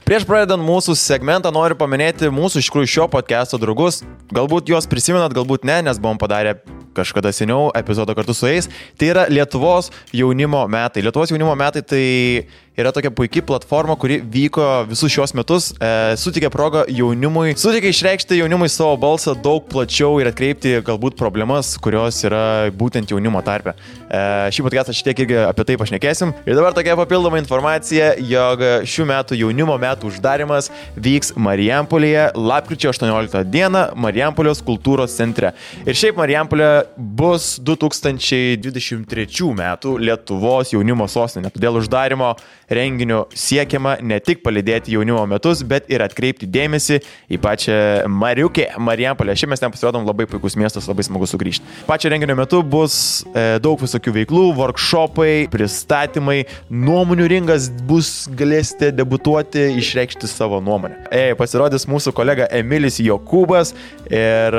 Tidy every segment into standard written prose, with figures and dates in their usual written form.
Prieš pradedant mūsų segmentą noriu paminėti mūsų iš tikrųjų šio podcast'o draugus. Galbūt juos prisimenat, galbūt ne, nes buvom padarę kažkada seniau epizodą kartu su jais. Tai yra Lietuvos jaunimo metai. Lietuvos jaunimo metai tai yra tokia puikia platforma, kuri vyko visus šios metus, suteikė progą jaunimui, suteikė išreikšti jaunimui savo balsą daug plačiau ir atkreipti galbūt problemas, kurios yra būtent jaunimo tarpe. Šį podcastą šitiek irgi apie tai pašnekėsim. Ir dabar tokia papildoma informacija, jog šių metų jaunimo metų uždarimas vyks Marijampolėje lapkričio 18 dieną Marijampolės kultūros centre. Ir šiaip Marijampolė bus 2023 metų Lietuvos jaunimo sostinė. Todėl uždarimo renginio siekiama ne tik palydėti jaunimo metus, bet ir atkreipti dėmesį į pačią Marijampolę. Šiaip mes ten pasirodom, labai puikus miestas, labai smagu sugrįžti. Pačio renginio metu bus daug visokių veiklų, workshopai, pristatymai, nuomonių ringas bus, galėsite debutuoti, išreikšti savo nuomonę. Pasirodys mūsų kolega Emilis Jokūbas ir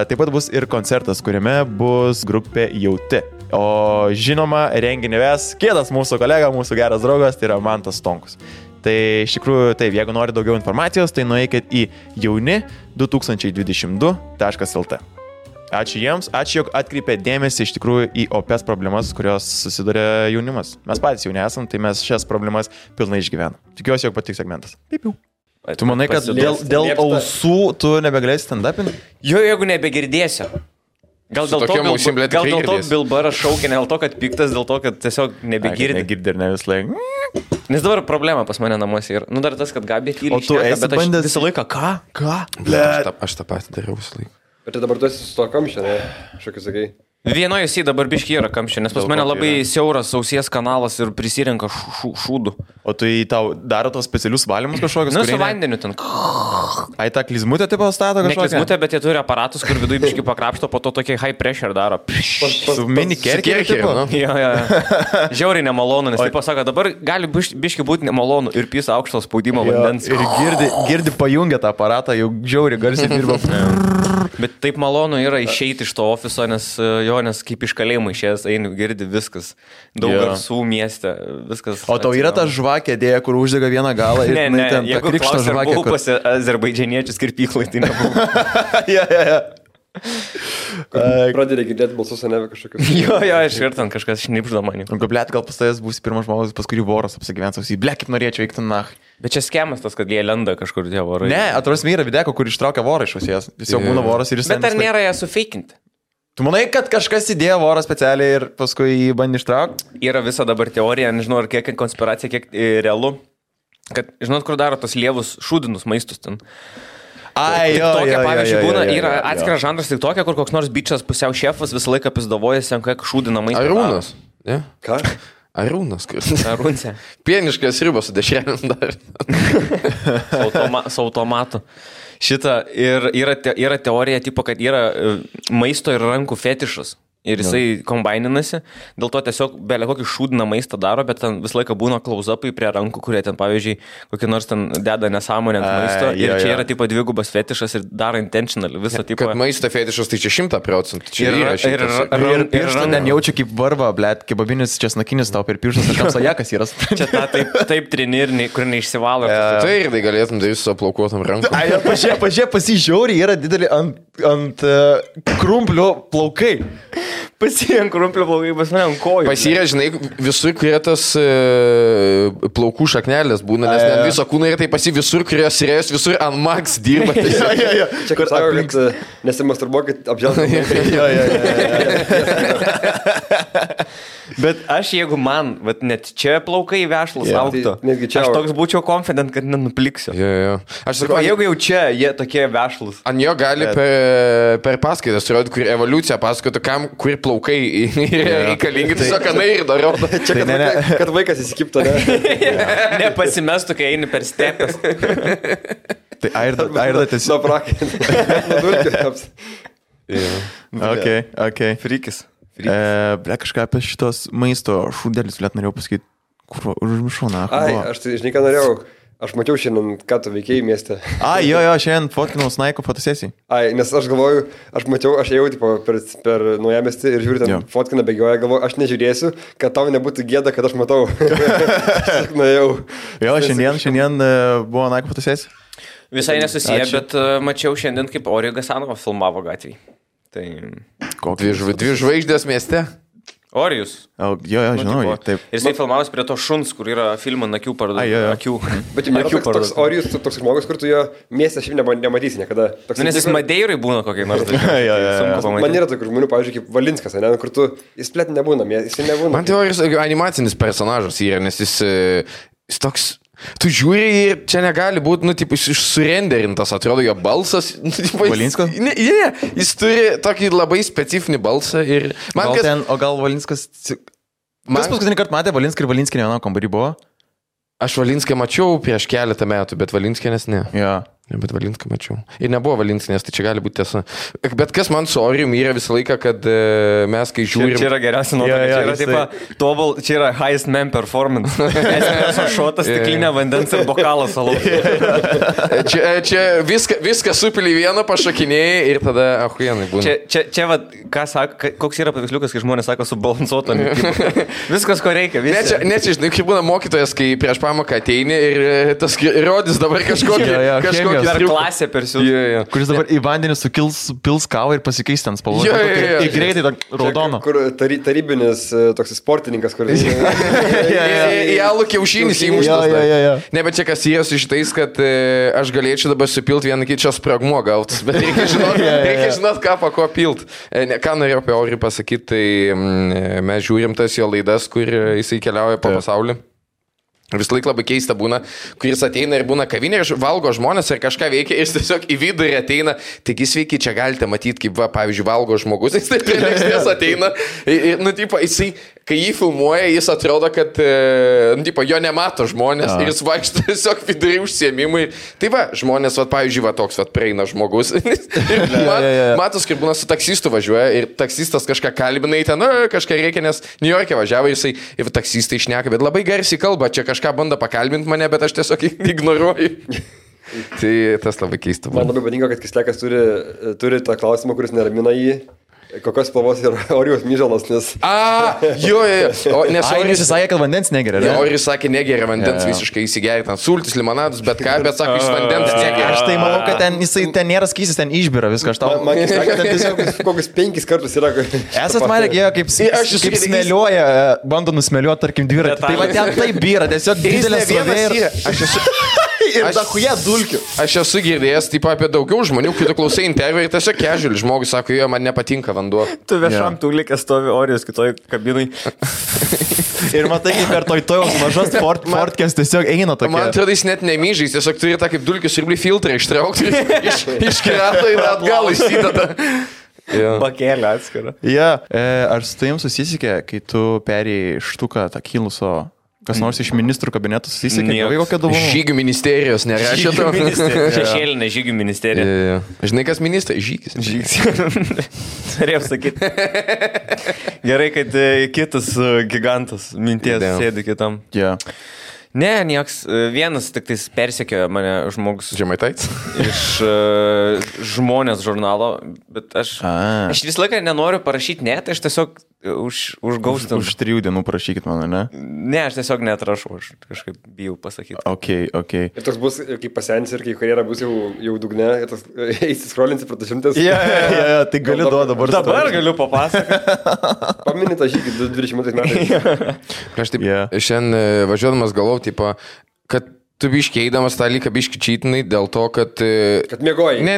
taip pat bus ir koncertas, kuriame bus grupė Jauti. O žinoma, renginį ves kitas mūsų kolega, mūsų geras draugas, tai yra Mantas Stonkus. Tai iš tikrųjų, taip, jeigu nori daugiau informacijos, tai nueikit į jauni2022.lt. Ačiū jiems, ačiū, jog atkreipė dėmesį iš tikrųjų į opes problemas, kurios susiduria jaunimas. Mes patys jauni esam, tai mes šias problemas pilnai išgyvenam. Tikiuosi, jog patiks segmentas. Pipiu. Tu manai, kad dėl ausų tu nebegalėsi stand-upinti? Jo, jeigu nebegirdėsiu. Gal dėl to Bilbaras šaukia, ne dėl to, kad piktas, dėl to, kad tiesiog nebegirdi. Negirdi ir ne vis laik. Nes dabar problema pas mane namuose yra. Nu dar tas, kad Gabė tyliai šneka, bet aš visą laiką ką? Aš tą patį dariau visą laiką. Bet tai dabar tu esi su to kamščio, ne? Šokį sakai. Vienoje jisai dabar biški yra kamščio, nes pas mane labai siauras ausies kanalas ir prisirenka šūdų. O tai tau daro tos specialius valymus kažkokius? Nu, su vandeniu ten. Ai, tą klizmutę tipo stato kažkokią? Ne klizmutę, bet jie turi aparatus, kur viduje biški pakrapšto, po to tokie high pressure daro. Su mini kerkeriu tipo? Jo. Žiauriai nemalonu, nes taip pasako, dabar gali biški būti nemalonu ir pisa aukšto spaudimo vandens. Ir girdi pajungia tą aparatą, jau žiauriai garsiai dirba. Bet taip malonu yra išeiti iš to ofiso, nes kaip iš kalėjimo išėjęs eini, girdi viskas. Daug garsų mieste, viskas. O tau yra ta žvakė dėja, kur uždega vieną galą ir ne, ten jeigu klausė, ar buvau pas azerbaidžianiečius kirpyklai, tai nebuvau. Ja. Pradėdė girdėti balsus, ne kažkokius. Jo, aš ir ten kažkas šnipžda manį. Blėt, gal pas tavęs būsi pirmas žmogus, pas kurį voras apsigyvens, blėt, kaip norėčiau eikti nach. Bet čia skemas tas, kad jie lenda kažkur tie vorai. Ne, atrodo, yra videko, kur ištraukia vorą iš ausies. Jis jau būna voras ir jis... Bet ar nėra ją sufeikinti? Tu manai, kad kažkas įdėjo vorą specialiai ir paskui jį bandė ištraukti? Yra visa dabar teorija, nežinau, ar kiek konspiracija, kiek realu. Kad, žinot, kur daro tos lievus šūdinus maistus ten. Ai, jo. Pavyzdžiui, būna, yra atskiras žanras tik tokia, kur koks nors bičas pusiau šefas visą laiką pizdavojasi, ant kiek šūdina maistą. Arūnas. Ne? Ką? Arūnas. Arūnse. Pieniškas ribas su dešrelėm dar. Su automatu. Šitą ir yra teorija, tipo, kad yra maisto ir rankų fetišas. Ir jisai kombaininasi, dėl to tiesiog belia kokį šūdiną maistą daro, bet ten visą laiką būna close-upai prie rankų, kurie ten, pavyzdžiui, kokį nors ten deda nesąmonę ant maisto. Ir čia yra tipo dvigubas fetišas ir daro intentional visą tipo. Kad maisto fetišas tai čia 100%. Čia yra ir pirštą ten jaučiu kaip varva, blėt, kebabinis česnakinis tau per pirštas, ar kamsajakas yra. Čia ta taip trenirni, kur neišsivalo. Tai ir tai galėtum daryti su aplaukuotam rankom. Ai, pažiūrėk, pasižiūri, yra didelį ant krumplio plaukai. Pasirenk krumplio plaukai, pas mane ant kojų. Pasirė, žinai, visur, kurie tas plaukų šaknelės būna, nes ne viso kūno yra, tai visur, kurios rėjus, visur ant max dirba. Čia kur sako, kad nesimasturbuokit apželgti. Bet aš, jeigu man, net čia plaukai vešlus auktų, aš toks būčiau confident, kad nenupliksiu. Aš sakau, jeigu jau čia jie tokie vešlus. Ant jo gali per paskaitas rodyti, kur evoliucija pasakotų, kam, kur plaukai reikalingi, tiesiog kanai ir daro. Čia, kad vaikas įsikiptų, ne? Nepasimestų, kai eini per stepes. Tai Airda tiesiog... Nuo prakį. Ok. Frykis. Ble, kažką apie šitos maisto šūdelis, blėt, norėjau pasakyti, kur užmišau, na. Ai, aš tai, žinai, ką norėjau. Aš mačiau šiandien, ką tu veikėjai mieste. Jo, šiandien fotkinau Snaiko fotosesijai. Nes aš galvoju, aš ėjau tipo, per naujamestį ir žiūriu, ten fotkina bėgioja, galvoju, aš nežiūrėsiu, kad tau nebūtų gėda, kad aš matau. Aš nuėjau. Jo, šiandien buvo Naiko fotosesija. Visai nesusiję, bet mačiau šiandien, kaip Orijo Gasanova filmavo gatvį. Tai... Dvi žvaigždės mieste. Orijus. Jo, žinau, taip. Ir jisai filmavus prie to šuns, kur yra filmo akių akių. Bet jau nėra toks Orijus, toks žmogus, kur tu jo mieste šiaip nematysi niekada. Nes jis Madeirai būna kokiai nors dalykai. Man yra tokių žmonių, pavyzdžiui, kaip Valinskas, kur tu, jis plėt nebūna, jis nebūna. Man tai Orijus animacinis personažas yra, nes jis toks... Tu žiūri ir čia negali būti, surenderintas, atrodo, jo balsas. Valinskas? Ne, jis turi tokį labai specifinį balsą ir... O gal Valinskas... Kas paskutinį kartą matė Valinską ir Valinskinį vieną kambarį buvo? Aš Valinską mačiau prieš keletą metų, bet Valinskinės ne. Jo. Bet Valinską mačiau. Ir nebuvo Valinskinės, tai čia gali būti tiesa. Bet kas man su Orijum yra visą laiką, kad mes kai žiūrim... Čia yra geriausia nuotrauka. Čia yra highest man performance. Espresso šotas, stiklinė vandens ir bokalas alaus. Čia viską supili vieną, pašakinėjai ir tada ahuienai būna. Čia koks yra paveiksliukas, kai žmonės sako subalansuotą. Viskas, ko reikia. Ne, čia, žinai, kaip būna mokytojas, kai prieš pamoką ateini ir tas rodys dabar kažkokį Dar klasė persiūs. Kuris dabar į vandenį pils kavą ir pasikeis ten spalvą. Ir greitai raudono. Kur tarybinis toks sportininkas, kuris... Į alų kiaušinis įmuštas. Ne, bet čia kas yra su šitais, kad aš galėčiau dabar supilti vieną kitą spragmuo gautus. Bet reikia žinot, ką po ko pilt. Ką norėjau apie Orijų pasakyti, tai mes žiūrim tas jo laidas, kur jisai keliauja po pasaulį. Vis laik labai keista būna, kuris ateina ir būna kavinė ir valgo žmonės ir kažką veikia ir jis tiesiog į vidurį ateina. Taigi sveiki, čia galite matyti, kaip, pavyzdžiui, valgo žmogus, jis taip prie lėkštės ateina. Ir, jisai, kai jį filmuoja, jis atrodo, kad, jo nemato žmonės ir jis vaikšto tiesiog vidurį užsiėmimui. Tai va, žmonės, pavyzdžiui, toks prieina žmogus. Matos, kaip būna su taksistu važiuoja ir taksistas kažką kalbina, ten kažką reikia, nes New York'e važiavo ir taksistai šneka, bet labai garsiai kalba, čia kažką bando pakalbinti mane, bet aš tiesiog ignoruoju. Tai tas labai keista. Man labai patinka, kad Kislekas turi tą klausimą, kuris neramina jį. Kokios spalvos yra Orijos myžalas, nes... Jo. Orijus sakė, kad vandens negeria. Orijus sakė, negeria vandens visiškai įsigeria, ten sultis, limonadus, bet ką, bet sako, iš vandens negeria. Aš tai manau, kad ten nėra skysis, ten išbira viską. Man Kislekas ten tiesiog kokius 5 kartus yra. Esat marė, kaip smėliuoja, bando nusmėliuoti, tarkim, dviratį. Tai va ten taip byra, tiesiog didelė srovė ir... Ir dachuje dulkių. Aš esu girdėjęs taip apie daugiau žmonių, kai tu klausai interviu ir tiesiog casual žmogus sako, jo, man nepatinka vanduo. Tu viešam tūlikė stovi Orijos kitoj kabinai. Ir matai, kaip per tojos mažas fortkės tiesiog eina tokia. Man atrodo, jis net nemyžais, tiesiog turi tą kaip dulkių siurblį filtrą ištraukti iš krato ir atgal įsideda. Bakėlė atskira. Ar su tavim susisikė, kai tu perėjai štuką tą kiluso... Kas nors iš ministrų kabinetų susisikė, kokia dovana? Žygių ministerijos nerašė to. Šešėlinė žygių ministerija. Žinai, kas ministras? Žygis. Turėjau sakyti. Gerai, kad kitas gigantas minties sėdi kitam. Ne, nieks. Vienas tik tais persekiojo mane žmogus. Žemaitaitis? Iš Žmonės žurnalo, bet aš vis laiką nenoriu parašyti net, aš tiesiog užgaustau. Už 3 dienų parašykit mano, ne? Ne, aš tiesiog netrašau, aš kažkaip bijau pasakyti. Ok. Ir toks bus, kai pasens ir kai karjera bus jau dugne, eisi skrolinsi pro 100. Tai gali dabar. Dabar galiu papasakoti. Pamini tą žygį 20 metais. Aš taip, šiandien važiuodamas galvau, tipo, kad tu biškiai eidamas tą lyką biški čytinai dėl to, kad... Kad mėgoji. Ne,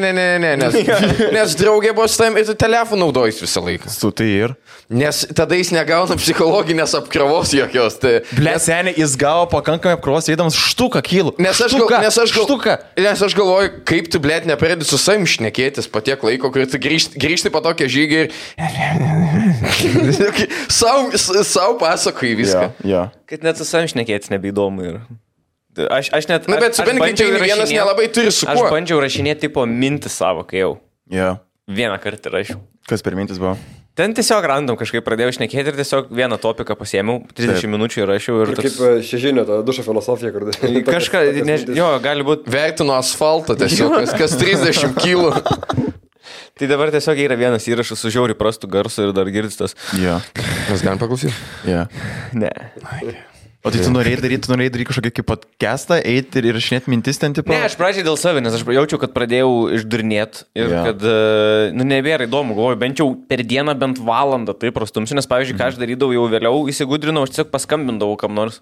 nes draugė buvo su tavim ir tu telefoną naudojus visą laiką. Su tai ir? Nes tada jis negauna psichologinės apkrovos jokios. Ble, seniai, jis gavo pakankamai apkrovos eidamas štuką kilų. Nes aš galvoju, kaip tu, ble, nepradedi su savim šnekėtis po tiek laiko, kur tu grįžti po tokią žygį ir... Sau pasakoji viską. Kad net su savim šnekėtis nebeįdomu yra. Aš net... Na, bet su bendrai vienas nelabai turi su kuo. Aš bandžiau rašinėti tipo mintis savo, kai jau. Jo. Vieną kartą rašiau. Kas per mintis buvo? Ten tiesiog random kažkaip pradėjau šnekėti ir tiesiog vieną topiką pasiėmiau, 30 minučių įrašiau ir toks... Kaip šežinio, ta dušo filosofija, kur... Kažką, jo, gali būti... Vertinu asfaltą tiesiog, kas 30 kilų. Tai dabar tiesiog yra vienas įrašas su žiauriai prastu garsu ir dar girdis tas. Jo. Mes galim paklausyti? Jo. Ne. O tai tu norėjai daryti kažkokį kaip podcastą, eiti ir įrašinėti mintis ten tipo? Ne, aš pradžiai dėl savęs, nes aš jaučiau, kad pradėjau išdurnėti ir kad, nebėra įdomu, galvoju, bent jau per dieną bent valandą tai prastumsiu, nes, pavyzdžiui, ką aš darydavau jau vėliau, įsigudrinau, aš tiesiog paskambindavau kam nors.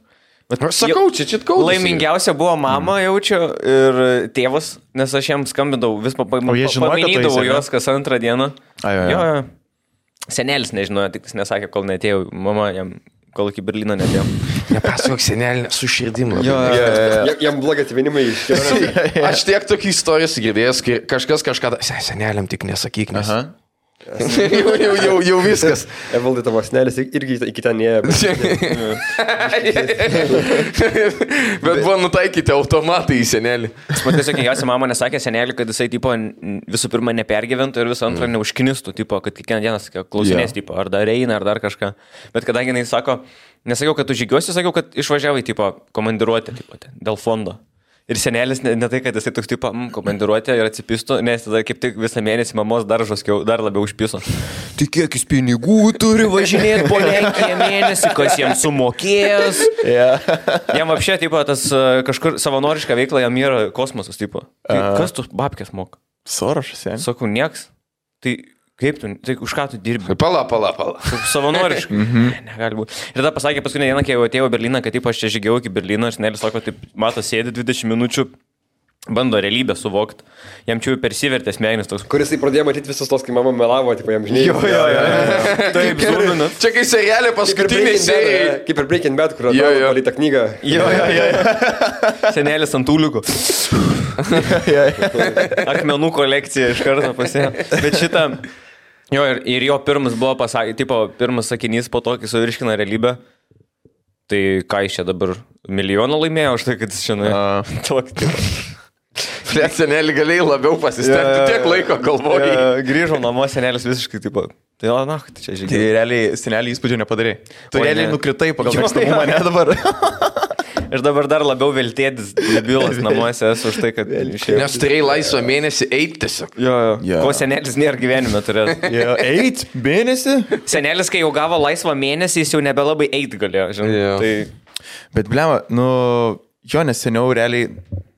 Aš sakau, čia kaudas. Laimingiausia buvo mama, jaučiu, ir tėvas, nes aš jam skambindavau, vis paminydavau juos kas antrą dieną. Jo. Senelis nežinojo, tik jis nesakė, kol neatėjau, mama jam... Kol iki Berlyno netėjau. Nepasakok senelį, su širdim. Jam blogai atvinimai iškėlė. Aš tiek tokių istorijų girdėjęs, kai kažkas kažką... Seneliam tik nesakyk, nes... Jau viskas. Evaldai tavo senelis irgi iki ten neėjo. Bet buvo nutaikyti automatai į senelį. Man tiesiog kiekvienasi mama nesakė senelį, kad jisai tipo, visų pirma nepergyventų ir visų antrą neužknistų, tipo, kad kiekvieną dieną klausinės, tipo, ar dar eina, ar dar kažką. Bet kadangi jis sako, nesakiau, kad tu žygiuosi, sakiau, kad išvažiavai tipo, komandiruotę tipo, dėl fondo. Ir senelis ne tai, kad jisai toks tipo komandiruotė ir atsipistų, nes tada kaip tik visą mėnesį mamos dar labiau užpiso. Tai kiek jis pinigų turi važinėti po Lenkiją mėnesį, kas jam sumokės. Jam apšė, tipo, tas kažkur savanorišką veiklą jam yra kosmosas, tipo. Kas tu babkės moka? Sorošas, ja. Sakau, nieks. Tai kaip tu, tai už ką tu dirbi? Pala. Savanoriškai. Negali būti. Ir tada pasakė paskutinę dieną, kai jau atėjau į Berliną, kad taip aš čia žygiau iki Berlyno ir senelis sako, taip, mato, sėdi 20 minučių, bando realybę suvokti. Jam čia jau persivertė smegenis toks. Kuris pradėjo matyti visus tos, kai mama melavo, tipo, jam žinai. Jo. Taip, zūminat. Čia kai serialė paskutinį seriją. Kaip ir Breaking Bad, kur atrodo palytą knygą. Jo. Senelis ant tūliukų. Akmenų kolekcija iš karto pasėjo. Bet šitą... Jo, ir jo pirmas buvo pirmas sakinys po to, kai suvirškina realybę. Tai ką jis čia dabar milijoną laimėjo už tai, kad jis čia nuėjo. Flet senelį galėjai labiau pasistengti, tiek laiko galvojai. Grįžau namo, senelis visiškai taip pat. Tai tai čia žygiai. Tai realiai senelį įspūdžio nepadarai. Tu realiai nukritai pagal mėgstamumą, ne dabar. Ir dabar dar labiau veltėdis debilas namuose esu už tai, kad... Nes turėjai laisvą mėnesį eiti tiesiog. Jo. Ko senelis nėra gyvenime turės. Eit mėnesį? Senelis, kai jau gavo laisvą mėnesį, jis jau nebelabai eit galėjo, žinai. Tai... Bet blema, nes seniau realiai...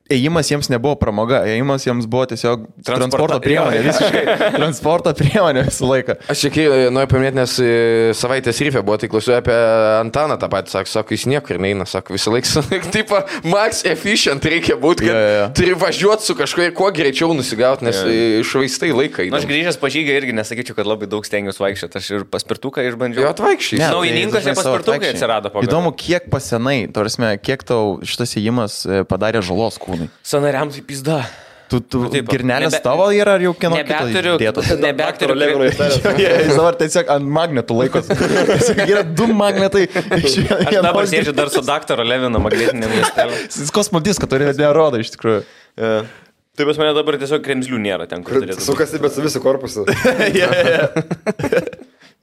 Ėjimas jiems nebuvo pramoga, ėjimas jiems buvo tiesiog transporto priemonė, visiškai transporto priemonė visą laiką. Aš čia noriu paminėti, nes savaitės ryfė buvo, tai klausiu apie Antaną tą patį, sako, jis niekur neina, sako, visą laiką, tipo, max efficient reikia būti, kad turi važiuoti su kažkuo, kuo greičiau nusigauti, nes išvaistai laiką. Aš grįžęs po žygą irgi nesakyčiau, kad labai daug stengiuosi vaikščioti, aš ir paspirtuką išbandžiau. Jo, atvaikščiai. Naujininkose paspirtukai atsirado. Įdomu, kiek pasenai, kiek tau šitas ėjimas padarė žalos kūnui. Sanariams į pizdą. Tu girnelės tavo yra ar jau kieno kito dėtos? Nebeturiu. Jis dabar tiesiog ant magnetų laikos. Yra 2 magnetai. Aš dabar sėdžiu dar su daktaro Levino magnetinėm ląstelėm. Jis kosmodiską turi, nerodo iš tikrųjų. Tai pas mane dabar tiesiog kremzlių nėra ten, kur turėtų. Sukasi, bet su visu korpusu.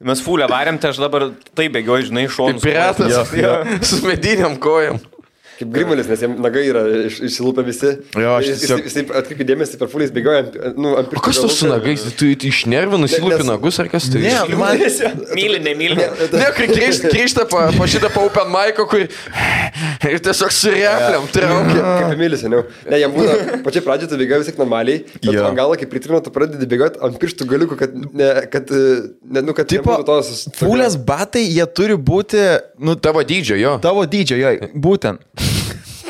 Mes fulę varėm, tai aš dabar taip bėgioju, žinai, šonus. Piratas, su mediniam kojam. Kaip Grimalis, nes jam nagai yra išsilūpę visi. Jo, jis atkreipė dėmesį per fulės bėgioja ant pirštų. O kas tu su nagais? Tu išnervi, nusilūpi nagus ar kas tai? Ne, man... Myli. Ne, kai grįžta po šitą open mic'o, kur ir tiesiog su repliam traukia. Kaip Mylis, seniau. Ne, jam būna, pačiai pradžioje tu bėgioji vis tiek normaliai, bet ant galo, kai pritrino, tu pradedi bėgoti ant pirštų galiukų, kad tipo, fulės batai, jie turi būti, tavo dydžio, jo. Tavo dydžio, jo, būtent.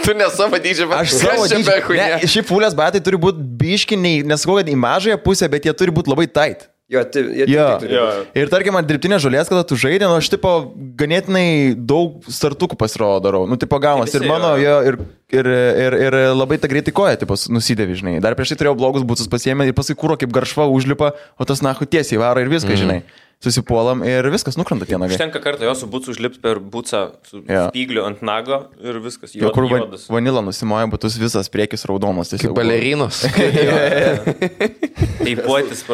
Tu ne savo dydžio, bet aš savo dydžio. Ne, šiaip fulės batai turi būti biškiniai, nesakau, kad į mažąją pusę, bet jie turi būti labai tight. Jo. Ir tarkim, ant dirbtinės žolės, kada tu žaidė, aš tipo ganėtinai daug startukų pasirodo darau. Tipo gaunas. Ir mano, ir labai ta greitai koja, tipo, nusidėvi, žinai. Dar prieš tai turėjau blogus būtus pasiėmę ir paskui kūro kaip garšva užlipa, o tas nahu tiesiai varo ir viską, žinai. susipuolam ir viskas nukrenta tie nagai. Užtenka kartą jo su bucu užlipti per bucą su spygliu ant nago ir viskas. Jo, kur vanilą nusimoja, butus visas priekis raudonas. Kaip balerinos. Teipuotis,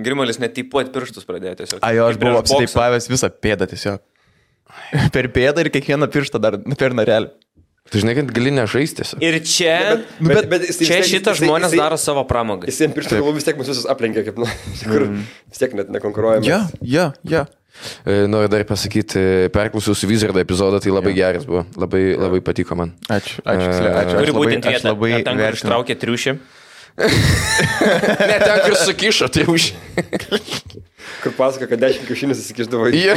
Grimalis net teipuoti pirštus pradėjo tiesiog. Jo, aš buvau apsiteipavęs visą pėdą tiesiog. Per pėdą ir kiekvieną pirštą dar per narelį. Tu žinai, kad gali nežaisti. Ir čia, čia šitas žmonės daro savo pramogą. Jis jiems pirštų galų vis tiek mus visus aplenkia, kaip, kur vis tiek net nekonkuruojame. Ja. Noriu dar pasakyti, perklausiausi Wizardo epizodą, tai labai geras buvo. Labai patiko man. Ačiū. Turi būtent vietą, ten, kur ištraukė triušį. Ne, ten, kur sukišo triušį. Kur pasako, kad 10 kiaušinius įsikišdavo. Jo.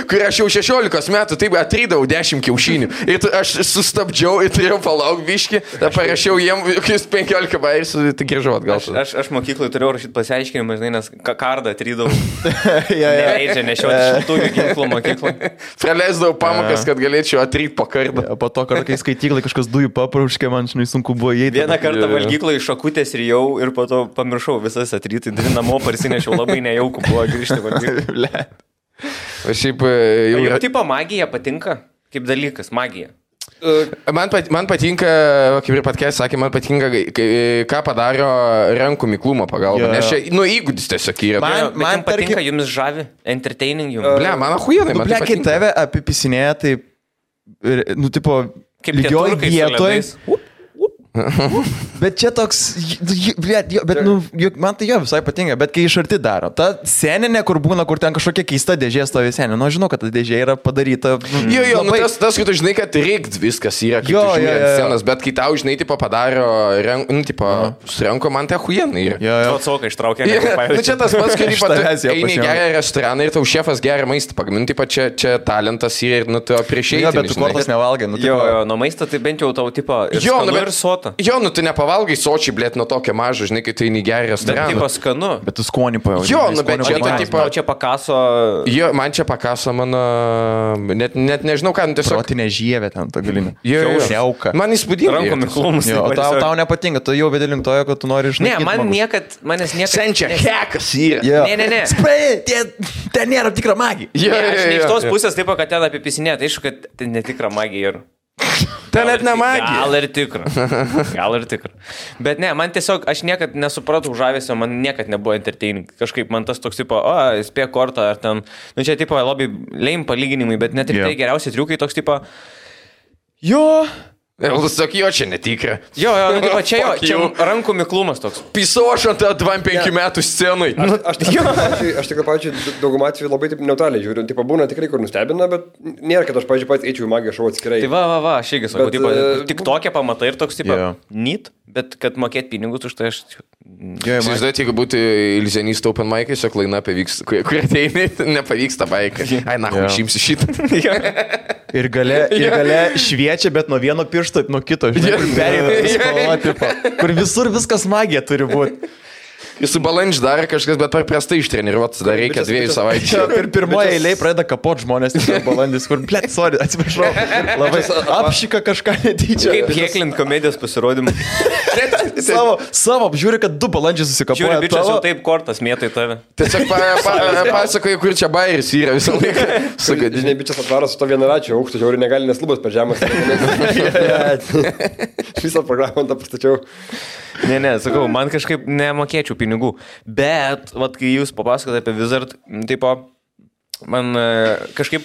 Kur aš jau 16 metų taip atrydavau 10 kiaušinių. Ir aš sustabdžiau ir turėjau palauk biškį. Tada parašiau jiem 15 bairis, tai grįžau atgal. Aš mokyklai turėjau rašyti pasiaiškinimą, žinai, nes kardą atrydavau. Neleidžia nešioti šiltųjų ginklų mokyklą. Praleisdavau pamokas, kad galėčiau atryti po kardą. Po to, kai skaityklai kažkas dujų paprauškė, man žinai sunku buvo įeiti. Vieną kartą valgyklą iš šakutės rijau ir po to pamiršau visas atryti. Namo parsinešiau. Labai nejauku buvo grįžti valgyti. O šiaip jau... Jau tipo magija patinka? Kaip dalykas, magija? Man patinka, kaip ir patkės sakė, man patinka, ką padaro rankų miklumo pagalba. Nes čia, įgūdis tiesiog yra. Man patinka, jums žavi, entertaining jums. Ble, man ahujenai, man tai patinka. Kai tave apipisinėja, tai, tipo, lygioj vietoj. Bet čia toks, bet man tai jo visai patinka, bet kai iš arti daro. Ta seninė, kur būna, kur ten kažkokia keista dėžė stovi seninė, žinau, kad ta dėžė yra padaryta. Jo, tas, kad tu žinai, kad reikt viskas yra, kaip tu žiūri ant scenos, bet kai tau, žinai, tipo padaro, su ranko, man tai ahujenai yra. Jo. Atsoka ištraukė. Čia tas pats, kai eini gerą restoraną ir tau šefas gerą maistą pagaminti, čia talentas yra ir tu prieš eiti. Bet tu kortas nevalgai. Jo, nuo maisto tai bent jau tau tipo ir skanu ir sotą. Jo, tu nepavalgai sočiai, blėt, nuo tokio mažo, žinai, kai tu eini gerą restoraną. Bet tipo skanu. Bet tu skonį pajauti. Jo, bet čia tipo... Čia pakaso... Jo, man čia pakaso mano... Net nežinau, ką, tiesiog... Protinė žievė ten, ta galinė. Jo. Šiauka. Man įspūdinga. Rankų miklumus. Jo, tau nepatinka, tu jau vėdėlim tojo, kad tu nori išnaikyti. Ne, manęs niekad... Senčia hekas yra. Ne. Spray, ten nėra tikra magija. Aš ne iš tos pusės taip, kad ten apipisinė, tai aišku, kad ten netikra magija yra. Ten net ne magija. Gal ir tikra. Bet ne, man tiesiog, aš niekad nesupratau žavesio, man niekad nebuvo entertaining. Kažkaip man tas toks tipo, spėk kortą ar ten, čia tipo labai lame palyginimai, bet net ir tai geriausi triukai toks tipo, jo. Sak, jo, čia netikra. Jo, čia rankų miklumas toks. Pisau aš ant 25 metų scenai. Aš tikrai, pavyzdžiui, daugumą atveju labai taip neutraliai žiūriu. Tipo, būna tikrai, kur nustebina, bet nėra, kad aš, pavyzdžiui, pats eičiau į magiją šou atskirai. Tai va, aš irgi sakau, tik tokia pamatai ir toks, tipo, neat, bet kad mokėt pinigus už tai aš... Įsivaizduojate, jeigu būtų iliuzionistų open mic'ai, šiok laina pavyks, kur ateini, nepavyksta baikai. Ai, išimsi šitą. Ir gale šviečia, bet nuo vieno piršto, nuo kito, žinai, kur perėmė, kur visur viskas magija turi būti. Jis su balandžiu dar kažkas, bet per prastai ištreniruotas, dar reikia 2 savaičių. Čia per pirmoje eilėje pradeda kapot žmonės, balandis, kur, blėt, sorry, atsiprašau, labai apšika kažką netyčia. Kaip heklint komedijos pasirodymą. Savo, žiūri, kad 2 balandžiai susikapoja. Žiūri, bičias jau taip kortas mėtai tave. Tiesiog pasakoju, kur čia bairis yra visą laiką. Žinai, bičias atvaro su to vienaračiu aukštu, žiūri, negali neslubas per žemas. Visą programą tą pastačiau. Ne, sakau, man kažkaip nemokėčiau pinigų, bet, vat, kai jūs papasakote apie Wizard, tipo, man kažkaip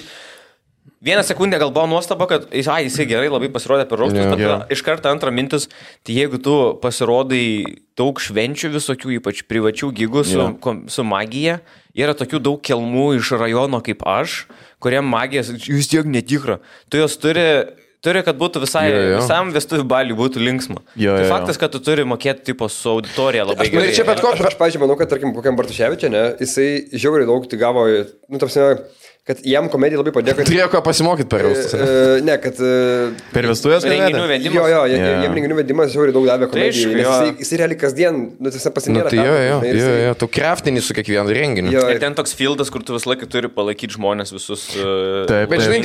vieną sekundę gal buvo nuostaba, kad jisai gerai labai pasirodė per raustus, bet iš karto antrą mintis, tai jeigu tu pasirodai daug švenčių visokių, ypač privačių gigų su magija, yra tokių daug kelmų iš rajono kaip aš, kuriem magija vis tiek netikra, tu jos turi, kad būtų visam vestuvių baliui būtų linksma. Tai faktas, kad tu turi mokėti tipo su auditorija labai gerai. Aš, pavyzdžiui, manau, kad, tarkim, kokiam Bartuševičiui, ne, jisai žiauriai daug tai gavo, tarsi, kad jam komedija labai padėjo, kad... Turėjo ką pasimokyti per jaustus. Ne, kad... Per vestuvės renginių vedimas. Jo, jam renginių vedimas žiauriai daug davė komedijai. Jis realiai kasdien, tiesiog pasinėra. Tai tu kraftinį su kiekvienu renginiu. Ir ten toks fieldas, kur tu visą laiką turi palaikyti žmonės visus. Bet žinai,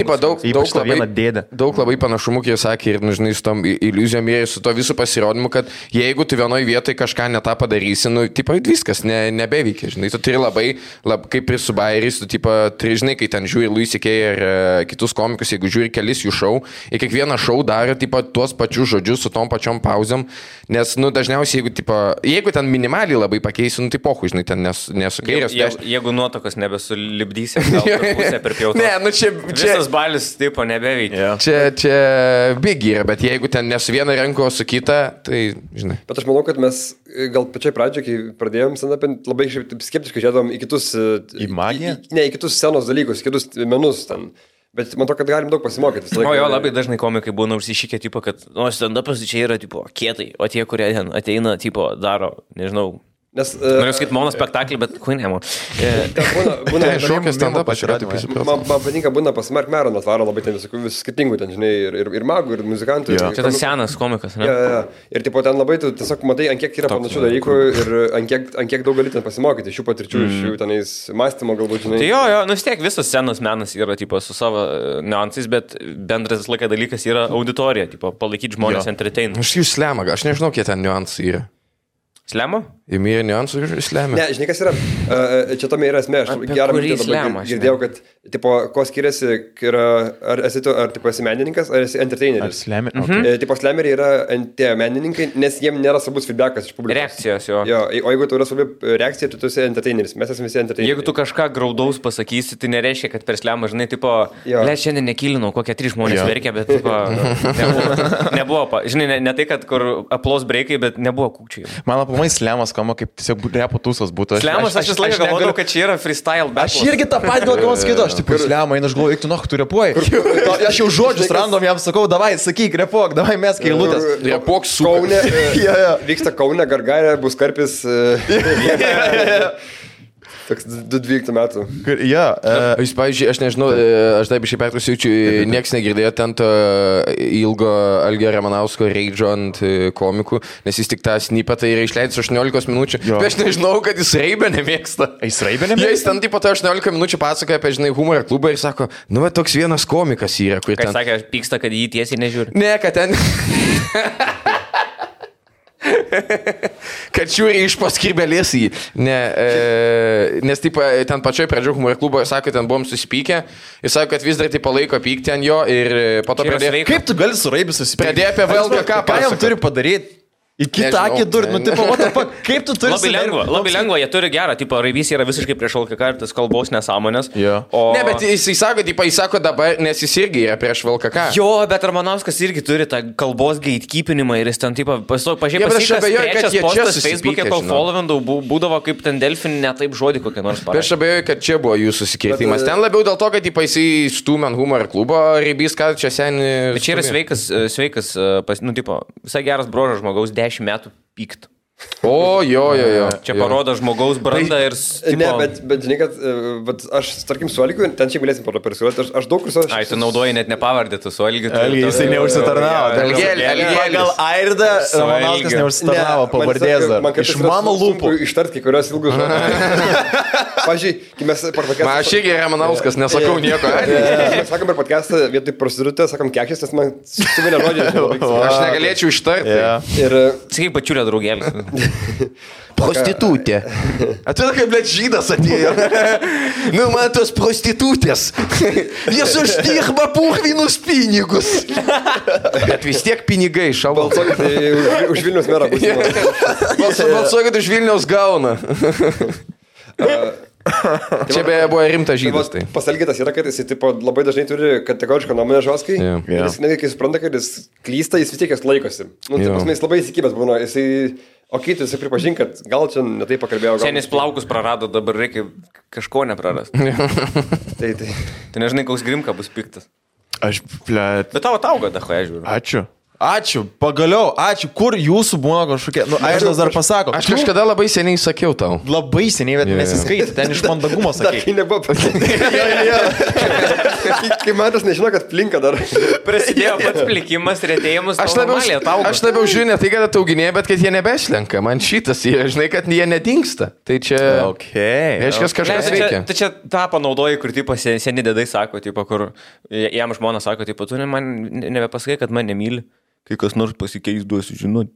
daug labai panašumų, kai jis sakė, ir, žinai, su tom iliuzijom ir su to visų pasirodymu, kad jeigu tu vienoje vietoje kažką netą padarysi, tipo, viskas nebeveikia, žinai, tu turi labai kaip ir su bairiais, tu, tipo, žinai, kai ten žiūri Louis C.K. ir kitus komikus, jeigu žiūri kelis jų šou, ir kiekvieną šou daro tipo, tuos pačius žodžius su tom pačiom pauzėm, nes dažniausiai, jeigu ten minimaliai labai pakeisi, tai pohu, žinai, ten nesukairės. Jeigu nuotokas nebesulibdysi, gal pusę per pjautą. Ne, čia... Visas balis tipo nebeveikia. Čia big yra, bet jeigu ten ne su viena ranko, o su kita, tai, žinai. Bet aš manau, kad mes gal pačiai pradžioje, kai pradėjom stand-up'in, labai skeptiškai žiūrėdom į kitus... Į magiją? Ne, į kitus scenos dalykus, kitus menus ten. Bet man to, kad galim daug pasimokyti. Labai dažnai komikai būna užsišykę, tipo, kad stand-upas čia yra tipo, kietai, o tie, kurie ten ateina, tipo, daro, nežinau. Noriu sakyti monospektaklį, bet kui nemo. Būna šokio stand-upas yra. Man patinka, būna pas Mark Maron atvaro labai ten visų skirtingų, ten, žinai, ir magų, ir muzikantų. Čia tas senas komikas, ne? Ir tipo, ten labai tu tiesiog matai, ant kiek yra panašių dalykų ir ant kiek daug gali ten pasimokyti šių patirčių, iš jų tenais mąstymo galbūt, žinai. Tai vis tiek visas senas menas yra tipo, su savo niuansais, bet bendras laikas dalykas yra auditorija, tipo, palaikyti žmonės entertain. Aš jų slemą, aš nežinau, kiek ten niuansai yra. Slemo? Įmyrė niuansų ir slemė. Ne, žinai, kas yra, čia tame yra esmė, aš gerą girdėjau, kad, tipo, ko skiriasi, ar esi menininkas, ar esi entertaineris. Ar slemė? Okay. Tipo, slemeriai yra tie menininkai, nes jiem nėra svarbus feedbackas iš publikos. Reakcijos, jo. O jeigu tu yra svarbi reakcija, tu esi entertaineris, mes esame visi entertaineriai. Jeigu tu kažką graudaus pasakysi, tai nereiškia, kad per slemą, žinai, tipo, šiandien nekilinau, kokie 3 žmonės verkia, bet, tipo, nebuvo, žinai, ne tai, kad kur aplos breikai, bet nebuvo kūkčiai. Man aplamai slemas skamba kaip tiesiog repo tūsas būtų. Slemas, aš vis laiką galvodavau, kad čia yra freestyle battles. Aš irgi tą patį galvoju, skaitau, aš tipo slemą, aš galvoju, tu tu repuoji. Aš jau žodžius random jam sakau, davai, sakyk, repuok, davai mes kailutės. Repuok su Kaune. Vyksta Kaune, Gargarė, bus karpis. Toks 12 metų. Jūs, pavyzdžiui, aš nežinau, aš taip iš įpertus jaučiu, nieks negirdėjo ten to ilgo Algio Ramanausko reidžo ant komikų, nes jis tik tą snipetą yra išleidęs 18 minučių. Bet aš nežinau, kad jis raibę nemėgsta. Jis raibę nemėgsta? Jis ten tipo 18 minučių pasakoja apie, žinai, humorą klubą ir sako, nu, bet toks vienas komikas yra, kur ten... Kai sakė, aš pyksta, kad jį tiesiai nežiūri. Ne, kad ten... kad žiūri iš paskirbelės į. Nes taip, ten pačioj pradžio humoro klubo, sako, ten buvom susipykę, jis sako, kad vis dar taip palaiko pykti ant jo ir po to pradėjo... Kaip tu gali su raibį susipykti? Pradėjo apie VLGK, ką jam turi padaryti? Į kitą akį durti, nu, tipo, kaip tu turi... Labai lengva, jie turi gerą, tipo, raibys yra visiškai prieš LKK ir tas kalbos nesąmonės. Ne, bet jis sako dabar, nes jis irgi yra prieš LKK. Jo, bet Ramanauskas irgi turi tą kalbos gatekeepinimą ir jis ten, tipo, pažiūrėjau, postas Facebook'e, kol followindau, būdavo kaip ten Delfin, ne taip žodį kokią nors parašė. Aš abejoju, kad čia buvo jų susikirtimas. Ten labiau dėl to, kad jisai stūmė ant humoro klubo, raibys, kad čia seniai... Bet čia yra sveikas, nu, tipo, visai geras brožas žmogaus 10 metų pykt. O, jo. Čia parodo žmogaus brandą ir... Ne, bet žinai, kad aš, tarkim, su Algiu, ten čia galėsim persiūlyti, aš daug kur... Ai, tu naudoji net nepavardėtų su Algiu. Jisai neužsitarnavo. Gal Airda Ramanauskas neužsitarnavo pavardės dar. Iš mano lūpų. Ištart kai kurios ilgus žodžius. Pavyzdžiui, kai mes per podcastą... Aš irgi Ramanauskas, nesakau nieko. Mes sakom per podcastą, vietoj prostitutė, sakom kekšės, nes man suvilė žodžiai. Aš negalėčiau ištarti. Ir... Sakai, pačiulė draugelis. Prostitutė. Atrodo, kaip blėt žydas atėjo. Nu, man tos prostitutės. Jis uždirba purvinus pinigus. Bet vis tiek pinigai šavo. Balsuokit už Vilniaus merą. Balsuokit už Vilniaus gauna. Čia beje buvo rimtas žydas. Tai. Pasalgytas yra, kad jis labai dažnai turi kategorišką nuomonę žoskai. Jis netgi, kai supranta, kad jis klysta, jis vis tiek jas laikosi. Nu, jis labai įsikibęs būna. Okei, tu pripažink, kad gal čia netai pakalbėjau. Senis plaukus prarado, dabar reikia kažko neprarast. Tai nežinai, koks Grimka bus piktas. Bet tavo tauga, dahoje žiūriu. Ačiū. Ačiū, pagaliau, ačiū. Kur jūsų būna kažkokie, Airdas dar pasako. Aš kažkada labai seniai sakiau tau. Labai seniai, bet nesiskaitė, ten iš mandagumo sakai. Tai nebuvo kai matas nežino, kad plinka dar. Prasidėjo pats plikimas, retėjimus. Aš labiau žiūriu ne tai, kad atauginėja, bet kad jie nebeslenka. Man šitas yra, žinai, kad jie nedingsta. Tai čia... Reiškia, kažkas veikia. Tai čia tą panaudoji, kur tipo seni dėdai sako, tipo, kur jam žmona sako, tipo, tu man nebepasakai, kad man nemyli. Kai kas nors pasikeis, duosiu žinoti.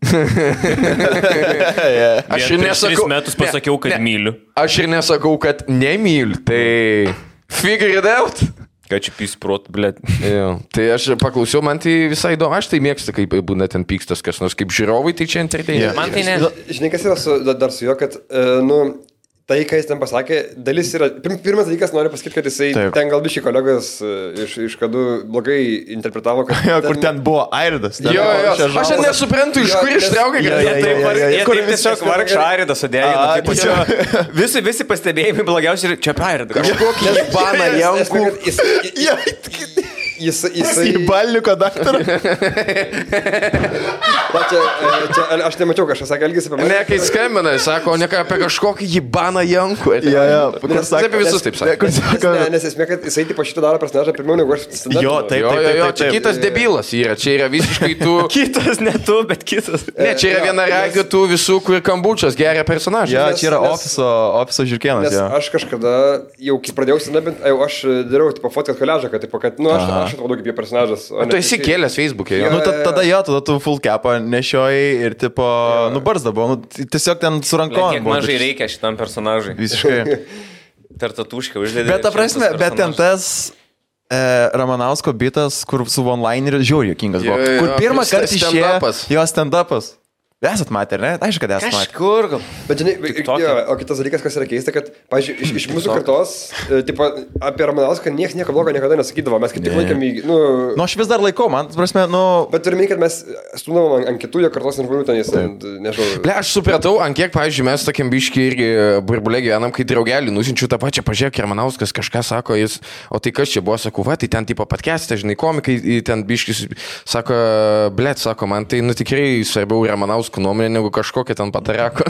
Aš ir nesakau... 3 metus pasakiau, kad myliu. Aš ir nesakau, kad nemyliu. Tai... Figure it out. Ką čia pysprot, blėt. Tai aš paklausiau, man tai visai įdomu. Aš tai mėgstu, kaip būna ten pykstas kas nors. Kaip žiūrovai, tai čia entertainment. Man tai ne. Žinai, kas yra dar su juo, kad, tai, ką jis ten pasakė, dalis yra... Pirmas dalykas, noriu pasakyti, kad jisai ten gal biškai kolegos iš kadų blogai interpretavo, kad... Kur ten buvo Airdas. Jo. Aš nesuprantu, iš kur ištraukė, kad... Kur tiesiog vargšą Airidą sudėjo. Visi pastebėjimai blogiausiai ir čia apie Airidą. Kažkokį baną jankų. Jisai... Į balniuko daktarą. Aš nemačiau, kažkas sakė, elgėsi apie mane. Ne, kai skambina, sako, ne apie kažkokį jibaną jankų. Nes apie visus taip sakė. Nes esmė, kad jisai tipo šitą daro personažą pirmiau negu aš stand-up. Jo, taip. Čia kitas debilas yra, čia yra visiškai tu... Kitas, ne tu, bet kitas. Ne, čia yra viena ragio tų visų, kur kambučias geria personažą. Jo, čia yra ofiso žirkienas. Nes aš kažkada, jau kai pradėjau stand-up, aš dariau tipo fotkat koležą, kad, aš atrodau kaip jo personažas. Tu esi kėlęs Facebook'e, jo. Tada tu full capą nešiojai ir tipo, barzda buvo, tiesiog ten su rankom. Kiek mažai reikia šitam personažui. Visiškai. Tartatušką uždėdė. Bet ta prasme, bet ten tas Ramanausko bitas, kur su one-lineriu žiauriai juokingas buvo. Kur pirmą kartą išėjo jo stand-upas. Esat matę, ne? Aišku, kad esat matę. Kažkur gal. Bet žinai, o kitas dalykas, kas yra keista, kad, pavyzdžiui, iš mūsų kartos, tipo, apie Ramanauską nieko blogo niekada nesakydavo, mes kaip tik laikėm į, aš vis dar laikau, man, prasme, Bet turime, kad mes stumdavom ant kitų jo kartos žmonių ten, nežinau. Aš supratau, ant kiek, pavyzdžiui, mes tokiam biškį irgi burbulė gyvenam, kai draugelį nusinčiu tą pačią, pažiūrėk, Ramanauskas kažką sako, jis, o tai kas čia buvo, sakau, va, tai ten tipo podcast'e, žinai, komikai, ten biškis, sako, blėt, sako, man tai, tikrai svarbiau Ramanauskas nuomonė negu kažkokia ten patareko.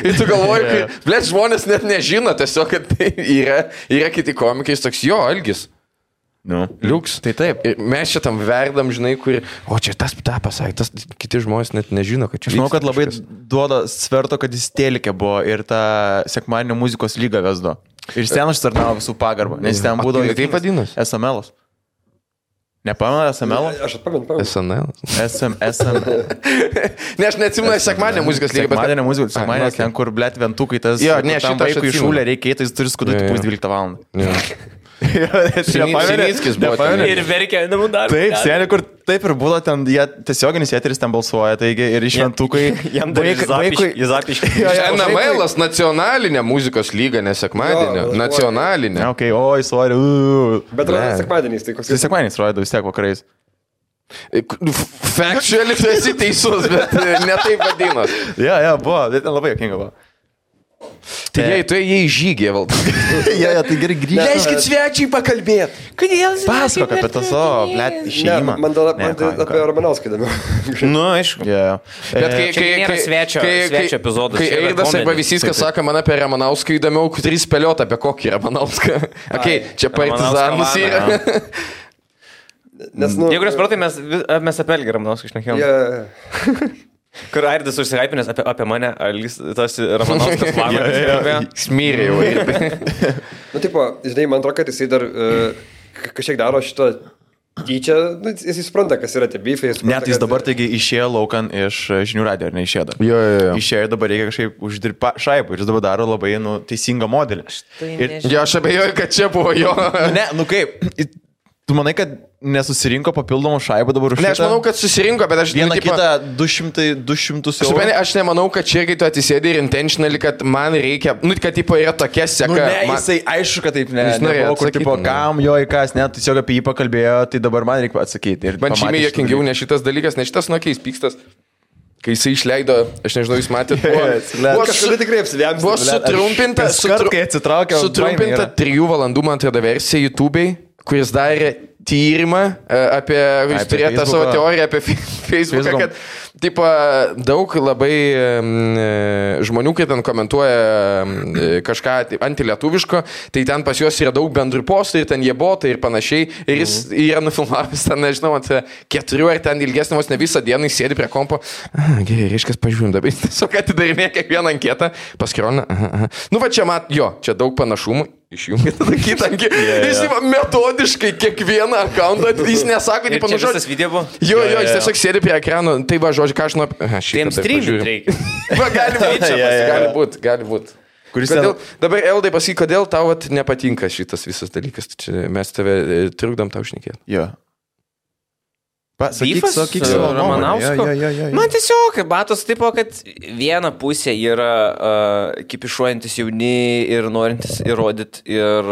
Ir tu galvoji, kad, blėt, žmonės net nežino tiesiog, kad tai yra kiti komikai, toks jo, Algis. Liuks. Tai taip. Ir mes čia tam verdam, žinai, kur, o čia tas tą pasakė, tas kiti žmonės net nežino, kad čia. Žinau, kad labai duoda sverto, kad jis Telikė buvo ir tą sekmadienio muzikos lygą vesdo. Ir ten užtarnavo visų pagarbą, nes ten būdavo... Tai taip vadinasi? SML'as. Nepamenu SML? Aš atpamenu. SNL. SML. Ne, aš neatsimenu sekmadienio muzikos lygą. Sekmadienio muzikos, sekmadienio, ten kur, blėt, ventukai, tas... Jo, ne, tam vaikui šūlė reikia, tai jis turi skudoti pus 12 valandą. Sinickis buvo. Ir verkia namų darbą. Taip, seniai, kur taip ir būdo, ten jie tiesioginis eteris ten balsuoja, taigi ir iš ventukai... Jam dar Zapiškai. NML-as nacionalinė muzikos lyga, ne sekmadienio. Nacionalinė. Ok, oi, sorry. Bet sekmadieniais, tai koks... Sekmadieniais rodo vis tiek vakarais. Factually tu esi teisus, bet ne taip vadinos. Ja, buvo, bet labai jokinga buvo. Tai jie į žygį valdo. Ja, tai gerai grįžti. Leiskit svečiai pakalbėti. Kodėl? Pasakok apie tą savo, blėt, išėjimą. Man apie Ramanauską įdomiau. Aišku. Bet kai nėra svečio epizodas. Kai Airdas arba Visiskas sako man apie Ramanauską įdomiau, kurį spėliot apie kokį Ramanauską. Čia partizanus yra. Jeigu nespratai, mes apie Elgį Ramanauską išnekėjom. Kur Airdas užsihaipinės apie mane, tas Ramanauskas mano. Smyrė jau. Tipo, žinai, man atrodo, kad jisai dar kažkiek daro šitą tyčia, jisai supranta, kas yra tie beefai. Net jis dabar taigi išėjo laukan iš žinių radijo, ar neišėjo dar? Jo. Išėjo, dabar reikia kažkaip uždirbti šaipą ir jis dabar daro labai, teisingą modelį. Aš abejoju, kad čia buvo jo. Ne, kaip... Tu manai, kad nesusirinko papildomų šaibų dabar už šitą? Ne, aš manau, kad susirinko, bet aš... Vieną kitą 200 eurų. Aš nemanau, kad čia, kai tu atsisėdai ir intentionally, kad man reikia... kad tipo yra tokia seka... Jisai aišku, kad taip, nebuvo, kur tipo, kam jo į kas, net tiesiog apie jį pakalbėjo, tai dabar man reikia atsakyti. Man žymiai jokingiau ne šitas dalykas, ne šitas nuokiais pykstas. Kai jisai išleido, aš nežinau, jūs matėte, buvo sutrumpinta 3 valandų, man atrodo, versija YouTube'ai, kuris darė tyrimą apie, jūs turėjote savo teoriją apie Facebooką, kad tipo, daug labai žmonių, kai ten komentuoja kažką antilietuviško, tai ten pas juos yra daug bendrų postų ir ten jie botai ir panašiai. Ir jis yra nufilmavęs ten, nežinau, 4 ar ten ilgesnės ne visą dieną, jis sėdi prie kompo. Gerai, reiškia, pažiūrim dabar. Jis tiesiog atidarinė kiekvieną anketą, paskirona. Nu va čia čia daug panašumų. Išjungit tada kitą. Jis metodiškai kiekvieną akauntą, jis nesako, tipo, nu žodžiu. Video buvo? Jo, jis tiesiog sėdi prie ekrano, tai va, žodžiu, ką aš nuo... Tiems streamint reikia. Va, gali būt. Dabar, Eldai, pasakyk, kodėl tau nepatinka šitas visas dalykas. Čia mes tave trukdom tau šnekėti. Jo. Sakyk savo Ramanausko. Man tiesiog, matos, tipo, kad viena pusė yra kipišuojantis jauni ir norintis įrodyti ir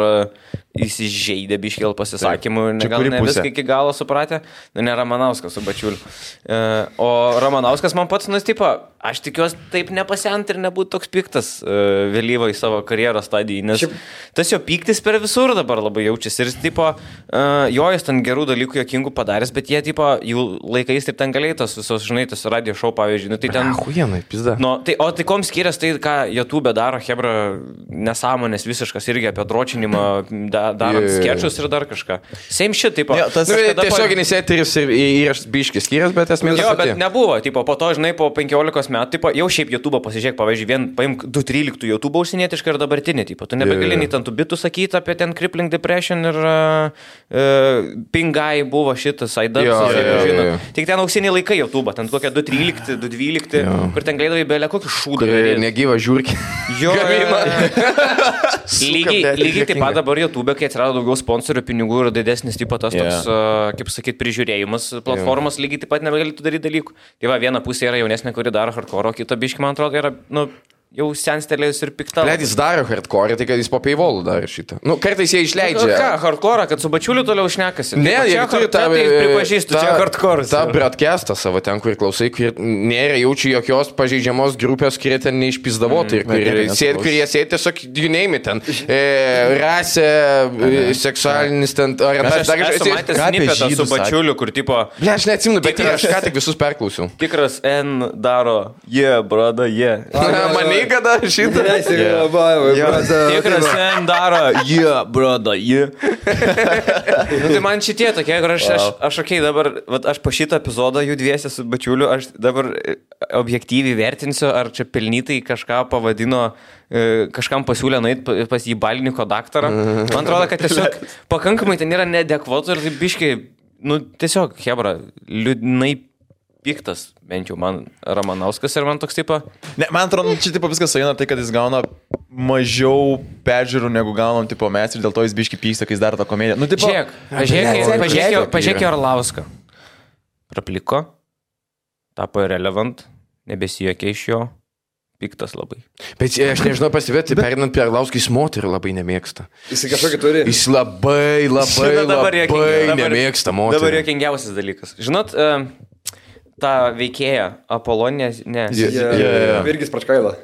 įsižeidę biškėl pasisakymų, gal ne viską iki galo supratę, ne Ramanauskas su Bačiuliu. O Ramanauskas man pats, tipo, aš tikiuosi taip nepasent ir nebūtų toks piktas vėlyvo į savo karjeros stadiją, nes tas jo pyktis per visur dabar labai jaučiasi ir, tipo, jis ten gerų dalykų jokingų padaręs, bet jie, tipo, jų laikais taip ten galėjo tos visos, žinai, tas radio show, pavyzdžiui, nu tai ten... Huienai, pizda. No, o tai kom skirias tai, ką YouTube daro, hebra, nesąmonės visiškas irgi apie dročinimą, darant skečus ir dar kažką. Same shit, tipo. Tiesioginis eteris ir įrašas biškis skirias, bet esmė... Jo, bet nebuvo, tipo, po to, žinai, po 15 metų, tipo, jau šiaip YouTube pasižiūrėk, pavyzdžiui, paimk 2.13 YouTube užsienietišką ir dabartinį, tipo, tu nebegali nei ten tų bitų sakyti apie ten crippling depression ir pingai buvo šitas, aidas, žinot. Tik ten auksiniai laikai YouTube, ten kokie 2.13, 2.12, kur ten galėdavai belė kokį šūdą. Negyva žiūrkį. Jo, lygiai taip pat dabar YouTube, kai atsirado daugiau sponsorių, pinigų ir didesnis tipo tas toks, kaip sakyt, prižiūrėjimas platformos, lygiai taip pat nebegalėtų daryti dalykų. Tai va, viena pusė yra jaunesnė, kuri daro hardcore, o kita biški, man atrodo, yra, nu, jau senstelėjus ir pikta. Jis daro hardcore, tai kad jis po paywallų daro šitą. Nu, kartais jie išleidžia. Ką, hardcore, kad su Bačiuliu toliau šnekasi? Ne, jie turi tą... Pripažįstu, čia hardcore. Ta broadcastą savo ten, kur klausai, kur nėra jaučiu jokios pažeidžiamos grupės, kurie ten neišpizdavotai. Kur jie sėdi tiesiog, you name it ten. Rasė, seksualinis ten... Aš esu matęs snippetą su Bačiuliu, kur tipo... Ne, aš neatsimenu, bet aš ką tik visus perklausiau. Tikras N daro, brother, Mane kada šitą? Tikras N daro, brother, Nu, tai man šitie tokie, kur aš dabar, aš po šitą epizodą jų dviese su Bačiuliu, aš dabar objektyviai vertinsiu, ar čia pelnytai kažką pavadino, kažkam pasiūlė nueiti pas jį Baliniko daktarą. Man atrodo, kad tiesiog pakankamai ten yra neadekvatų ir biškai, nu, tiesiog, hebra, liūdnai piktas, bent jau man Ramanauskas ir man toks tipo... Ne, man atrodo, čia tipo viskas sueina tai, kad jis gauna mažiau peržiūrų negu gaunam tipo mes ir dėl to jis biški pyksta, kai jis daro tą komediją. Nu, tipo... Pažiūrėk Orlauską. Prapliko, tapo irrelevant, nebesijuokė iš jo, piktas labai. Bet aš nežinau pasivėti, perinant prie Orlauskį, jis moterį labai nemėgsta. Jis kažkokį turi. Jis labai nemėgsta moterį. Dabar juokingiausias dalykas. Žinot, tą veikėją Apolonę, ne. Virgis Pračkaila.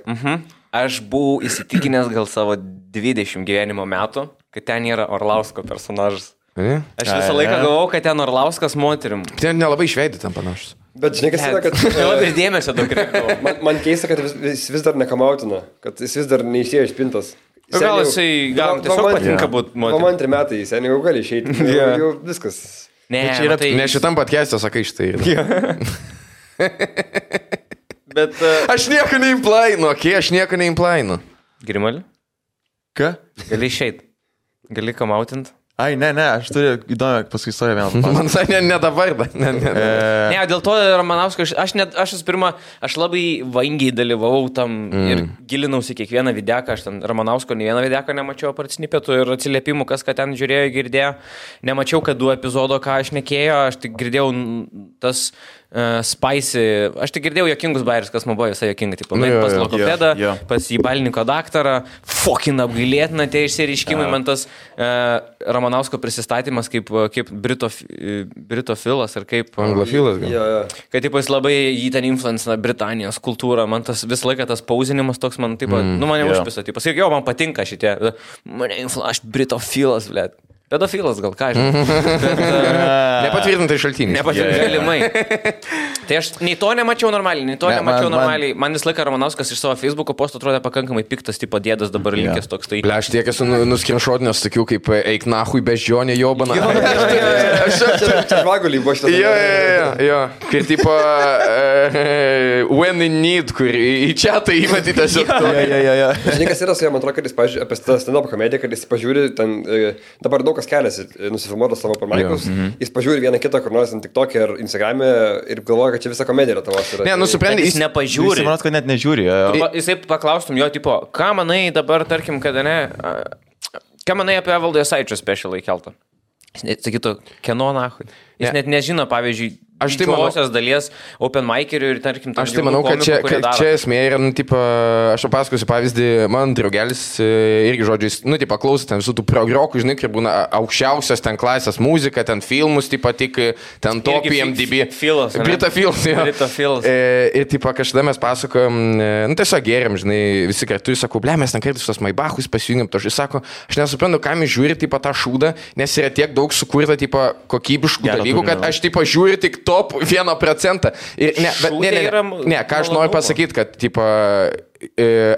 Aš buvau įsitikinęs gal savo 20 gyvenimo metų, kad ten yra Orlausko personažas. Aš visą laiką galvojau, kad ten Orlauskas moterim. Ten nelabai išveidė ten panašus. Bet žinai, kas yra, kad... Labai dėmesio daug reikėjo. Man keista, kad jis vis dar nekamautina, kad jis vis dar neišėjo iš pintos. Gal jisai tiesiog patinka būti moterim. Man 3 metai, seniai jau gali išeiti. Jau viskas. Ne, ne šitam podcast'e sakai štai. Bet... Aš nieko neimplainu, aš nieko neimplainu. Grimalį? Ką? Gali išeit. Gali kamautint. Ai, ne, aš turiu įdomią paskui istoriją vėl. Man sakė, ne dabar, Ne, dėl to Ramanauskas, aš labai vangiai dalyvavau tam ir gilinausi kiekvieną videką, aš ten Ramanausko ne vieną videką nemačiau apart snippetų ir atsiliepimų, kas ką ten žiūrėjo, girdėjo. Nemačiau, kad 2 epizodo, ką aš nekėjo, aš tik girdėjau tas spicy, aš tik girdėjau jokingus bairius, kas man buvo visai jokinga, tipo, pas logopedą, pas į Baliniko daktarą, fucking apgailėtina tie išsireiškimai, man tas Ramanausko prisistatymas kaip britofilas ar kaip... Anglofilas gal. Kad tipo, jis labai jį ten influencina Britanijos kultūrą, man tas visą laiką tas pauzinimas toks, man tipo, nu mane užpisa, tipo, sakyk, jo, man patinka šitie, aš britofilas, blėt. Pedofilas gal, ką žinai. Nepatvirtintai šaltiniai. Galimai. Tai aš nei to nemačiau normaliai, Man vis laiką Ramanauskas iš savo Facebook'o postų atrodė pakankamai piktas, tipo dėdas dabar linkęs toks. Tai... Aš tiek esu nuskrinšotinęs tokių kaip eik nahui beždžionė jobana. Čia žvagulį buvo šitas. Jo. Kai tipo when in need, kur į čiatą įmetį tiesiog. Žinai, kas yra su jam, man atrodo, kad jis, pažiūrė, apie stand-up komediją, kad jis pažiūri, ten dabar daug kas keliasi, nusifilmuotas savo open-mic'us, jis pažiūri vieną kitą, kur nors TikTok'e ar Instagram'e ir galvoja, kad čia visa komedija yra tavos. Ne, nusiprendę, jis nepažiūri. Jis manot, kad net nežiūri. Jisai paklaustum jo, tipo, ką manai dabar, tarkim, kada ne, ką manai apie Evaldo Jasaičio specialą įkeltą? Jis sakytų, kieno nahui. Jis net nežino, pavyzdžiui, didžiosios dalies open mic'erių ir, tarkim, aš tai manau, kad čia esmė yra, aš papasakosiu pavyzdį, man draugelis irgi žodžiais, paklausė ten visų tų progrokų, žinai, kai būna aukščiausios ten klasės muzika, ten filmus, tik ten top IMDb. Brita Filas. Ir, kažkada mes pasakojom, tiesiog geriam, žinai, visi kartu, ir sakau, mes ten kartais tos Maybachus pasijungėm, to aš sako, aš nesuprantu, kam jis žiūri, tą šūdą, nes yra tiek daug sukurta, kokybiškų dalykų, kad aš, žiūriu tik top 1%. Ir ką aš noriu pasakyti, kad,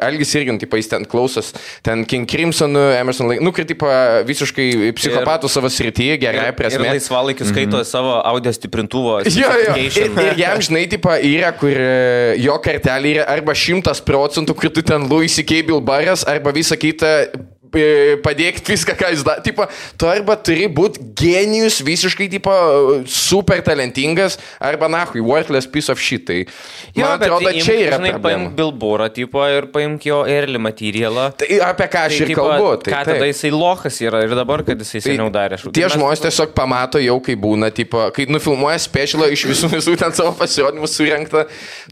Algis irgi, jis ten klausos, ten King Crimson, Emerson Lake, visiškai psichopatų savo srityje, gerai prasme. Ir laisvalaikiu skaito savo audio stiprintuvo. Ir jam, žinai, yra, kur jo kartelė yra arba 100%, kur tu ten Louis C.K. Bilbaras, arba visą kitą padėkti viską, ką jis daro. Tu arba turi būti genijus, visiškai, super talentingas, arba nahui, worthless piece of shit. Tai, man atrodo, čia yra problema. Paimk Bilborą, ir paimk jo early materialą. Tai apie ką aš ir kalbu. Ką tada jisai lochas yra ir dabar, kad jisai seniau darė. Tie žmonės tiesiog pamato jau, kai būna, kai nufilmuoja specialą iš visų ten savo pasirodymų surenktą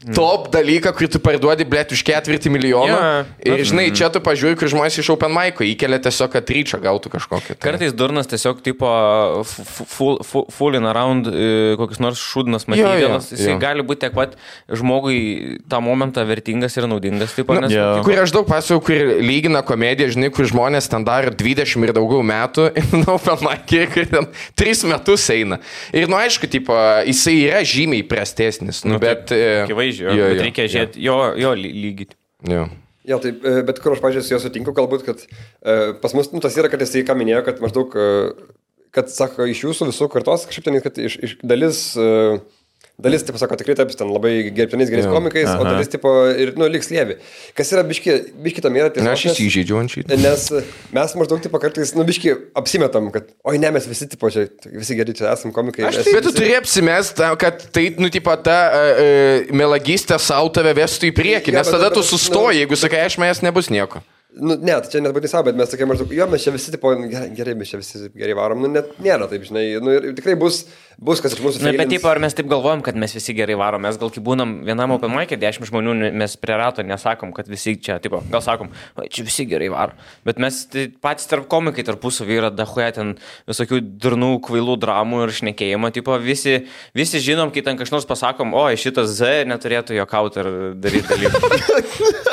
top dalyką, kurį tu parduodi, blėt, už 4 milijoną. Ir, žinai, čia tu pažiūri, kur žmonės iš open mic'o įkelia tiesiog, kad ryčą gautų kažkokį. Kartais durnas tiesiog full in around kokius nors šūdnas matydamas. Jisai gali būti tiek pat žmogui tą momentą vertingas ir naudingas. Kur aš daug pasakau, kur lygina komediją, žinai, kur žmonės ten daro 20 ir daugiau metų, open mic'e, kur ten 3 metus eina. Ir, aišku, jisai yra žymiai prastesnis. Bet reikia žiūrėti jo lygį. Jo, taip, bet kur aš, pažiūrėjau, su juo sutinku, galbūt, kad pas mus tas yra, kad jisai ką minėjo, kad maždaug, kad, sako, iš jūsų visų kartos, kažkaip ten, kad iš dalis, tipo, sako, tikrai taip, ten labai gerbtinais gerais komikais, o dalis, tipo, ir, liks lievi. Kas yra biški tam yra tiesiog. Aš įsižeidžiu ant šitą. Nes mes maždaug, tipo, kartais, biški apsimetam, kad, oi, ne, mes visi, tipo, čia, visi geri čia esam komikai. Bet tu turi apsimest, kad tai, ta melagystė savo tave vestų į priekį, nes tada tu sustoji, jeigu sakai, aš mes nebus nieko. Ne, tai čia nebūtinai savo, bet mes tokie maždaug, jo, mes čia visi, tipo, gerai, mes čia visi gerai varom, net nėra taip, žinai, ir tikrai bus, kas iš mūsų feilins. Bet taip, ar mes taip galvojam, kad mes visi gerai varom, mes gal kai būnam vienam open mic'e, 10 žmonių, mes prie rato nesakom, kad visi čia, tipo, gal sakom, čia visi gerai varo, bet mes patys tarp komikai tarpusavy yra dahuja ten visokių durnų, kvailų dramų ir šnekėjimo, tipo, visi žinom, kai ten kažnors pasakom, o, šitas Z neturėtų jokauti ir daryti dalykų.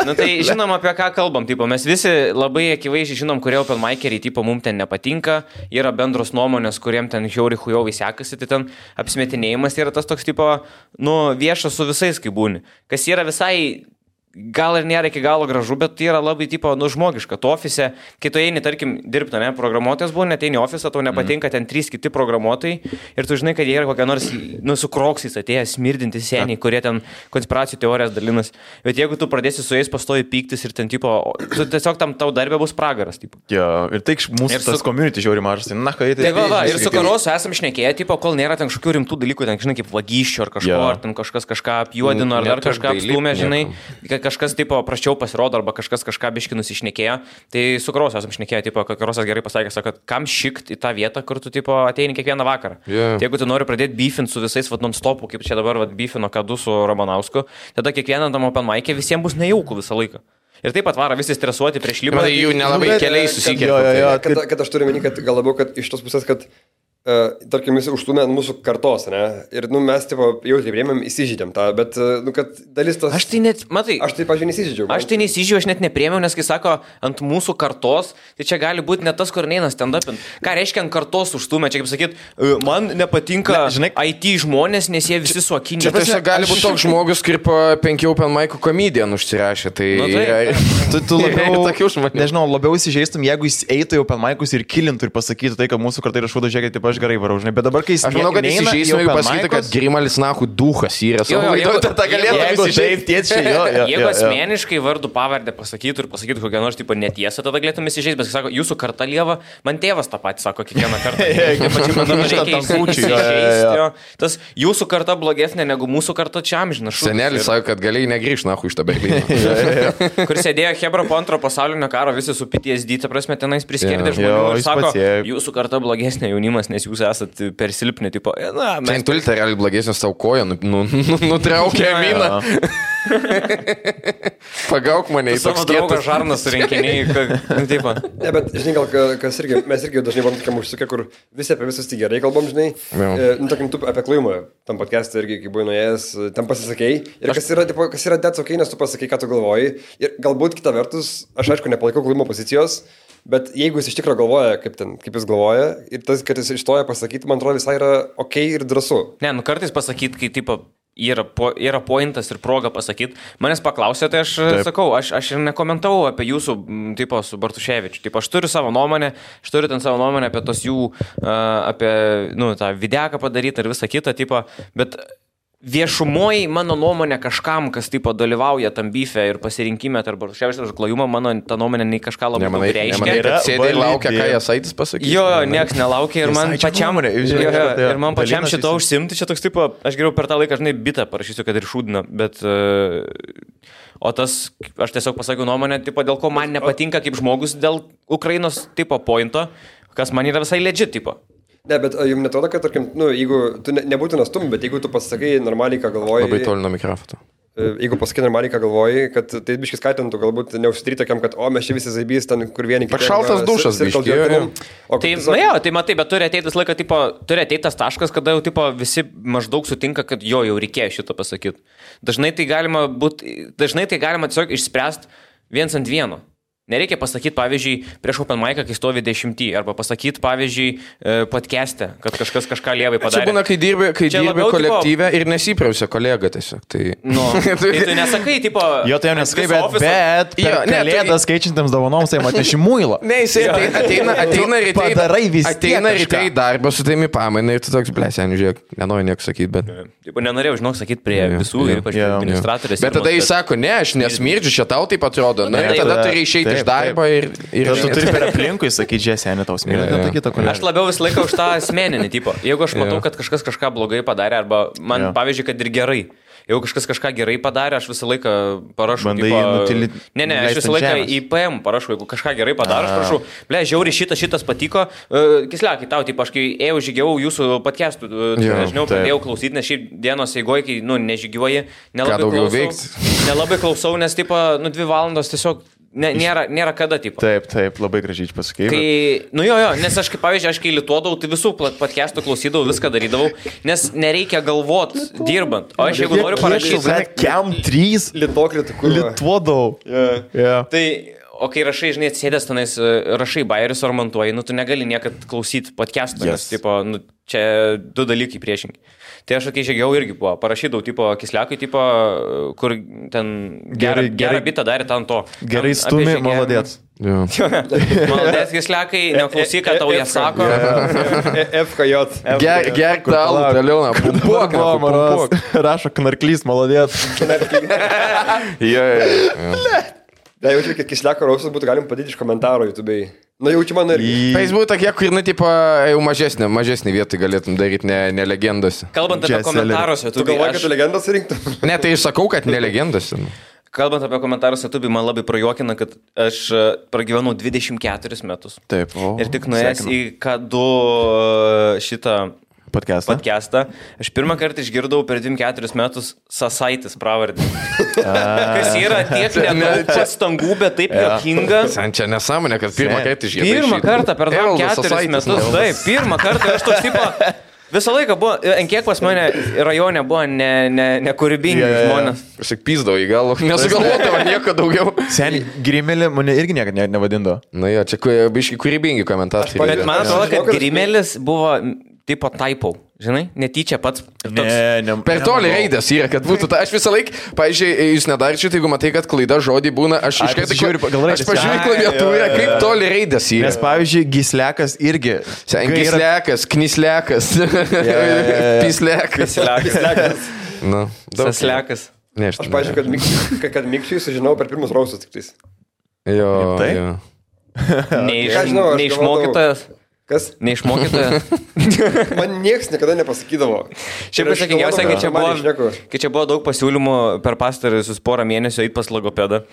Tai žinom, apie ką kalbam, tipo, mes visi labai akivaizdžiai žinom, kurie open mic'eriai, tipo, mums ten nepatinka, yra bendros nuomonės, kuriem ten žiauri sekasi, tai ten apsimetinėjimas yra tas toks, tipo, viešas su visais, kai būni. Kas yra visai gal ir nėra iki galo gražu, bet tai yra labai tipo, žmogiška. Tu ofise, kai tu eini, tarkim, dirbti, ne, programuotojas buvo, neteini ofisą, tau nepatinka ten 3 kiti programuotojai ir tu žinai, kad jie yra kokie nors, su kroksais atėjęs, smirdinti seniai, kurie ten konspiracijų teorijas dalinas. Bet jeigu tu pradėsi su jais pastoji pyktis ir ten, tipo, tu tiesiog tam tau darbė bus pragaras, tipo. Jo, ir tai mūsų tas community žiauri mažas, tai na, kai tai... Ir su Karosu esam šnekėję, tipo, kol nėra ten kažkokių rimtų dalykų, ten, žinai, kaip vagysčių ar kažko, ar ten kažką apjuodino, ar dar kažką apstumė, žinai, kažkas, tipo, praščiau pasirodo, arba kažką biški nusišnekėjo. Tai su Karosu esam šnekėję, tipo, kad Karosas gerai pasakė, kad kam šikt į tą vietą, kur tu, tipo, ateini kiekvieną vakarą. Yeah. Tai jeigu tu nori pradėti beefint su visais, non-stopu, kaip čia dabar, beefino Kadu su Ramanausku, tada kiekvieną tam open mic'e visiems bus nejaukų visą laiką. Ir taip pat varo visi stresuoti prieš lipą. Tai jų nelabai keliai susikelia. Kad aš turiu meni, kad gal labiau, kad iš tos pusės, kad tarkim, jis užtumė mūsų kartos, ne? Ir, mes, tipo, jau taip rėmėm, įsižydėm tą, bet, kad dalis tos... Aš tai net, matai... Aš tai, pažiūrėjau, neįsižydžiau. Aš tai neįsižydžiau, aš net neprėmiau, nes kai sako, ant mūsų kartos, tai čia gali būti net tas, kur neina stand-upint. Ką reiškia ant kartos užtumė? Čia, kaip sakyt, man nepatinka IT žmonės, nes jie visi suokinė. Čia tiesiog gali būti toks žmogus, kaip 5 open mic'ų komedijan užsirašė. Tai... Tu labiau, labiau įsižeistum, jeigu jis eitų į open mic'us ir kilintų ir pasakytų tai, kad mūsų kartai yra šūdo, žiūrėkit, taip aš gerai varau, žinai. Bet dabar, kai jis... Aš manau, kad įsižeisime, jeigu pasakytų, kad Grimalis Nachų duhas yra. Jeigu asmeniškai vardų pavardę pasakytų ir pasakytų kokią nors tipo netiesą, tada galėtum įsižeisti, bet sako, jūsų karta lieva, man tėvas tą patį sako kiekvieną kartą. Tas jūsų karta blogesnė negu mūsų karta čia amžinas. Senelis sako, kad galėjai negrįžti Nachų iš tą Berlyną. Kur sėdėjo Hebra po antro pasaulinio karo, visi su PTSD, ta prasme, tenais priskerdė žmonių ir sako, jūsų karta blogesnė jaunimas, nes jūs esat per silpni, tipo, na, mes... Čia tulite realiai blogesnės tau koją, nutraukė miną. Pagauk mane į savo draugą žarnas surinkiniai. Ne, bet, žinai, gal kas irgi, mes irgi dažnai buvom tokiam užsukę, kur visi apie visus tik gerai kalbam, žinai. Tarkim, tu apie klajumą, tam podcast'e irgi, kai buvai nuėjęs, tam pasisakei. Ir kas yra that's okay, nes tu pasakei, ką tu galvoji. Ir galbūt kita vertus, aš aišku, nepalaikau klajimo pozicijos. Bet jeigu jis iš tikrųjų galvoja, kaip jis galvoja, ir tas, kad jis ištoja pasakyti, man atrodo, visai yra ok ir drąsu. Ne, kartais pasakyti, kai tipo, yra pointas ir proga pasakyti. Manęs paklausė, tai aš sakau, aš ir nekomentavau apie jūsų, tipo, su Bartuševičiu. Tipo, aš turiu savo nuomonę, apie tos jų, apie, tą videką padaryti ir visą kitą, tipo, bet... Viešumoji mano nuomonė kažkam, kas tipo dalyvauja tam byfe ir pasirinkime tarp Bartuševičiaus ir klajumą, mano ta nuomonė nei kažką labai daug reiškia. Nemanai, kad sėdė ir laukia, ką Jasaitis pasakys? Jo, nieks nelaukia ir man pačiam šito užsimti, čia toks tipo, aš geriau per tą laiką, žinai, bitą parašysiu, kad ir šūdina, bet... O tas, aš tiesiog pasakiau nuomonę, tipo, dėl ko man nepatinka kaip žmogus dėl Ukrainos tipo pointo, kas man yra visai legit tipo. Ne, bet jums netrodo, kad, tarkim, jeigu tu nebūtina stum, bet jeigu tu pasakai normaliai, ką galvoji... Labai toli nuo mikrofono. Jeigu pasakai normaliai, ką galvoji, kad tai biškis skatintų, galbūt neužsidaryti tokiam, kad, mes čia visi zaibys, ten kur vieni... Pašaltas dušas, biškiai. Tai matai, bet turi ateiti laiką, tipo, turi ateiti tas taškas, kada jau, tipo, visi maždaug sutinka, kad jau reikėjo šitą pasakyti. Dažnai tai galima tiesiog išspręsti viens ant vieno. Nereikia pasakyti, pavyzdžiui, prieš open mic'ą, kai stovi 10, arba pasakyti, pavyzdžiui, podcast'e, kad kažkas kažką lievai padarė. Čia būna, kai dirbi kolektyve ir nesiprausia kolega tiesiog. Tai tai tu nesakai, tipo... Jo, tai jau nesakai, bet per kalėdas keičiantiems dovanoms, tai atneši muilą. Ne, jisai ateina ryte į darbą su taimi pamaina ir tu toks, blesianiu, žiūrėk, nenoriu nieko sakyti, bet... Nenorėjau, žinok, sakyti prie visų, ypač administratorės. Bet tada jis sako, ne, aš nesmirdžiu, čia tau taip atrodo. Na ir tada turi išeiti iš darbo ir tu turi per aplinkui sakyti, žiūrėk, tau smirda. Aš labiau visą laiką už tą asmeninį tipą. Jeigu aš matau, kad kažkas kažką blogai padarė, arba man, pavyzdžiui, kad ir gerai. Jeigu kažkas kažką gerai padarė, aš visą laiką parašau. Aš visą laiką į PM parašau, jeigu kažką gerai padarė, aš parašau, žiauri šitas patiko. Kisliakai tau, aš kai ėjau žygiavau jūsų podcastų, dažniau pradėjau klausyti, nes šiaip dienos eigoje, kai nežygiuoji, nelabai klausau, nes 2 valandos tiesiog nėra kada, tipo. Taip, labai gražiai pasakei. Nes aš, pavyzdžiui, kai lituodavau, tai visų podcastų klausydavau, viską darydavau, nes nereikia galvot dirbant. O aš jeigu noriu parašyti... Kiam 3 lituodavau. Tai... O kai rašai, žinai, atsėdęs tenais, rašai bairius ar montuoji, tu negali niekad klausyti podcastų, nes, tipo, čia 2 dalykai priešingi. Tai aš, kai žygiau irgi buvo, parašydavau, tipo, Kisliakai, tipo, kur ten gerą bitą darė ten to. Gerai stumi, maladėts. Maladėts, Kisliakai, neklausyk, ką tau jie sako. FKJ. Gerk tą alų, Leona, pumpuok. Rašo knarklys, maladėts. Da, jaučiu, kad Kisliako rausas būtų galim padėti iš komentaro YouTube'ai. Jaučiu man irgi. Facebook tokie, kur, tipo, jau mažesnį vietą galėtum daryti, ne legendose. Kalbant apie komentarus YouTube. Tu galvoji, kad tu legendas rinktum? Ne, tai aš sakau, kad ne legendose. Kalbant apie komentarus YouTube, man labai prajuokina, kad aš pragyvenau 24 metus. Taip, ir tik nuėjęs į K2 šitą podcastą. Aš pirmą kartą išgirdau per 24 metus Sasaitis pravardį. Kas yra tiek nedaug pastangų, bet taip juokinga. Čia nesąmonė, kad pirmą kartą išgirdau. Pirmą kartą per 24 metus. Taip, pirmą kartą aš toks tipo... Visą laiką buvo, ant kiek pas mane rajone buvo nekūrybingi žmonės. Aš tik pyzdavau į galvą, nesugalvodavo nieko daugiau. Seniai, Grimelį mane irgi niekada nevadindavo. Na jo, čia biški kūrybingi komentatoriai. Bet man atrodo, kad Grimelis buvo tipo typo, žinai, netyčia pats. Per toli raidės yra, kad būtų ta. Aš visą laiką, pavyzdžiui, jūs nedarčiate, jeigu matai, kad klaida žodį būna, aš iš karto pažiūriu klaviatūrą, kaip toli raidės yra. Nes, pavyzdžiui, Gislekas irgi. Gislekas, Knislekas, Pislekas. Saslekas. Aš pažiūrėjau, kad Mikčiui sužinau per pirmus rausus tik tais. Jo. Neišmokytojas. Kas? Neišmokytojas. Man nieks niekada nepasakydavo. Šiaip pasakingiausia, kai čia buvo daug pasiūlymų per pastaruosius porą mėnesių eit pas logopedą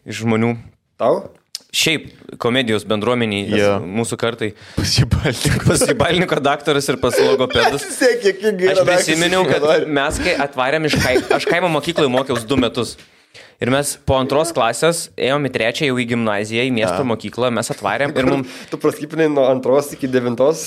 iš žmonių. Tau? Šiaip komedijos bendruomeniai, mūsų kartai. Pasibalniko daktaras ir pas logopedus. Aš prisiminiau, kad mes kai atvarėm aš kaimo mokykloje mokiausi 2 metus. Ir mes po 2 klasės ėjom į 3 jau į gimnaziją, į miesto mokyklą, mes atvarėm ir mums... Tu praskipinai nuo 2 iki 9. Tai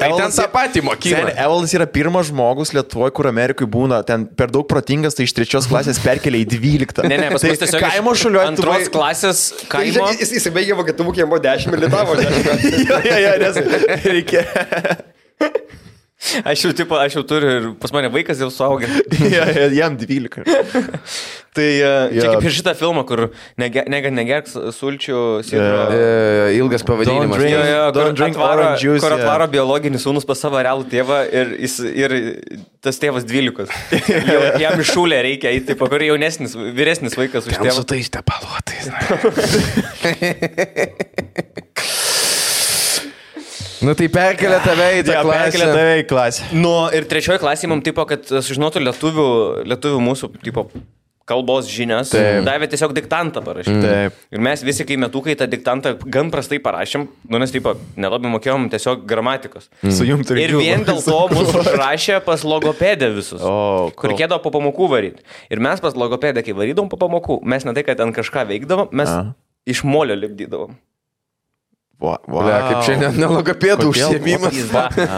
ten tą patį mokyklą. Evaldas yra pirmas žmogus Lietuvoje, kur Amerikai būna ten per daug protingas, tai iš 3 klasės perkelia į 12. Ne, pas mus tiesiog kaimo šuliuoju. 2 klasės kaimo... Jis baigė vokietų mokė, jam buvo 10 ir litavo 10. nes reikia... Aš jau turiu ir pas mane vaikas jau suaugė. Jam 12. Tai čia kaip ir šitą filmą, kur negerk sulčių sidro. Ilgas pavadinimas. Kur atvaro biologinis sūnus pas savo realų tėvą ir tas tėvas 12. Jam iššūlė reikia, taip, kur vyresnis vaikas už tėvą. Ten su tais tepaluotais. Nu tai perkelia tave į tą klasę. Perkelia tave į klasę. Ir 3 klasėje mums tipo, kad sužinotų lietuvių mūsų tipo kalbos žinias, davė tiesiog diktantą parašyti. Ir mes visi, kai metukai tą diktantą gan prastai parašėm, nes tipo nelabai mokėjom tiesiog gramatikos. Ir vien dėl to mūsų užrašė pas logopedę visus, kur reikėdavo po pamokų varyti. Ir mes pas logopedę, kai varydavom po pamokų, mes ne tai, kad ten kažką veikdavom, mes iš molio lipdydavom. Kaip šiandien nelogopėdų užsiėmimas.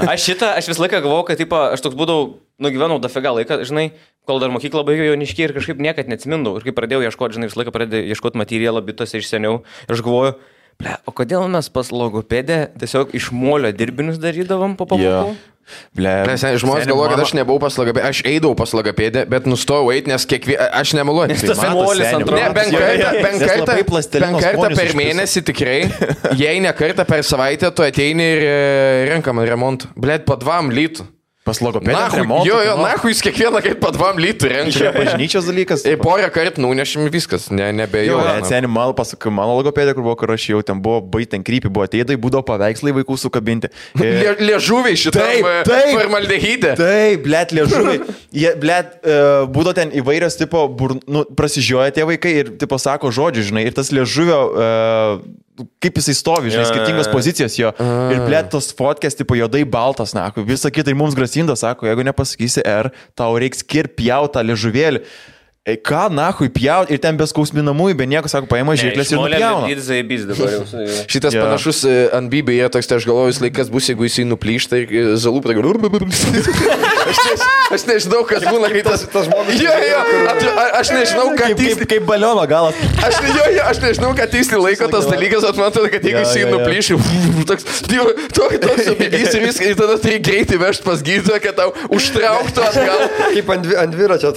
Aš visą laiką galvojau, kad aš toks būdavau, nugyvenau dafiga laiką, žinai, kol dar mokyklą baigiau jauniškiai ir kažkaip niekad neatsimindau. Ir kai pradėjau ieškoti, žinai, visą laiką pradėjau ieškoti materialą bitose iš seniau. Ir aš galvoju, o kodėl mes pas logopedę tiesiog iš molio dirbinius darydavom po pamokų? Žmonės galvoja, kad aš nebuvau pas logopėdę, aš eidavau pas logopėdę, bet nustojau eiti, nes aš nemeluoju. Bent kartą per mėnesį tikrai, jei ne kartą per savaitę, tu ateini ir renkam remontą. Blet, po 2 litų. Pas logopedą remontą. Jo, nahui jūs kiekvieną kartą po 2 litų renka. Čia bažnyčios dalykas. Ir porą kartų nunešim viskas, nebejau. Seniai, mano logopedė, kur aš jau ten buvo, baitin krypį, buvo ateidai, būdavo paveikslai vaikų sukabinti. Liežuviai šitam formaldehydė. Taip, blet, liežuviai. Būdavo ten įvairios tipo, prasižioja tie vaikai ir tipo sako žodžių, žinai, ir tas liežuvio... kaip jisai stovi, žinai, skirtingos pozicijos jo. Ir blėt tos fotkės, tipo, juodai baltas, na, visą kitą ir mums grasinda, sako, jeigu nepasakysi R, tau reiks kirpjaut tą liežuvėlį. Ką, nahui, pjaut, ir ten be skausminamųjų, be nieko, sako, paima žirklės ir nupjauna. Šitas panašus ant Bybė yra toks, tai aš galvoju, laikas bus, jeigu jisai nuplyšta ir zalų pradėjo. Aš nežinau, kas būna, kai tas žmogus... Aš nežinau, ką tiksliai... Kaip baliono galas. Aš nežinau, ką tiksliai laiko tas dalykas, bet man atrodo, kad jeigu jisai nuplyšia, toks subėgys ir viską, ir tada turi greitai vežti pas gydytoją, kad tau užtrauktų atgal. Kaip ant dviračio.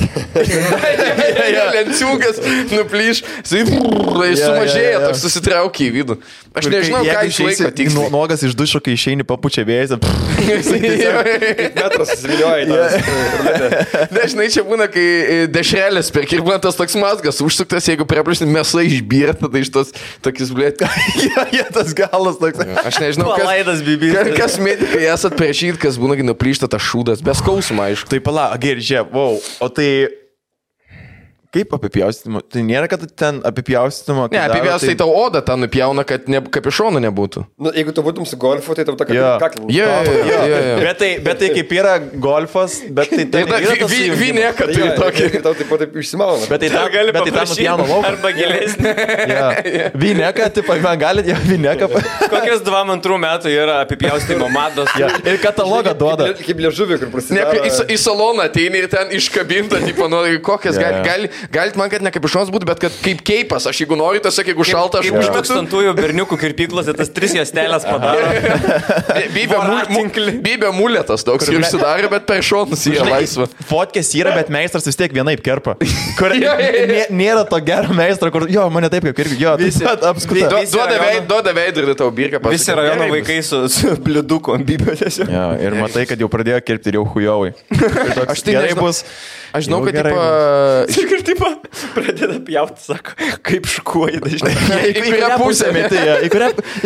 Lenciūgas nuplyš, sumažėja, toks susitraukia į vidų. Aš nežinau, ką išlaiko tiksliai. Nuogas iš dušo, kai išeini papučia vėjas. Metras susivilioja į tą. Dažnai čia būna, kai dešrelės perk ir būna tas toks mazgas užsuktas, jeigu preplišni mėsai išbyrė, tada iš tos tokis blėt. Tas galas toks. Aš nežinau, kas medikai esat priešyt, kas būna, kai nuplyšta tas šūdas. Be skausmo, aišku. Tai pala, gerai, žiūrėk, o tai... Kaip apipjaustimo? Tai nėra, kad ten apipjaustimo... Ne, apipjaustai tau odą tą nupjauna, kad kapišonų nebūtų. Nu, jeigu tu būtum su golfu, tai tau ta kaklė. Bet tai kaip yra golfas, bet tai Vinėka turi tokį. Ir tau taip išsimauna. Bet tai gali nupjauna lauką. Arba gilesnį. Vinėka, tipo, man galit ją vinėka. Kokias 2-2 metų yra apipjaustimo mados. Ir katalogą duoda. Kaip liežuvį, kur prasideda. Į saloną ateini ir ten iškabinta, tipo, nu, kokias galit man, kad ne kaip išons būtų, bet kad kaip keipas. Aš jeigu noriu, tiesiog jeigu šalta, aš užmetu. Kaip tūkstantųjų berniukų kirpyklose tas 3 juostelės padaro. Bybė muletas toks ir užsidarė, bet per šonus yra laisva. Fotkės yra, bet meistras vis tiek vienaip kerpa. Nėra to gero meistro, kur, jo, mane taip kaip kirpi, jo, visi apskuta. Duoda veidrodį tau birką pasakyti. Visi rajono vaikai su bliuduku ant bybio tiesiog. Ja, ir matai, kad jau pradėjo kirpti ir jau hujovai. Aš tai gerai bus. Aš žinau, kad tipo pradeda pjauti, sako, kaip škuoji dažnai. Į kurią pusę meti, į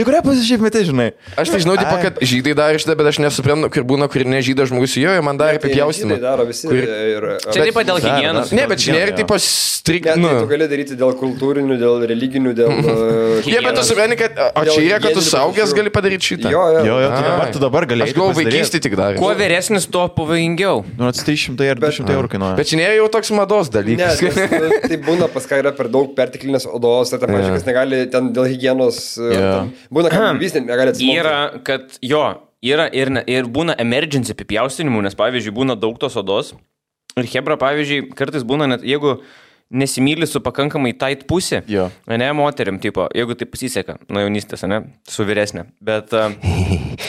kurią pusę šiaip meti, žinai. Aš tai žinau, tipo, kad žydai darė šitą, bet aš nesuprantu, kur būna, kur ne žydas žmogus, jo, man darė apipjaustimą. Čia taip pat dėl higienos. Ne, bet čia nėra tipo strikt. Tu gali daryti dėl kultūrinių, dėl religinių, dėl... Jie, bet tu supranti, kad... O čia yra, kad tu saugęs gali padaryti šitą. Jo, tu dabar gali. Aš galvoju, vaikystį tik darė. Kuo vyresnis, tuo pavojingiau. Nu, 300 ar 200 eurų kainuoja. Bet čia nėra jau toks mados dalykas. Tai būna pas ką yra per daug perteklinės odos, ar ten pažiūrėkas negali ten dėl higienos. Būna, kad vis negali atsismokti. Yra, kad jo, yra ir būna emergency apipjaustinimų, nes pavyzdžiui būna daug tos odos. Ir hebra, pavyzdžiui, kartais būna net, jeigu nesimyli su pakankamai tight pusė, ne moteriam, tipo, jeigu tai pasiseka, nuo jaunystės, ne, su vyresnė, bet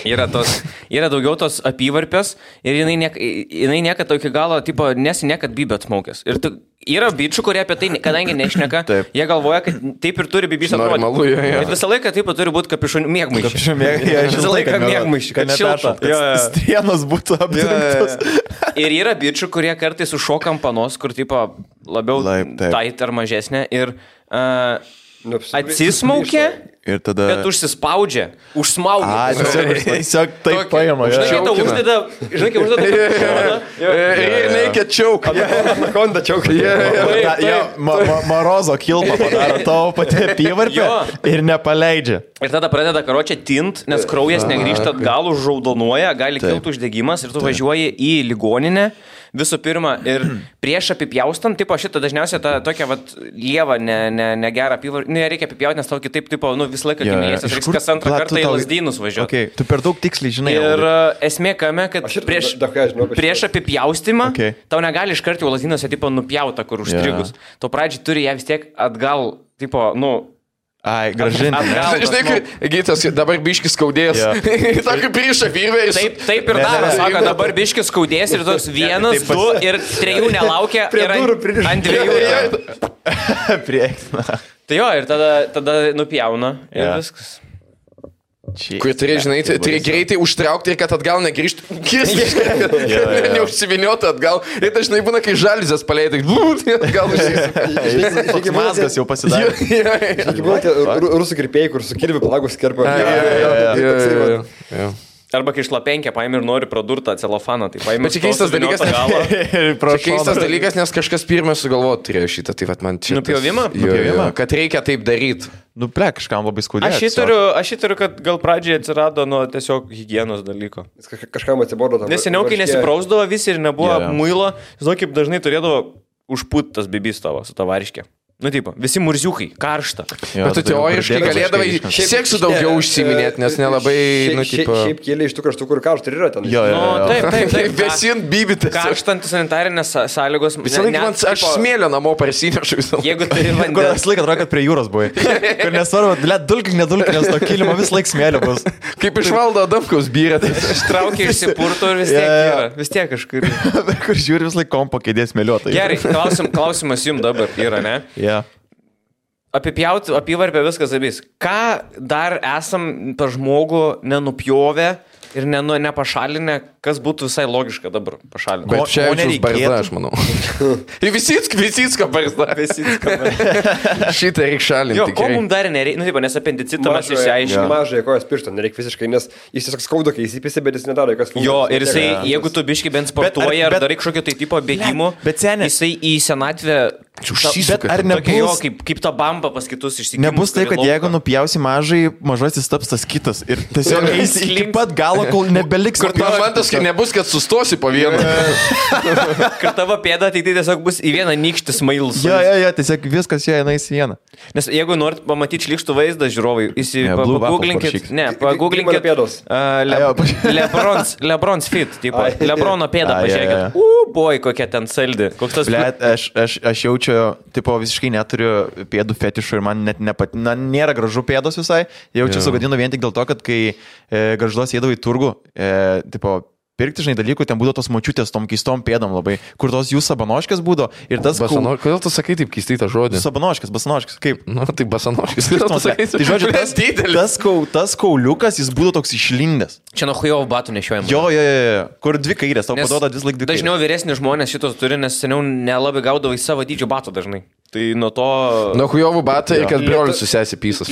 yra daugiau tos apyvarpės ir jinai niekad iki galo, tipo, niekad bybė atmaukęs. Ir yra bičių, kurie apie tai, kadangi nešneka, jie galvoja, kad taip ir turi bybys atrodyti. Bet visą laiką taip turi būti kapišonių mėgmaiščių. Visą laiką mėgmaiščių, kad šiltų. Strienos būtų apdirbtos. Ir yra bičių, kurie kartais užšokam panos, kur, tipo, labiau tait ar mažesnė ir atsismaukia, bet užsispaudžia, užsmaugia. Tiesiog taip paima. Žinai, tau uždeda... Ir reikia čiauką. Anakonda čiauką. Marozo kilpą padaro tavo pati apyvarpę ir nepaleidžia. Ir tada pradeda karočią tint, nes kraujas negrįžta atgal, užraudonuoja, gali kilti uždegimas ir tu važiuoji į ligoninę. Visų pirma, ir prieš apipjaustant, tipo šitą dažniausiai tą tokią vat lievą, negerą apyvarpę, nereikia apipjauti, nes tau kitaip, tipo, nu visą laiką gimėjas, reiks kas antrą kartą į Lazdynus važiuoti. Okay. Tu per daug tiksliai žinai. Ir esmė kame, kad prieš apipjaustimą tau negali iš karto į Lazdynuose, tipo, nupjauta, kur užstrigus. Tu pradžiai turi ją vis tiek atgal, tipo, nu... Ai, gražinti. Žinai, kai Gytas dabar biškis skaudės. Tokį priešą virvę. Taip ir daro. Sako, dabar biškis skaudės ir toks 1, 2 ir 3 nelaukia. Ant 2. Prieksna. Tai jo, ir tada nupjauna ir viskas. Kur turi, žinai, turi greitai užtraukti ir kad atgal negrįžtų. Neužsiviniotų atgal. Ir dažnai būna, kai žalizės paleidai. Atgal užsisuka. Mazgas jau pasidarė. Rusų kirpėjai, kur su kirviu palagus kerpa. Arba kai šlapenkė paėmė ir nori pradurtą celofaną, tai paėmė. Bet čia keistas dalykas, keistas dalykas, nes kažkas pirmas sugalvojo turėjo šitą, tai vat man čia... Nupjovimą? Kad reikia taip daryti. Nu, kažkam labai skaudėjo. Aš įtariu, kad gal pradžiai atsirado nuo tiesiog higienos dalyko. Kažkam atsibodo. Nes seniau, kai nesiprausdavo visi ir nebuvo muilo, žinau, kaip dažnai turėdavo užpūt tas bibys tavo su tavariškė. Nu, tipo, visi murziukai, karšta. Bet tu teoriškai galėdavai seksų daugiau užsiminėti, nes nelabai, nu, tipo... Šiaip kėlė iš tų kraštų, kur karšta ir yra ten. Taip. Vesint bybitės. Karštantis sanitarinės sąlygos. Visą laiką man aš smėlio namo parsinešu visą laiką. Jeigu turi vandens. Kur visą laiką atrodo, kad prie jūros buvai. Kur nesvarbu, nedulkink, nes to kilimo vis laik smėlio bus. Kaip iš Valdo Adamkaus byrė. Ištraukia išsipurto ir vis tiek yra. Vis tiek kažkur. Kur žiūri vis laik kompo kėdės smėliuotai. Gerai, klausimas jums dabar yra, ne? Apipjauti, apyvarpę viskas abys. Ką dar esam per žmogų nenupjovę ir nepašalinę, kas būtų visai logiška dabar pašalinti? Bet čia Evičiaus barzda, aš manau. Visicka barzda. Šitą reikia šalinti. Jo, ko mums dar nereikia, nu, nes apendicitą mes išsiaiškiname. Mažai kojas piršto, nereikia visiškai, nes jis tiesiog skauda, kai įsipisi, bet jis nedaro jokios funkcijos. Jo, ir jisai, jeigu tu biškai bent sportuoji ar darai kažkokio tai tipo bėgimų, jisai į senatvę Bet ar nebus, kaip ta bamba pas kitus išsikimšti? Nebus tai, kad jeigu nupjausi mažasis taps tas kitas ir tiesiog eisi iki pat galo, kol nebeliks. Kur tavo momentas, kai nebus, kad sustosi po vieną. Kad tavo pėda tai tiesiog bus į vieną nykštį smailus. Jo, tiesiog viskas jie eina į vieną. Nes jeigu norit pamatyti šlykštų vaizdą, žiūrovai, pagooglinkit. Ne, pagooglinkit. Lebron's fit, tipo. Lebrono pėdą pažiūrėkit. Boj, kokia ten saldi. Koks tas... Blet, aš jaučiu, tipo, visiškai neturiu pėdų fetišų ir man net nėra gražu pėdos visai. Jaučiu sugadinu vien tik dėl to, kad kai Gargžduos eidavau į turgų, tipo, pirkti, žinai, dalykų, ten būdavo tos močiutės tom keistom pėdom labai, kur tos jų sabanoškės būdavo ir tas... Kodėl tu sakai taip keistai tą žodį? Basanoškės, kaip? Tai basanoškės. Tai žodžiu, tas kauliukas, jis būdavo toks išlindęs. Čia nuo hujovo batų nešiojama. Jo, kur dvi kairės, tau paduoda vis laik dvi kairės. Dažniau vyresni žmonės šitos turi, nes seniau nelabai gaudavo į savo dydžio batų dažnai. Tai nuo to... Nuo hujovų batų ir kad brolis susėsi pysas.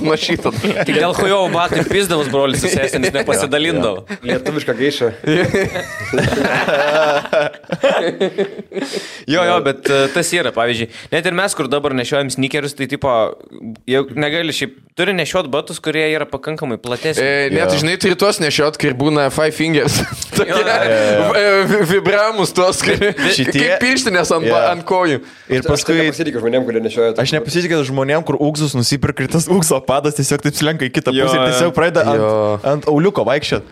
Nuo šito. Tik dėl hujovų batų ir pysdavus brolis susėsi, nes nepasidalindavo. Lietuviška geiša. Jo, bet tas yra, pavyzdžiui. Net ir mes, kur dabar nešiojam sneakerius, tai tipo, negali šiaip, turi nešiot batus, kurie yra pakankamai platesni. Net, žinai, turi tuos nešiot, kai būna five fingers. Vibramus tuos, kaip pirštinės ant kojų. Ir paskui... Aš nepasitikiu žmonėm, kurie nešioja. Aš nepasitikiu žmonėm, kur ūgzus nusipirka ir tas ūgso padas tiesiog taip slenka į kitą pusę ir tiesiog pradeda ant auliuko vaikščiot.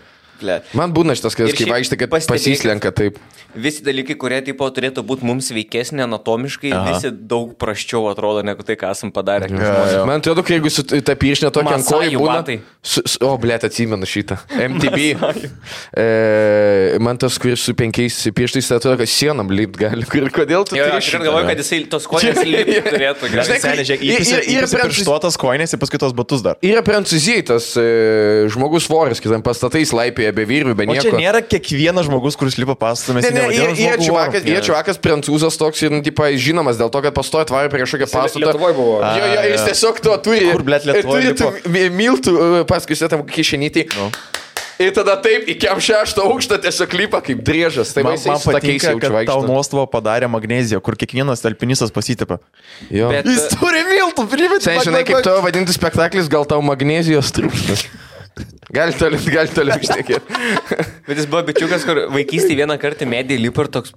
Man būna šitas, kai vaikštai, kad pasislenka taip. Visi dalykai, kurie tipo turėtų būti mums veikesnė anatomiškai, visi daug prasčiau atrodo, negu tai, ką esam padarę. Man atrodo, kai jeigu su ta pirštinė tokia ant kojų būna... Blet, atsimenu šitą. MTB. Man tas, kuris su 5 pirštais, atrodo, kad sienom lipt gali. Kodėl tu turi šitą? Aš galvoju, kad jisai tos koinės lipt turėtų. Įpisi pirštuotas koinės ir paskui tos batus dar. Yra Prancūzijai tas žmogus svoris, kitam pastatais laipėje be vyrų, be nieko. O čia nėra kiekvienas žmogus, kuris lipa pastatą. Jie čiuvakas prancūzas toks ir žinomas dėl to, kad pastoja tvarė prie kažkokią pastatą. Lietuvoje buvo. Jo, jis tiesiog to turi. Kur, blet, Lietuvoje lipo? Miltų paskui tam kišenytį. Ir tada taip, iki 6 aukštą tiesiog lipa kaip driežas. Tai man patinka, kad tau nuostabą padarė magneziją, kur kiekvienas alpinistas pasitipa. Jis turi miltų, primėti. Tai žinai, kaip to vadinti spektaklis, gal tau magnezijos trūksta. Gali toliau išnekėti. Bet jis buvo bičiukas, kur vaikystėje vieną kartą medį lipo ir toks...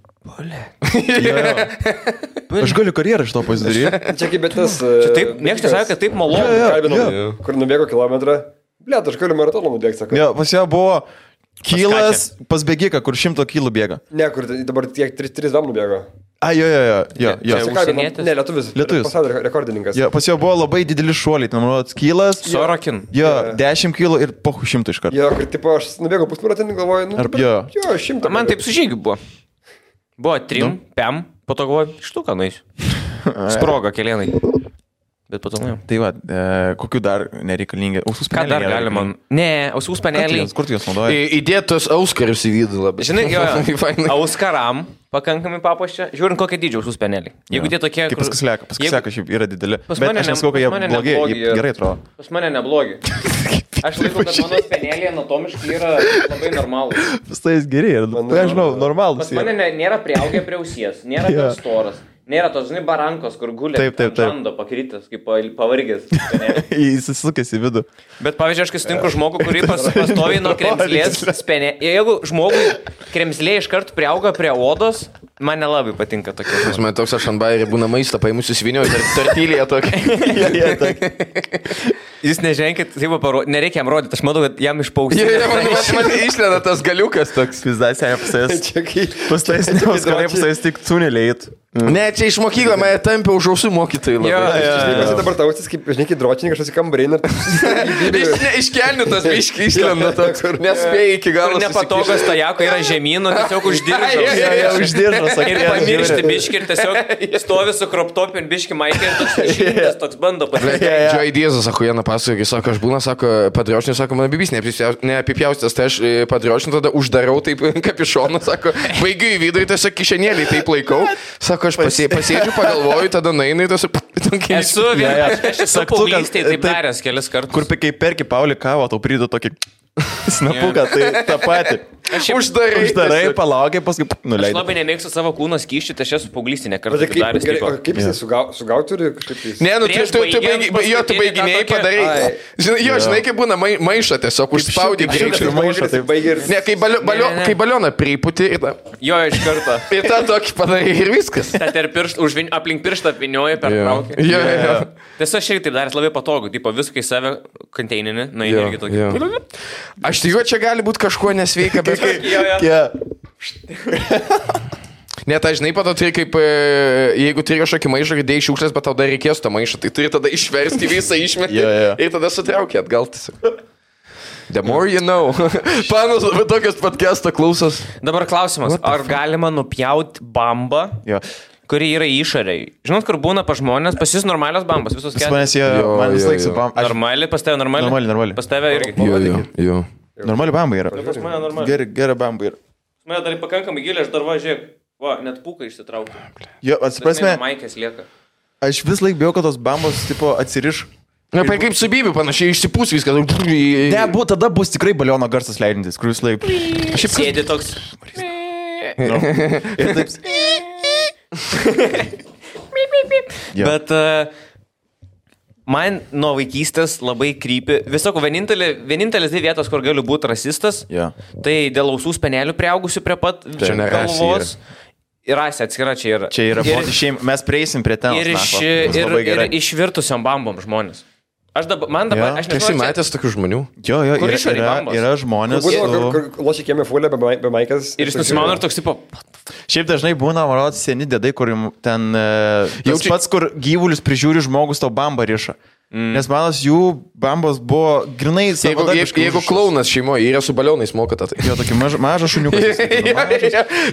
Aš galiu karjerą iš to pasidaryti. Čia kaip tas... Niekas nesakė, kad taip malonu. Kur nubėgo kilometrą. Blet, aš galiu maratoną nubėgti, sako. Jo, pas ją buvo kilas pas bėgiką, kur 100 kilų bėga. Ne, kur dabar tiek 3 dam nubėgo. Jo. Ne, lietuvis. Pasaulio rekordininkas. Jo, pas jo buvo labai dideli šuoliai, ten manau, kilas. Sorokin. Jo, 10 kilų ir po 100 iš karto. Jo, kur tipo aš nubėgau pusmaratonį, galvoju, jo, 100. Man taip su žygiu buvo. Buvo 3, 5, po to galvoju, štuką naisiu. Sprogo kelienai. Bet po to nuėjau. Tai va, kokiu dar nereikalingi? Ausų speneliai. Ką dar galima? Ne, ausų speneliai. Kur tu juos naudoji? Įdėtos auskarius į vidų labai. Žinai, auskaram pakankamai papuoščia. Žiūrint, kokie dydžio ausų speneliai. Jeigu tie tokie... Kaip paskislieka šiaip yra dideli. Bet aš nesakau, kad jie blogi, jie gerai atrodo. Pas mane neblogi. Aš laikau, kad mano speneliai anatomiškai yra labai normalūs. Pas tai jis geri, aš žinau, normalūs. Pas mane nėra priaugę prie ausies, nėra per storas. Nėra tos, žinai, barankos, kur gulė žando pakrytas, kaip pavargęs. Jis įsisukęs į vidų. Bet, pavyzdžiui, aš kai sutinku žmogų, kurį pastoviai nuo kremzlės spenė. Jeigu žmogui kremzlė iš karto priauga prie odos, man nelabai patinka tokia. Pas man toks aš ant bairį būna maistą, paimusiu svinio ir tartylėje tokia. Jūs neženkit, nereikia jam rodyti, aš matau, kad jam išpausė. Man išleda tas galiukas toks. Pizdas, pasais tik tuneliai. Ne, čia iš mokyklą mane tampė už ausų mokytojai labai. Aš dabar tausis, kaip, žinai, kaip dročininkas, aš į kambarį. Iškelniu tas biškį išlenda toks, nespėjai iki galo. Nepatogas tajako yra žemynų, tiesiog uždiržas. Ir pamiršti biškį ir tiesiog stovi su kroptopin biškį maikį ir toks šimtas toks bando patirti. Džoj Diezas, sako, Jana pasakoja, sako, aš būna, sako, padriošniu, sako, mano bibis neapipjaustas, tai aš padriošniu tada uždarau taip kapišoną, sako, baigiu į vidurį, tiesiog kišenėlį taip laikau, sako, aš pasėdžiu, pagalvoju, tada nainai tas... Esu paauglystėje taip daręs kelis kartus. Kur kai perki Paulį kavą, tau prideda tokį... Snapuką, tai tą patį. Uždarai, palaukiai, paskui nuleidai. Aš labai nemėgstu savo kūno skysčių, tai aš esu paauglystė nekartą daręs. Kaip jis sugauti turi kažkaip? Ne, nu tu baiginėjai padarai. Žinai, kaip būna maišą tiesiog užspaudį greičiau. Ne, kai balioną priputi ir tą. Jo, iš karto. Ir tą tokį padarai ir viskas. Aplink pirštą apvinioji per traukę. Tiesiog aš irgi taip daręs labai patogu, tipo viską į save konteininį, na irgi tokį. Aš tikiu, čia gali būti kažkuo nesveika, bet... Ne, tai žinai, pato turi kaip, jeigu turi kažkokį maišą, kai dėjai šiukšlės, bet tau dar reikės to maišą, tai turi tada išversti visą išmetį ir tada sutraukė atgal tiesiog. The more you know. Panas labai tokias podcast'o klausos. Dabar klausimas, ar galima nupjauti bambą, kuri yra išoriai? Žinot, kur būna pa žmonės, pas jūs normalios bambos, visos keturios? Man vis laik su bamba. Normali, pas tave normali? Normali. Pas tave irgi? Jo. Normali bamba yra. Pas mane normali. Gera bamba yra. Pas mane dar pakankamai giliai, aš dar važiuoju. Va, net pūką išsitraukti. Jo, atsiprasme. Maikės lieka. Aš vis laik bijau, kad tos bambos, tipo, atsiriš. Na, kaip su Bibiu panašiai išsipūs viskas. Ne, tada bus tikrai baliono garsas leidintis, kur jūs laik. Sėdi toks. Ir taip. Bet man nuo vaikystės labai krypi. Visoko, vienintelis dvi vietos, kur galiu būti rasistas, tai dėl ausų spenelių priaugusių prie pat galvos. Ir rasė atskira čia yra. Čia yra šeima. Mes prieisim prie ten. Ir išvirtusiam bambom žmonės. Aš nežinau, matęs tokių žmonių. Jo, yra žmonės. Lošiai kiemė fulę be maikas. Ir jis nusimano ir toks tipo. Šiaip dažnai būna, man rodos, seni dėdai, kur ten tas pats, kur gyvulius prižiūri žmogus, tau bambą riša. Nes manos jų bambos buvo grinai savadabiškai. Jeigu klaunas šeimoje yra su balionais mokata, tai... Jo, tokį mažą šuniuką.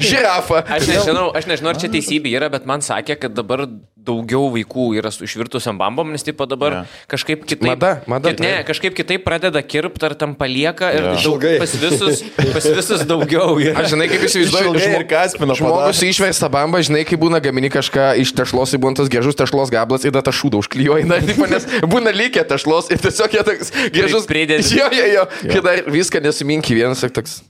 Žirafa. Aš nežinau, ar čia teisybė yra, bet man sakė, kad dabar daugiau vaikų yra su išvirtusiam bambom, nes tipo dabar kažkaip kitaip... Mada. Kažkaip kitaip pradeda kirpti, ar tam palieka ir pas visus daugiau. Aš žinai, kaip įsivaizduoju, žmogus išversta bamba, žinai, kai būna gamini kažką iš tešlos, ir būna tas gražus tešlos gablas ir tą šūdą užklijuoji, nes būna lygiai tešlos ir tiesiog jie toks gražus pridėti. Jo, kai dar viską nesuminki vienas ir toks...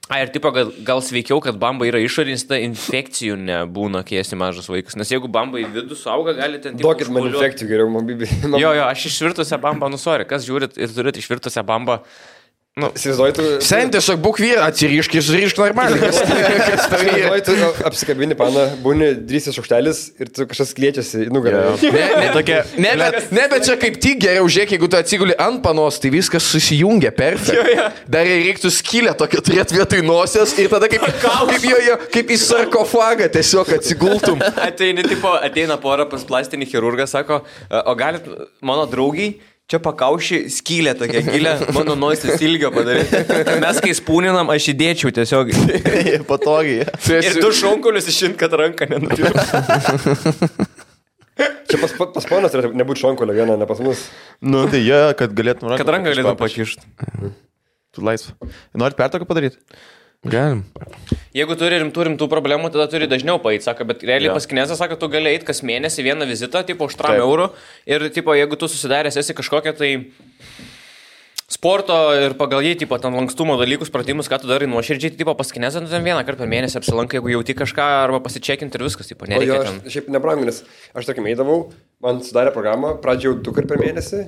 Ir tipo, gal sveikiau, kad bamba yra išorinis, ta infekcijų nebūna, kai esi mažas vaikas. Nes jeigu bamba į vidų suauga, gali ten... Duokit man infekcijų geriau, man bibi. Jo, aš išvirtusią bambą, kas žiūrit ir turit išvirtusią bambą. Sen tiesiog būk vyra, atsirišk ir surišk normaliai. Tu apsikabini paną, būni 3 šaukštelis ir tu kažkas kliečiasi į nugarą. Ne, bet čia kaip tik geriau žiūrėk, jeigu tu atsiguli ant panos, tai viskas susijungia perfekt. Dar reiktų skylę tokią turėti vietoj nosies ir tada kaip į sarkofagą tiesiog atsigultum. Ateina pora pas plastinį chirurgą, sako, o galit mano draugiai čia pakaušį skylę tokią gilę, mano nosis ilgio padaryti. Mes kai spūninam, aš įdėčiau tiesiog. Patogiai. Ir du šonkulius išint, kad ranką nenupirktų. Čia pas ponas turėtų nebūti šonkulio vieną, ne pas mus. Nu, tai kad galėtum ranką. Kad ranką galėtum pakišti. Tu laisvą. Norit pertoką padaryti? Galim. Jeigu turi rimtų problemų, tada turi dažniau paeit, sako, bet realiai pas kinezą sako, tu gali eit kas mėnesį vieną vizitą, tipo, už 3 eurų ir, tipo, jeigu tu susidaręs esi kažkokią tai sporto ir pagal jį, tipo, ten lankstumo dalykus, pratimus, ką tu darai nuoširdžiai, tipo, pas kinezą, ten vieną kartą per mėnesį apsilankai, jeigu jauti kažką arba pasičekinti ir viskas, tipo, nereikia ten. Šiaip nebrangu, nes aš, tarkim, eidavau, man sudarė programą, pradžiau 2 kartus per mėnesį.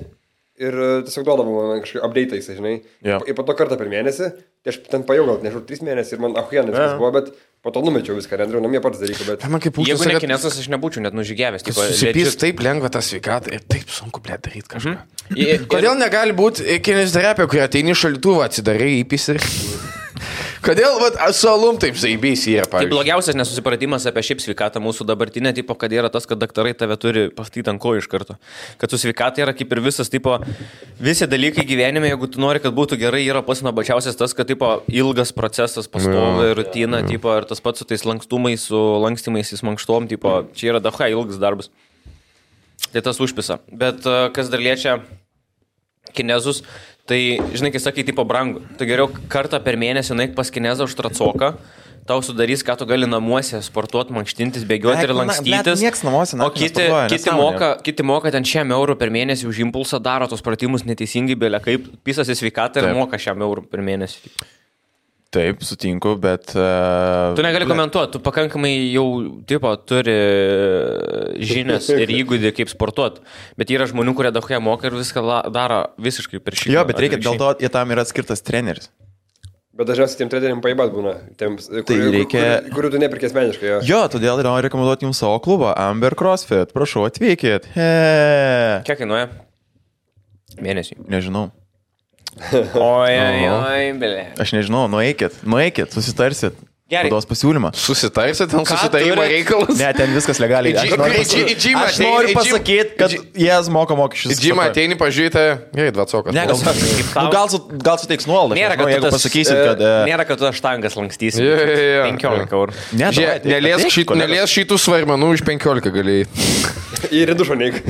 Ir tiesiog duodavau man kažkaip update'ais, žinai. Ir po to kartą per mėnesį, tai aš ten pajau gal, nežinau, 3 mėnesį ir man ahuienas viskas buvo, bet po to numečiau viską, nedariau namie pats dalyką, bet... Jeigu ne kinesas, aš nebūčiau net nužygiavęs. Susipys taip lengva tą sveikatą ir taip sunku, blėt, daryti kažką. Kodėl negali būti kineziterapija, kur ateini šaldytuvą, atsidarai įpis ir... Kodėl su alum taip zaibys yra, pavyzdžiui? Tai blogiausias nesusipratimas apie šiaip sveikatą mūsų dabartinę, tipo, kad yra tas, kad daktarai tave turi pastyti ant kojų iš karto. Kad su sveikata yra kaip ir visas, tipo, visi dalykai gyvenime, jeigu tu nori, kad būtų gerai, yra pats nuobačiausias tas, kad, tipo, ilgas procesas, pastovi rutina, tipo, ir tas pats su tais lankstumais, su lankstymais, į mankštom, tipo, čia yra dacha ilgas darbas. Tai tas užpisa. Bet kas dar liečia kinezus, tai, žinai, kai sakai, tipo, brangu, tai geriau kartą per mėnesį naik pas kinezą už tracoką, tau sudarys, ką tu gali namuose sportuoti, mankštintis, bėgioti ir lankstytis. Niekas namuose, o kiti moka ten 100 eurų per mėnesį už impulsą, daro tos pratimus neteisingai, belia kaip pisasi sveikatą ir moka 100 eurų per mėnesį. Taip, sutinku, bet... Tu negali komentuoti, tu pakankamai jau turi žinias ir įgūdį kaip sportuoti, bet yra žmonių, kurie daug moka ir viską daro visiškai per šį. Jo, bet reikia, dėl to tam yra skirtas treneris. Bet dažniausiai tiem treneriam paibat būna, kurių tu nepirkė asmeniškai. Jo, todėl noriu rekomenduoti jums savo klubą, Amber CrossFit, prašau, atvykit. Kiek kainuoja? Mėnesį? Nežinau. Oi, belė. Aš nežinau, nueikit, susitarsit. Gerai. Duos pasiūlymą. Susitarsit, ten susitarimo reikalas. Ne, ten viskas legaliai. Aš noriu pasakyti, kad jie moka mokesčius. Į džimą ateini, pažiūrėti, gerai, dvacokas. Ne, gal suteiks nuolaidą. Nėra, kad tu štangas lankstysi. 15 eurų. Neliesk šitų svarmenų už 15 galėjai. Ir dušo neik.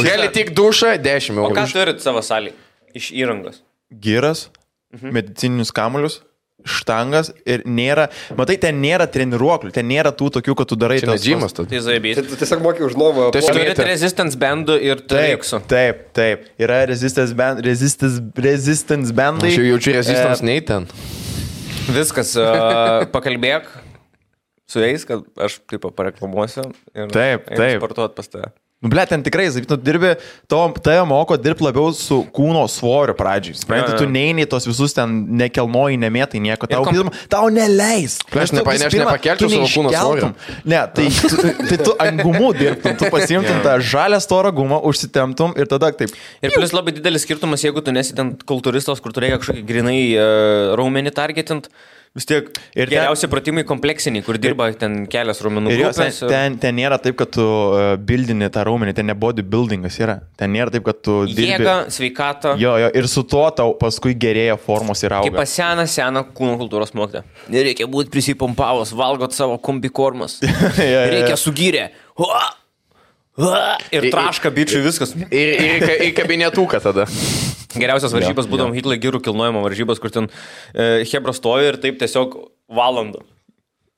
Gali tik dušą 10 eurų. O ką turit savo salį iš įrangos? Giras, medicininius kamulius, štangas ir nėra, matai, ten nėra treniruoklių, ten nėra tų tokių, kad tu darai tas džimas. Tu tiesiog moki už nuomą. Tu turite resistance bandų ir turėksų. Taip. Yra resistance bandai. Aš jau jaučiu resistance nei ten. Viskas, pakalbėk su jais, kad aš taip pareklamuosiu ir sportuot pas tave. Ble, ten tikrai, tu dirbi, tave moko dirbti labiau su kūno svoriu pradžiai. Supranti, tu neini tos visus ten nekelnoji, nemėtai nieko, tau neleis. Aš nepakelčiau savo kūno svorio. Ne, tai tu ant gumų dirbtum, tu pasiimtum tą žalę storą gumą, užsitemptum ir tada taip. Ir plus labai didelis skirtumas, jeigu tu nesi ten kultūristas, kur tu reikia kažkokį grinai raumenį targetint. Vis tiek ir geriausi pratimai kompleksiniai, kur dirba ten kelias raumenų grupės. Ten nėra taip, kad tu bildini tą raumenį, ten ne bodybuildingas yra. Ten nėra taip, kad tu dirbi. Jėga, sveikata. Jo, ir su tuo tau paskui gerėja formos ir auga. Kaip seną kūno kultūros mokytoją. Nereikia būti prisipompavus, valgot savo kombikormas. Reikia sugyrę. Ir traška bičiui viskas. Ir kabinetuką tada. Geriausias varžybas būdom Hitler girų kilnojimo varžybas, kur ten hebra stovi ir taip tiesiog valandų.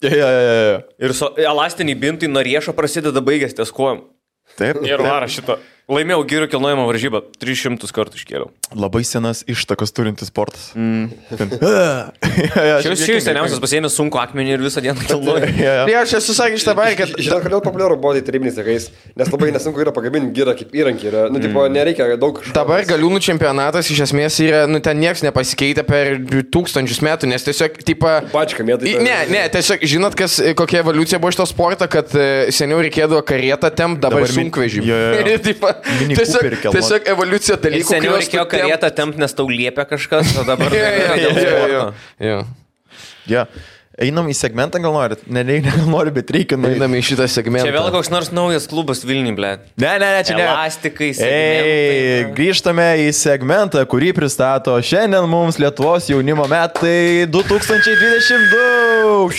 Ir elastiniai bintai nuo riešo prasideda baigęs ties kojom. Taip. Ir vara šito. Laimėjau girų kilnojimo varžybą. 300 kartų iškėliau. Labai senas ištakas turintis sportas. Šis seniausias pasiėmė sunku akmenį ir visą dieną kilnoja. Aš esu sakęs šitą baigę, kad... Žinau, kodėl populiaru body tarybiniais laikais, nes labai nesunku yra pagaminti girą kaip įrankį. Tipo, nereikia daug... Dabar galiūnų čempionatas iš esmės yra, ten nieks nepasikeitė per 1000 metų, nes tiesiog, tipo... Pačka mėtai. Ne, tiesiog, žinot, kokia evoliucija buvo šito sporto, kad seniau reikėdavo karietą tempt, dabar sunkvežimį. Tiesiog evoliucija dalykų. Seniau reikėjo karietą tempt, nes tau liepia kažkas, o dabar... Jo. Einam į segmentą, gal norit? Nenoriu, bet reikia. Einam į šitą segmentą. Čia vėl koks nors naujas klubas Vilniui, ble. Ne, čia ne. Elastikai, segmentai. Grįžtame į segmentą, kurį pristato šiandien mums Lietuvos jaunimo metai 2022.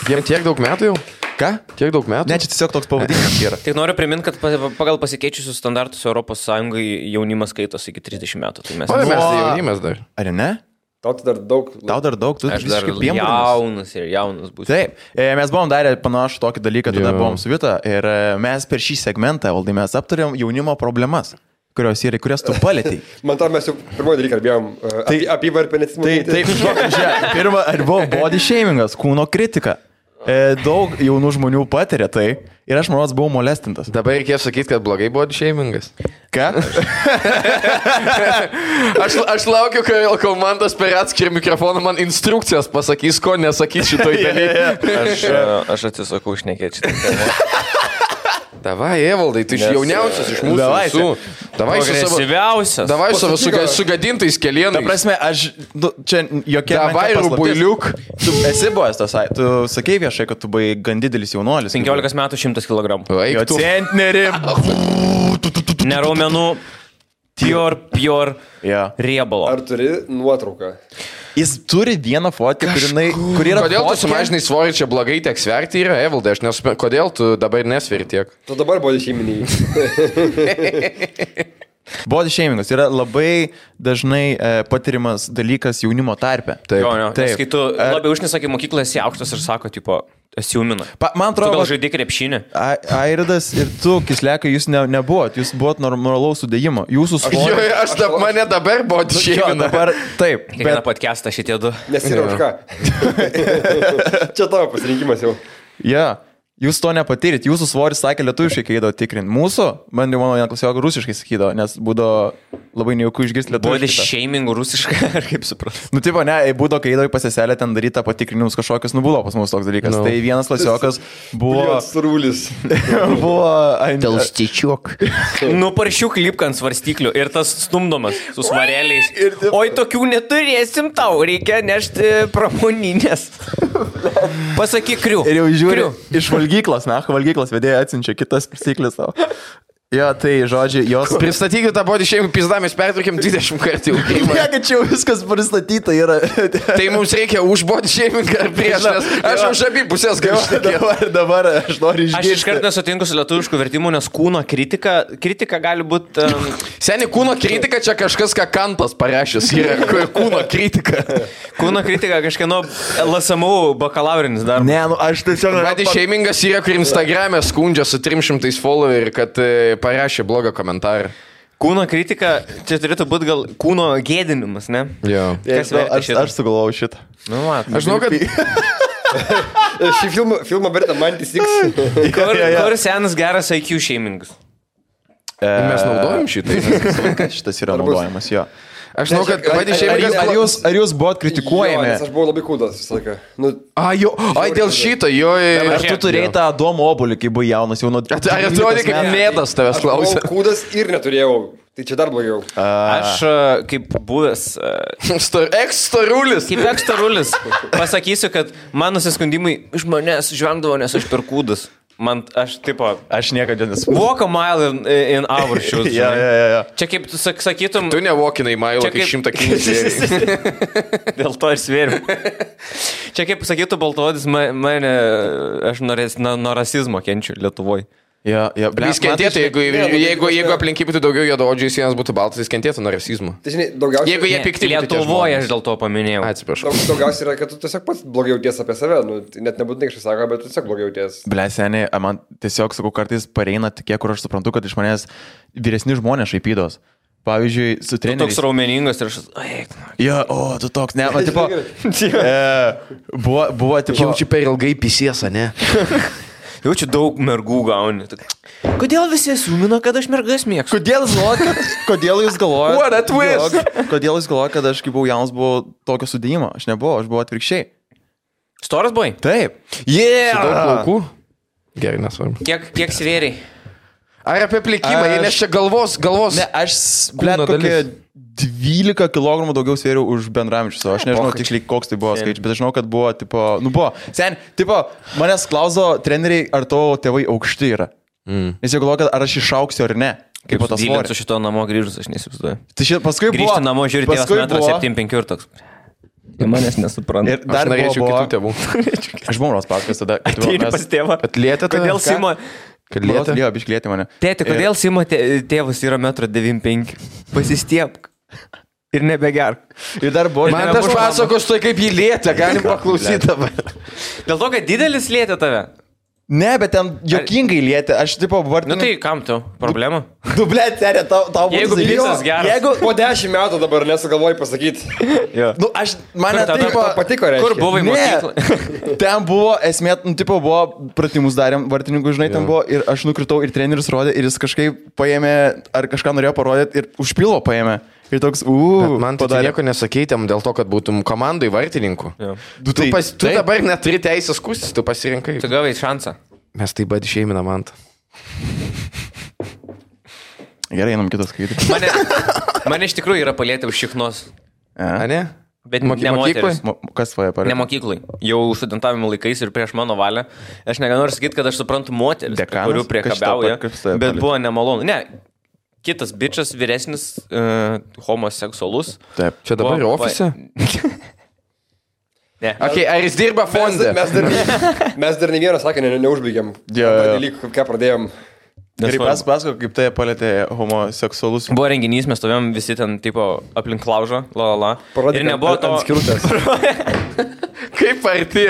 Jiem tiek daug metų jau? Ką? Tiek daug metų? Ne, čia tiesiog toks pavadinimas yra. Tik noriu priminti, kad pagal pasikeičiusius standartus Europos Sąjungai jaunimas skaitos iki 30 metų. Tai mes tai jaunimas dar. Ar ne? Tau dar daug, tu aš dar jaunas būsiu. Taip, mes buvom darę panašų tokį dalyką, tada buvom su Vita ir mes per šį segmentą, Valdai, mes aptarėm jaunimo problemas, kurias tu palėtei. Man tam mes jau pirmoji dalyką kalbėjom apie varpenėtimą. Taip, pirmą, ar buvo body shamingas, kūno kritika. Daug jaunų žmonių patiria tai ir aš manau, buvau molestintas. Dabar reikėjo sakyti, kad blogai body shamingas. Ką? aš laukiu, kol man tas per atskirį mikrofoną man instrukcijas pasakys, ko nesakys šitoj dalykai. Aš atsisakau šnekėti šitą. Davai, Evaldai, tu jauniausias iš mūsų visų. Davai su savo sugadintais kelienais. Ta prasme, čia jokia... Davai, rubuiliuk. Tu esi buvęs tas, tu sakei viešai, kad tu buvai gan didelis jaunuolis. 15 metų 100 kg. Jo centnerį. Neraumenų. Pure riebalo. Ar turi nuotrauką? Jis turi vieną fotkę, kuri yra... Kodėl tu sumažinai svorį, čia blogai tiek sverti yra, Evaldai, aš nesuprantu, kodėl tu dabar nesveri tiek? Tu dabar body shaminiai. Body shamingas yra labai dažnai patirimas dalykas jaunimo tarpe. Taip. Nes kai tu labai užnesakai mokyklą, esi aukštas ir sako, tipo, esi jaumina. Man atrodo, gal žaidė krepšinį. Airidas ir tu, Kislekai, jūs nebuvot, jūs buvot normalaus sudėjimo. Jūsų svoris. Mane dabar body shamina. Taip. Kiekvieną podcastą šitie du. Nes yra už ką. Čia tavo pasirinkimas jau. Ja. Jūs to nepatyrit, jūsų svoris sakė lietuviškai, kai eidavo tikrinti. Mūsų, man jau mano vienklasiokų rusiškai sakydavo, nes būdavo labai nejaukų išgirsti lietuviškai. Body shaming rusiškai, ar kaip supras? Nu, tipo, ne, būdavo, kai eidavo į pasiselę ten daryti tą patikrinimus kažkokius, buvo pas mus toks dalykas. No. Tai vienas klasiokas buvo... Surūlis. Buvo... Telstičiuk. Nuparšiuk lipką ant svarstyklių ir tas stumdomas su svareliais. Oi, tokių neturėsim tau, reikia nešti pramoninės. Pasakyk kriu. Ir jau žiūriu, iš valgyklos vedėjai atsiunčia kitas prisiklis savo. Jo, tai žodžiai, jos... Pristatykit tą body shaming pizdą, mes pertraukėm 20 kartų jau. Ne, kad čia jau viskas pristatyta yra. Tai mums reikia už body shaming ar prieš, nes aš už abi pusės galiu. Dabar aš noriu išgirsti. Aš iškart nesutinku su lietuvišku vertimu, nes kūno kritika gali būti... Seni, kūno kritika čia kažkas, ką Kantas parašęs yra. Kūno kritika. Kūno kritika kažkieno LSMU bakalaurinis darbas. Ne, nu aš tiesiog... Body shamingas yra, kur Instagram'e skundžia su 300 followerių, kad... parašė blogą komentarą. Kūno kritika, čia turėtų būti gal kūno gėdinimas, ne? Jo. Kas verta šitą? Aš sugalvojau šitą. Nu, mat. Aš žinau, kad... Šį filmą verta Mantis X. Kur senas geras IQ shamingas? Mes naudojam šitai. Šitas yra naudojamas, jo. Aš žinau, kad body shamingas... Ar jūs buvot kritikuojami? Jo, nes aš buvau labai kūdas visą laiką. Nu, dėl šito, jo. Ar tu turėjai tą Adomo obuolį, kai buvai jaunas, jau nuo... Ar atrodė, kaip mėdas tavęs klausė? Aš buvau kūdas ir neturėjau. Tai čia dar blogiau. Aš kaip buvęs... Ekstarulis. Kaip ekstarulis. Pasakysiu, kad man nusiskundimai iš manęs žvengdavo, nes aš per kūdas. Man, aš niekada nesu. Walk a mile in our shoes. Ja. Čia kaip tu sakytum... Tu nevokinai mailą, kai 100 kg. Dėl to ir svėriu. Čia kaip sakytų Baltodis, aš nuo rasizmo kenčiu Lietuvoje. Jis kentėtų, jeigu aplink būtų daugiau juodaodžių, jis būtų baltas, jis kentėtų nuo rasizmo. Tai žinai, daugiausiai... Jeigu jie pikti Lietuvoje, aš dėl to paminėjau. Atsiprašau. Daugiausiai yra, kad tu tiesiog pats blogiau jauties apie save. Nu, net nebūtinai kažkas sako, bet tu tiesiog blogiau jauties. Ble, seniai, man tiesiog, sakau, kartais pareina tokie, kur aš suprantu, kad iš manęs vyresni žmonės šaipydos. Pavyzdžiui, su treneriais. Tu toks raumeningas ir aš... Jo, tu toks, ne, man tipo... Buvo tipo... Jaučiu per ilgai pisiesą, ne? Jaučiu daug mergų gauni. Kodėl visi sumino, kad aš mergas mėgstu? Kodėl jūs galvojate? What a twist! Kodėl jūs galvojate, kad aš, kai buvau jaunas, buvau tokio sudėjimo? Aš nebuvau, aš buvau atvirkščiai. Storas buvai? Taip. Su daug plaukų? Gerai, nesvarbu. Kiek svėriai? Ar apie plikimą, nes čia galvos... Ne, aš, blėt, kokie 12 kg daugiau svėriau už bendraamžius. Aš nežinau tiksliai, koks tai buvo skaičius, bet aš žinau, kad buvo, tipo, buvo. Sen, tipo, manęs klausdavo treneriai, ar tavo tėvai aukšti yra. Nes jie galvoja, kad ar aš išauksiu ar ne. Kaip tas svorį. Su šito namo grįžus, aš neįsivaizduoju. Tai paskui buvo... Grįžti namo, žiūrėti, tėvas 1,75 ir toks. Jie manęs nesupranta. Ir dar norėčiau kitų tėvų. Aš buvau pasakęs tada. Ateini pas tėvą. Atlietė tave? Kodėl Simo... Kad lietė? Jo, bišklėtė mane. Tėti, kodėl Simo tėvas yra 1,95 m? Pasistiepk. Ir nebegerk. Ir dar buvo... Man tas pasakos, tai kaip jį lietė, galim paklausyti dabar. Dėl to, kad didelis lietė tave? Ne, bet ten jokingai lietė. Aš tipo vardinu... Nu tai kam tu? Problema? Tu, blėt, serė, tau būtų... Jeigu picas geras. Jeigu po 10 metų dabar nesugalvoji pasakyti. Nu, aš... Mane tipo... Patiko, reiškia. Kur buvai mokyklą? Ten buvo, esmė, nu, tipo, buvo, pratimus darėm, vartininkų, žinai, ten buvo, ir aš nukritau, ir treneris rodė, ir jis kažkaip paėmė, ar kažką norėjo parodyti, ir už pilvo paėmė. Ir toks, man tai nieko nesakytėm dėl to, kad būtum komandai vartininkų. Tu dabar neturi teisės kustis, tu pasirinkai. Tu gavai šansą. Mes taip pat išėmina Mantą. Gerai, einam kitas skaityti. Mane iš tikrųjų yra palietę už šiknos. A ne? Bet ne moteris. Kas tvoje parė? Ne mokyklai. Jau studentavimo laikais ir prieš mano valią. Aš nenoriu sakyti, kad aš suprantu moteris, kurių priekabiauja, bet buvo nemalonu. Ne. Kitas bičas, vyresnis, homoseksualus. Taip. Čia dabar ofise? Ne. Okay, ar jis dirba fonde? Mes dar ne vieną sakinį neužbaigėm. Dalyk, ką pradėjom. Gerai, pasako, kaip tai palėtė homoseksualus. Buvo renginys, mes stovėjom visi ten, tipo, aplink laužą, la. Ir nebuvo to... Kaip arti?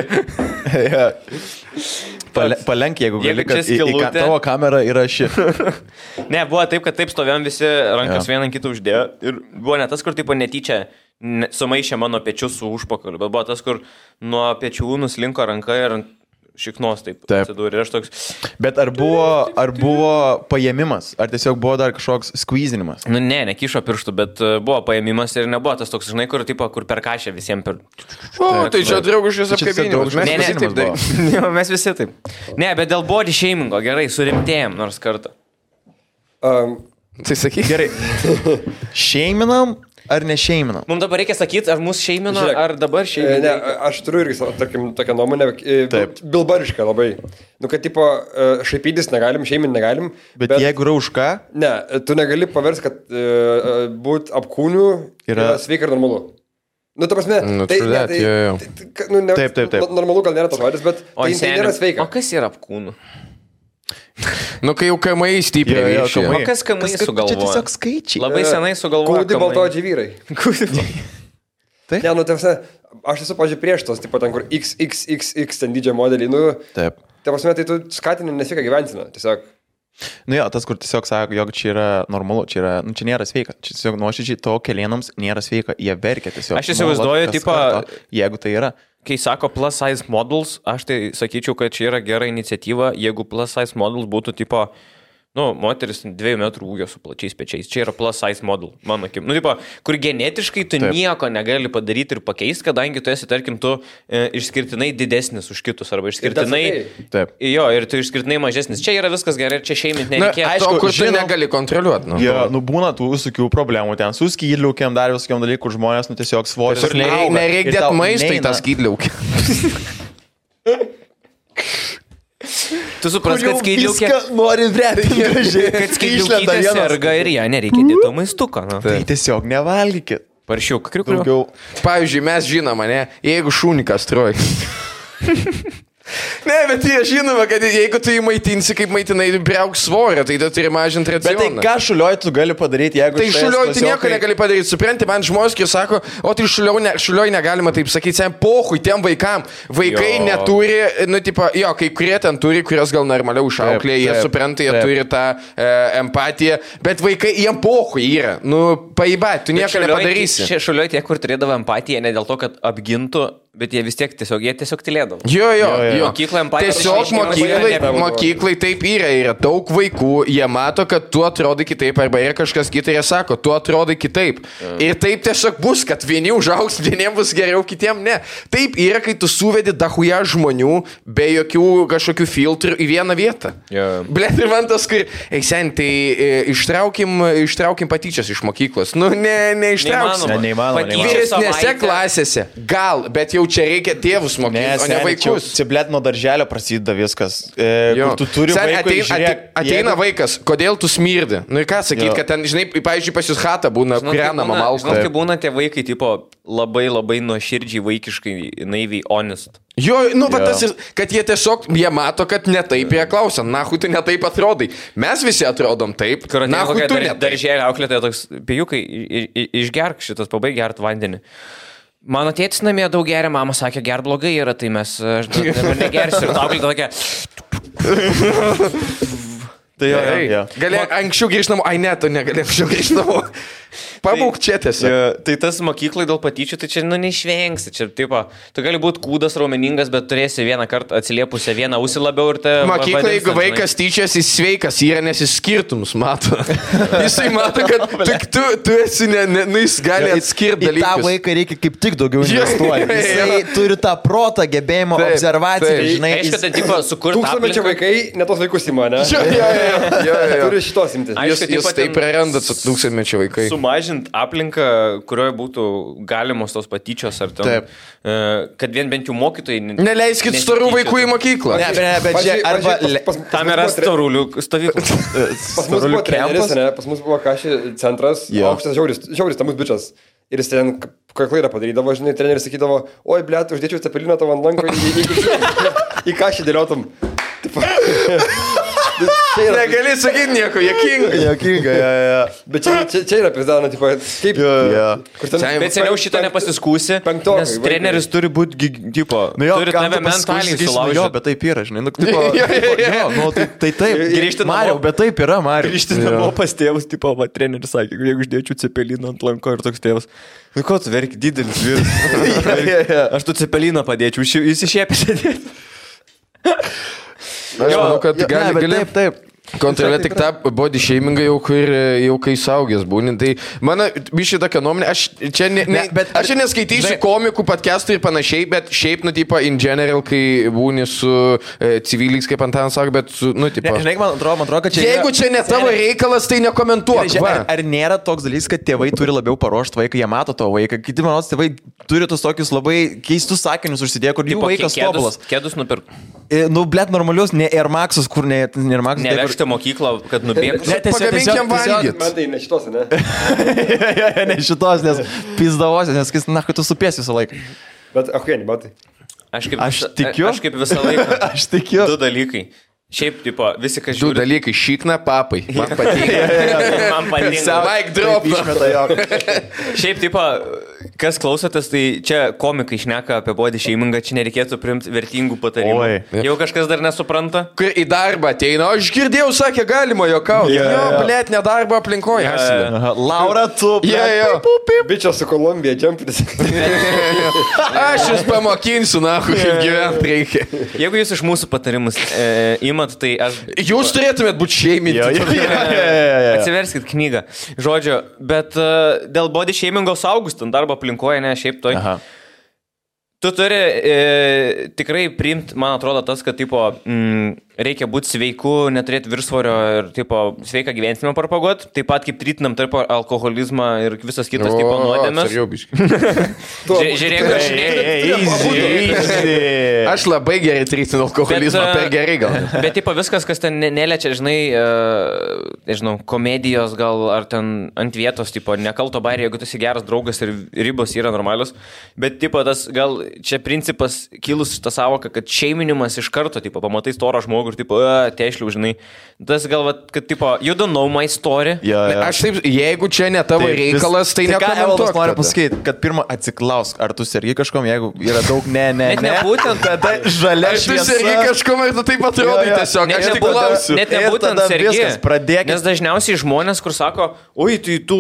Palenk, jeigu gali, kad į tavo kamerą yra ši. Ne, buvo taip, kad taip stovėjom visi, rankas vieną kitą uždėjo. Ir buvo ne tas, kur, tipo, netyčia sumaišė mano pečius su užpakaliu, bet buvo tas, kur nuo pečių nuslinko ranka ir šiknos taip atsidūrė. Ir aš toks... Bet ar buvo paėmimas? Ar tiesiog buvo dar kažkoks skvyzinimas? Nu, nekišo pirštų, bet buvo paėmimas ir nebuvo tas toks, žinai, kur per kašę visiems per... Tai čia draugiškas apkabinimas. Mes visi taip. Ne, bet dėl body shamingo, gerai, surimtėjom nors kartą. Tai sakyk. Gerai. Šeiminam ar nešeiminam? Mums dabar reikia sakyti, ar mūsų šeimino, ar dabar šeimino. Ne, aš turiu irgi, tarkim, tokią nuomonę, bilbarišką labai. Nu, kad, tipo, šaipytis negalim, šeimin negalim. Bet jeigu yra už ką? Ne, tu negali paversti, kad būt apkūniu yra sveika ir normalu. Nu, ta prasme, taip. Normalu gal nėra tas žodis, bet tai nėra sveika. O kas yra apkūnų? Nu, kai jau kamai stipriai ryšė. O kas kamai sugalvoja? Čia tiesiog skaičiai. Labai senai sugalvoja. Kūdi baltodžiai vyrai. Ne, nu, tarsi, aš esu, pažiūrėjau, prieš tos, tipo, ten, kur XXXX ten didžio modelį, nu, taip. Tai prasme, tai tu skatini nesveiką gyvensiną, tiesiog. Nu jo, tas, kur tiesiog sako, jog čia yra normalu, čia nėra sveika. Čia tiesiog nuoširdžiai to kelienams nėra sveika, jie verkia tiesiog. Aš įsivaizduoju, tipo, jeigu tai yra. Kai sako plus size models, aš tai sakyčiau, kad čia yra gera iniciatyva, jeigu plus size models būtų tipo, nu, moteris 2 metrų ūgio su plačiais pečiais. Čia yra plus size model, mano akim. Nu, tipo, kur genetiškai tu nieko negali padaryti ir pakeisti, kadangi tu esi, tarkim, tu išskirtinai didesnis už kitus, arba išskirtinai... Taip. Jo, ir tu išskirtinai mažesnis. Čia yra viskas gerai, čia šeimint nereikia. Na, aišku, kur tu negali kontroliuoti. Nu, būna tų visokių problemų ten su skydliaukiam, dar visokiam dalykų, žmonės, nu, tiesiog svoris. Nereikia dėti maistą į tą skydliaukę. Tu supras, kad skydliaukė... Nori vrėti gražiai. Kad skydliaukė serga ir ją nereikia dėti to maistuko. Tai tiesiog nevalgykit. Paršiuk, kriukliu. Pavyzdžiui, mes žinome, ne, jeigu šūnį kastruoji. Ne, bet jie žinoma, kad jeigu tu jį maitinsi, kaip maitinai, priauk svorio, tai tu turi mažinti racioną. Bet tai ką šulioj tu gali padaryti, jeigu... Tai šulioj tu nieko negali padaryti, supranti, man žmonės, kai sako, o tai šulioj negalima taip sakyti, sen pohui tiem vaikam. Vaikai neturi, nu, tipo, jo, kai kurie ten turi, kurios gal normaliau išauklė, jie supranta, jie turi tą empatiją, bet vaikai, jiem pohui yra, nu, paibat, tu nieko nepadarysi. Šulioj tie, kur turėdavo empatiją, ne dėl to, kad apgintų, bet jie vis tiek tiesiog tylėdavo. Jo. Mokyklai empatija. Tiesiog mokyklai taip yra daug vaikų, jie mato, kad tu atrodai kitaip, arba yra kažkas kitai, jie sako, tu atrodai kitaip. Ir taip tiesiog bus, kad vieni užaugs, vieniems bus geriau, kitiems ne. Taip yra, kai tu suvedi dahuja žmonių be jokių kažkokių filtrų į vieną vietą. Blet, ir man tas, kur, eisen, tai ištraukim patyčias iš mokyklos. Nu, neištrauksim. Neįmanoma. Vyresnėse klasėse, gal, bet jau čia reikia tėvus mokyti, o ne vaikus. Čia, blėt, nuo darželio prasideda viskas. Kur tu turi vaikui ateina vaikas, kodėl tu smirdi? Nu ir ką sakyti, kad ten, žinai, pavyzdžiui, pas jūs chata būna, kūrenama malka. Žinot, kai būna tie vaikai, tipo, labai nuoširdžiai, vaikiškai, naiviai, honest. Jo, nu, bet tas ir, kad jie tiesiog, jie mato, kad ne taip jie klausia, nahui tu ne taip atrodai. Mes visi atrodom taip, nahui tu ne taip. Darželio auklėtoja toks, pijukai, išgerk šitas, pabaig gert vandenį. Mano tėtis namie daug geria, mama sakė, ger blogai yra, tai aš dabar negersiu. Ir tau tokia... Tai jo. Galėjau anksčiau grįžti namo, ai ne, tu negalėjau anksčiau grįžti namo. Pabūk čia tiesiog. Tai tas mokyklai dėl patyčių, tai čia, nu, neišvengsi. Čia, tipo, tu gali būti kūdas, raumeningas, bet turėsi vieną kartą atsiliepusią vieną ausį labiau ir te... Mokyklai, jeigu vaikas tyčias, jis sveikas yra, nes jis skirtumus mato. Jisai mato, kad tu esi, jis gali atskirti dalykus. Į tą vaiką reikia kaip tik daugiau investuoti. Jisai turi tą protą, gebėjimą, observaciją, žinai. Aišku, tai, tipo, sukurti... Tūkstantmečio vaikai netos vaikus įma, ne? Turi šitos imti. Jūs taip prarandat su tūkstantmečio vaikai. Sumažint aplinką, kurioje būtų galimos tos patyčios ar ten, kad bent jau mokytojai... Neleiskit storų vaikų į mokyklą. Bet čia arba... Tam yra storulių stovykla. Pas mus buvo treneris, ne? Pas mus buvo kašį centras, aukštas žiauris, tamus bičas. Ir jis ten klaidą padarydavo, žinai, treneris sakydavo, oi, blėt, uždėčiau cepeliną tavo ant lanko į kašį dėliotum. Negali sakyti nieko, Jokinga, Bet čia yra pizdauna, tipo, kaip... Bet seniau šitą nepasiskūsi, nes treneris turi būti, tipo, turi tave mentaliai sulaužyti. Jo, bet taip yra, žinai, tai taip. Grįžti Mariau, bet taip yra, Mariau. Grįžti namo pas tėvus, tipo, va, treneris sakė, jeigu uždėčiau cepeliną ant lanko ir toks tėvas. Nu, ko tu verki, didelis vyras. Aš tu cepeliną padėčiau, jis išėpė sėdėti. Aš manau, kad gali... Taip. Kontroliuoti tik tą body shamingą jau kai saugęs būni. Tai mano bišį tokia nuomonė, aš čia neskaitysiu komikų, podcastų ir panašiai, bet šiaip, nu, tipo, in general, kai būni su civiliais, kaip Antanas sako, bet su, nu, tipo... Žinai, man atrodo, kad čia... Jeigu čia ne tavo reikalas, tai nekomentuok. Ar nėra toks dalykas, kad tėvai turi labiau paruošti vaiką, jie mato to vaiką, kiti, manau, tėvai turi tos tokius labai keistus sakinius užsidėję, kur jų vaikas tobulas. Kėdus nupirk. Nu, blėt, normalius, ne Air Maxus, kur ne Air Maxus. Nevežti mokyklą, kad nubėgtų. Pagaminkiam valgyti. Man tai ne šitos, ne? Ne šitos, nes pizdavosios, nes, na, kad tu supėsi visą laiką. Bet, ne, batai. Aš tikiu. Aš kaip visą laiką. Aš tikiu. Du dalykai. Šiaip, tipo, visi, kas žiūri... Du dalykai, šikna, papai. Man patinka. Man patinka. Mike drop. Šiaip, tipo, kas klausotės, tai čia komikai šneka apie body shamingą, čia nereikėtų priimti vertingų patarimų. Jau kažkas dar nesupranta? Kai į darbą ateina, aš girdėjau, sakė, galima jokauti. Jo, blėt, nedarbo aplinkoje. Laura, tu, Bičias su Kolumbija, džempinis. Aš jūs pamokinsiu, nahu, kaip gyventi reikia. Jeigu jūs iš mūsų patarimus tai aš... Jūs turėtumėt būti šeiminti. Atsiverskit knygą. Žodžiu, bet dėl body shamingo saugus ten darbo aplinkoje, ne, šiaip toj. Aha. Tu turi tikrai priimti, man atrodo, tas, kad tipo, reikia būti sveiku, neturėti viršsvorio ir tipo, sveiką gyvensimą propaguoti, taip pat kaip trytinam tarp alkoholizmą ir visas kitas tipo nuodėmes. Žiūrėk, aš labai gerai trytinu alkoholizmą, per gerai gal. Bet tipo, viskas, kas ten neliečia, žinai, nežinau, komedijos gal ar ten ant vietos, tipo, nekalto bairį, jeigu tu esi geras draugas ir ribos yra normalios, bet tipo, tas gal čia principas kilus šitą savoką, kad šeiminimas iš karto, tipo, pamatai storą žmogų ir, tipo, teišliau, žinai. Tas gal, kad, tipo, you don't know my story. Aš taip, jeigu čia ne tavo reikalas, tai nekomentuok. Ką noriu pasakyti, kad pirmą atsiklausk, ar tu sergi kažkom, jeigu yra daug ne. Būtent tada žalia šviesa. Ar tu sergi kažkom ir tu taip atrodai tiesiog. Aš tik klausiu. Net nebūtent sergi. Nes dažniausiai žmonės, kur sako, oi, tai tu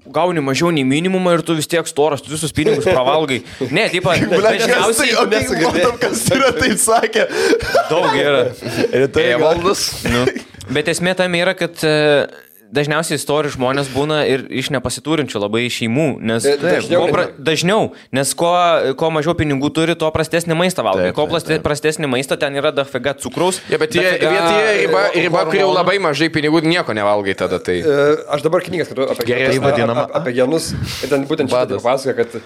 gauni mažiau nei minimumą ir tu vis tiek storas, tu visus pinigus pravalgai. Ne, tipo, dažniausiai... Matom, kas yra taip sakė. Daug yra. Valdas. Nu. Bet esmė tam yra, kad dažniausiai istorių žmonės būna ir iš nepasiturinčių labai šeimų, nes dažniau, nes kuo mažiau pinigų turi, tuo prastesnį maistą valgai. Kuo prastesnį maistą, ten yra dafiga cukraus. Bet jie riba, kur jau labai mažai pinigų, nieko nevalgai tada. Tai... Aš dabar knygas skaitu apie genus ir ten būtent šitą pasakoja, kad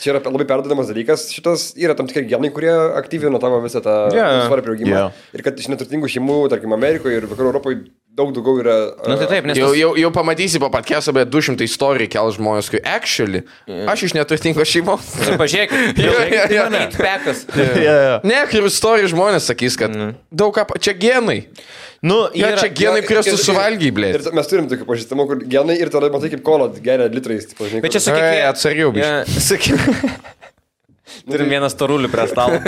čia yra labai perdodamas dalykas. Šitas yra tam tikrai genai, kurie aktyvina tavo visą tą svarą priaugimą. Ir kad iš neturtingų šeimų, tarkim, Amerikoje ir Vakarų Europoje daug daugiau yra... Nu, tai taip, nes... Jau pamatysi po podcast'o, bet 200 istorijų kel žmonės, kai actually, aš iš neturtingos šeimos. Pažiūrėk, pekas. Ne, ir istorijų žmonės sakys, kad daug ką... Čia genai. Nu, čia genai, kuriuos tu suvalgiai, blė. Ir mes turim tokių pažįstamų, kur genai ir tada matai kaip kola geria litrais. Bet čia sakyk, atsargiau, biškai. Turim vieną storulį prie stalo.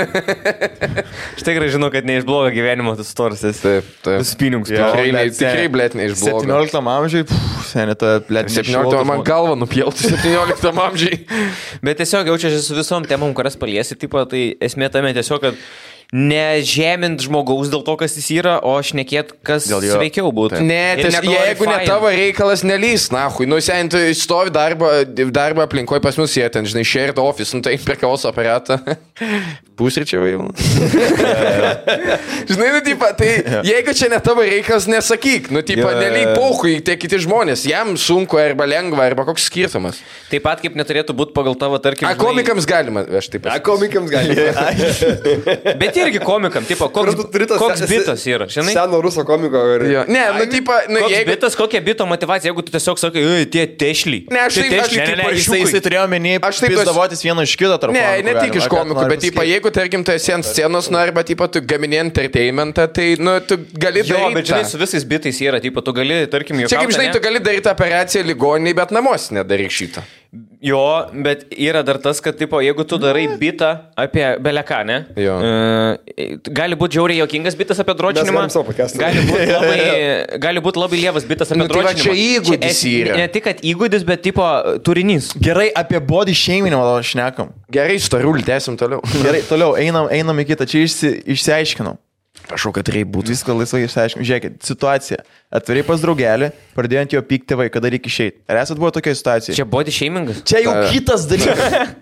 Štai gerai žinau, kad ne iš blogo gyvenimo tas storas esi. Taip. Spinigus. Tikrai, blėt, ne iš blogo. 17 amžiai, senėta, blėt, 17 man galva nupjauti 17 amžiai. Bet tiesiog jaučiasi su visom temom, kurias paliesi, tipo, tai esmė tame tiesiog, kad nežemint žmogaus dėl to, kas jis yra, o šnekėt, kas sveikiau būtų. Ne, jeigu ne tavo reikalas nelys, nahui, nu sen, tu stovi darbo aplinkoje pas mus, jie ten, žinai, shared office, nu tai prie kavos aparatą. Pusryčiai jau. Žinai, nu, tipo, tai jeigu čia ne tavo reikalas, nesakyk, nu, tipo, nelyg pauhui, tie kiti žmonės, jam sunku arba lengva, arba koks skirtumas. Taip pat kaip neturėtų būti pagal tavo, tarkim... Komikams galima, aš taip pat. Komikams galima. Bet irgi komikam, tipo, koks bitas yra, žinai? Seno ruso komiko. Ne, nu, tipo, koks bitas, kokia bito motivacija, jeigu tu tiesiog sakai, tie tešliai. Ne, aš taip, jisai turėjo menį, aš taip davotis vieną iš kito tarp. Ne tik iš komikų, bet, tipo, jeigu, tarkim, tu esi ant scenos, nu, arba, tipo, tu gamini entertainmentą, tai, nu, tu gali daryti. Jo, bet žinai, su visais bitais yra, tipo, tu gali, tarkim, čia kaip žinai, tu gali daryti operaciją ligoniniai, bet namuose nedaryk šitą. Jo, bet yra dar tas, kad, tipo, jeigu tu darai bitą apie beleką, ne? Gali būti žiauriai jokingas bitas apie dročinimą. Gali būti labai lievas bitas apie dročinimą. Tai čia įgūdis yra. Ne tik, kad įgūdis, bet, tipo, turinys. Gerai, apie body shaming šnekam. Gerai, storulį, tęsim toliau. Gerai, toliau, einam į kitą. Čia išsiaiškinau. Prašau, kad reikia būti. Viską laisvai išsiaiškinau. Žiūrėkit, situacija. Atvirai pas draugelį, pradėjo ant jo pykti tėvai, kada reikia išeiti. Ar esat buvo tokia situacija? Čia body shamingas? Čia jau kitas dalykas.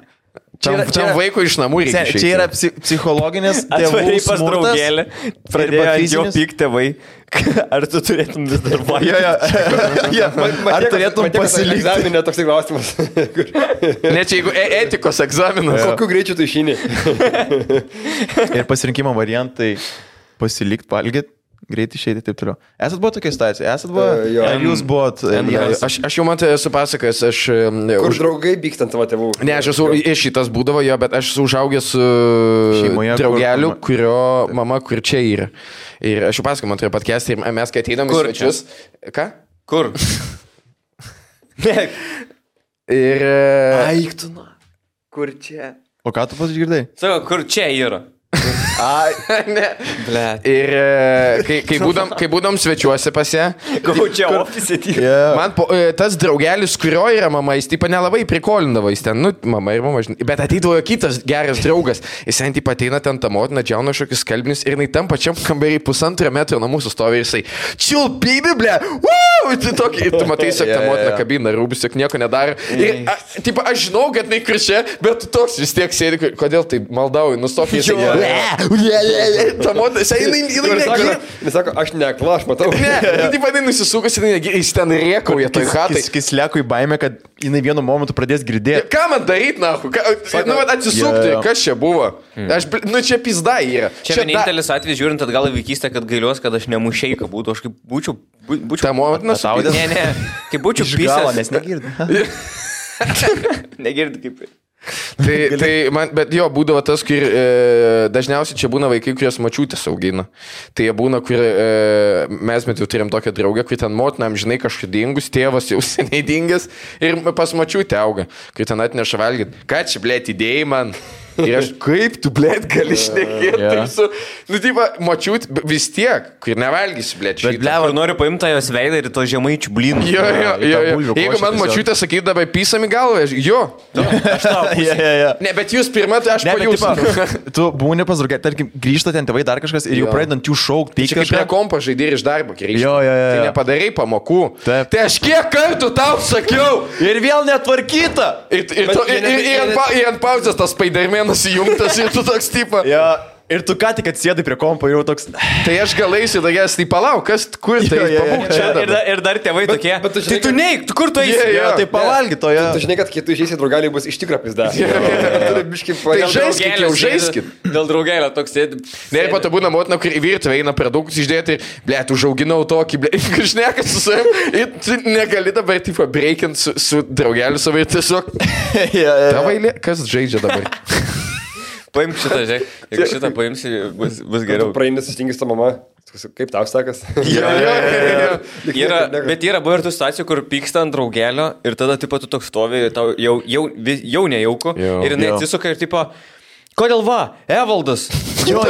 Tam vaikui iš namų reikia išeiti. Čia yra psichologinis tėvų pas draugelį, pradėjo ant jo pykti tėvai. Ar tu turėtum vis dar valgyti? Ar turėtum pasilikti? Egzaminė toks klausimas. Ne, čia jeigu etikos egzaminas. Kokiu greičiu tu išeini? Ir pasirinkimo variantai pasilikti, valgyti. Greit išeiti taip toliau. Esat buvo tokia situacija? Esat buvo? Ar jūs buvot? Aš jau man tai esu pasakęs, aš... Kur draugai pykstant tavo tėvų? Ne, aš esu iš šitas būdavo jo, bet aš esu užaugęs su draugeliu, kurio mama kur čia yra. Ir aš jau pasakau, man turėjo podcast'ą ir mes kai ateinam į svečius... Ką? Kur? Ir... Aiktuna. Kur čia? O ką tu pasigirdai? Sako, kur čia yra? Ai, ne. Blet. Ir kai būdom svečiuose pas ją, čia ofise tik. Man tas draugelis, kurio yra mama, jis taip nelabai prikolindavo, jis ten, nu, mama ir mama, žinai. Bet ateidavo kitas geras draugas, jis ten taip ateina ten tą motiną, džiauna šokius skalbinius ir jinai tam pačiam kambarį 1,5 metro nuo mūsų stovi ir jisai, chill baby, ble, ir tu matai, siek tą motiną kabina, rūbis, siek nieko nedaro. Ir, taip, aš žinau, kad jinai kričia, bet tu toks vis tiek sėdi, kodėl tai maldauji, nustok jisai. Ta motina, jinai sako, aš nekla, aš matau. Ne, taip vadinai nusisukas, jis ten rėkauja toj hatai. Jis leko į baimę, kad jinai vienu momentu pradės girdėti. Ką man daryti, nahu? Nu, atsisukti, kas čia buvo? Nu, čia pizda yra. Čia vienintelis atvejis, žiūrint atgal į vaikystę, kad gailiuos, kad aš nemušeika būtų, aš kaip būčiau... Ta motina saudė? Ne, kaip būčiau pisęs. Nes negirdi. Negirdi kaip... Tai man, bet jo, būdavo tas, kur dažniausiai čia būna vaikai, kurios mačiutės augina. Tai jie būna, kur mes jau turėjom tokią draugę, kur ten motinam, žinai, kažkaip dingus, tėvas jau seniai dingęs ir pas mačiutę auga, kur ten atneša valgyti. Ką čia, blėt, idėjai man? Ir aš, kaip tu, blėt, gali šnekėti? Nu, taip, mačiut, vis tiek, kur nevalgysi, blėt, šitą. Bet, blėt, noriu paimti tą jos veidą ir to žemaičių blynų. Jo. Jeigu man mačiutė sakydavo, pysam į galvą, jo. Aš tau. Ne, bet jūs pirmą, tai aš pajūsiu. Tu būni pas draugę, tarkim, grįžta ten tėvai dar kažkas ir jau pradedant jų šaukti. Tai kaip prie kompo žaidė ir iš darbo grįžti. Jo. Tai nepadarai pamokų. Tai aš kiek kartų tau sakiau. Ir vėl netvarkyta. Ir ant pauzės tas Spider-Manas įjungtas ir tu toks tipo. Ir tu ką tik atsėdai prie kompo, jau toks... Tai aš galėsiu tokias, tai palauk, kas, kur tai, pabūk čia dabar. Ir dar tėvai tokie, tai tu neik, kur tu eisi? Tai pavalgy to, Tu žinai, kad kai tu išeisi draugeliai bus iš tikro pizda. Tai žaiskit. Dėl draugelio toks sėdi. Ne, ir po to būna motina, kur į virtuvę eina produktus išdėti, blėt, užauginau tokį, blėt, kažnekas su savim, ir tu negali dabar, tipo, breikint su draugeliu savo ir tiesiog... Tavailė, kas žaidžia dabar? Paimk šitą, žiūrėk. Jeigu šitą paimsi, bus geriau. Praeini susitingęs tą mamą. Kaip tau sakas? Bet yra buvo ir tų situacijų, kur pyksta ant draugelio ir tada tipo tu toks stovi, tau jau nejauku ir jinai atsisuka ir tipo, kodėl va, Evaldas? Jo.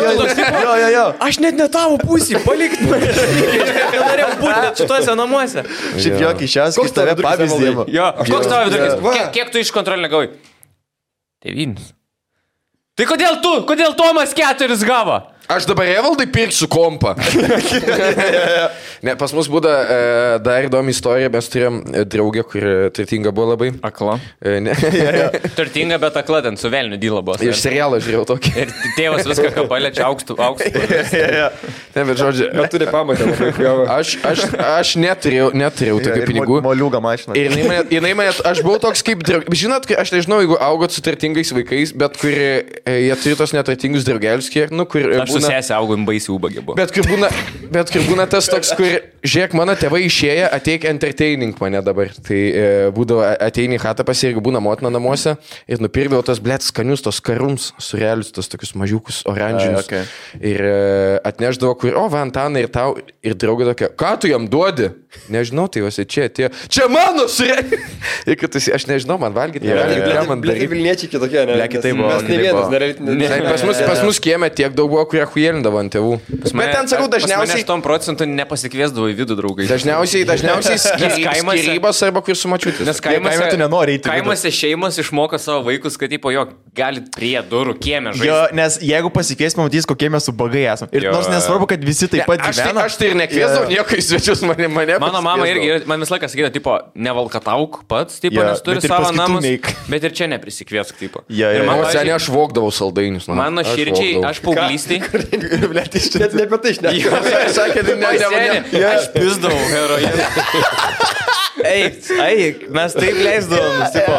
Aš net ne tavo pusį, palik. Norėjau būti net šituose namuose. Šiaip jokį šias, kai tave pavyzdį. Jo, koks tavo vidurkis? Kiek tu iš kontrolinio gavai? 9. Tai kodėl Tomas 4 gavo? Aš dabar Evaldai pirksiu kompą. Ne, pas mus būda dar įdomi istorija, mes turėjom draugę, kuri turtinga buvo labai. Akla. Ne. Turtinga, bet akla ten su velniu dyla buvo. Iš serialo žiūrėjau tokį. Ir tėvas viską, ką paliečia, aukštų. Ne, bet žodžiu. Bet turi pamatę. Aš neturėjau tokių pinigų. Moliūga mašina. Ir jinai mane, aš buvau toks kaip draugas. Žinot, aš nežinau, jeigu augot su turtingais vaikais, bet kur jie turi tos neturtingus draugelius, kur... Aš su sesė augau, baisiai ubagė buvo. Bet kur būna tas toks, kur, žiūrėk, mano tėvai išėję, ateik entertaining mane dabar. Tai būdavo ateini į chatą pas ir būna motina namuose ir nupirkdavo tos, blėt, skanius, tos karums, surelius, tos tokius mažiukus, oranžinius. Okay. Ir atneždavo, kur, o, Vantanai ir tau, ir draugė tokia, ką tu jam duodi? Nežinau, tai juose čia atėjo. Čia mano surelius! Ir kad aš nežinau, man valgyti, ką man daryti. Vilniečiai kitokie, ne? Kitaip buvo. Mes ne vienas, Pas mus kieme tiek daug buvo, kurie hujelindavo ant tėvų. Bet ten, sakau, dažniausiai... 8% nepasikviesdavo į vidų draugai. Dažniausiai skirybos arba kur su mačiutis. Nes kaimose tu nenori eiti. Kaimose šeimos išmoko savo vaikus, kad tipo, jo, galit prie durų kieme žaisti. Jo, nes jeigu pasikvies, pamatys, kokie mes ubagai esame. Ir nors nesvarbu, kad visi taip pat gyvena. Aš tai ir nekviesdavau nieko į svečius mane. Mano mama irgi, man visą laiką sakydavo, tipo, nevalkatauk pats, tipo, nes turi savo namus, bet ir čia neprisikviesk, tipo. Ir mano senė aš vogdavau saldainius. Mano širdžiai, aš paauglystį. Net ne apie tai šnekėjau. Sakė, aš pizdavau heroiną. Eik, mes taip leisdavom, tipo,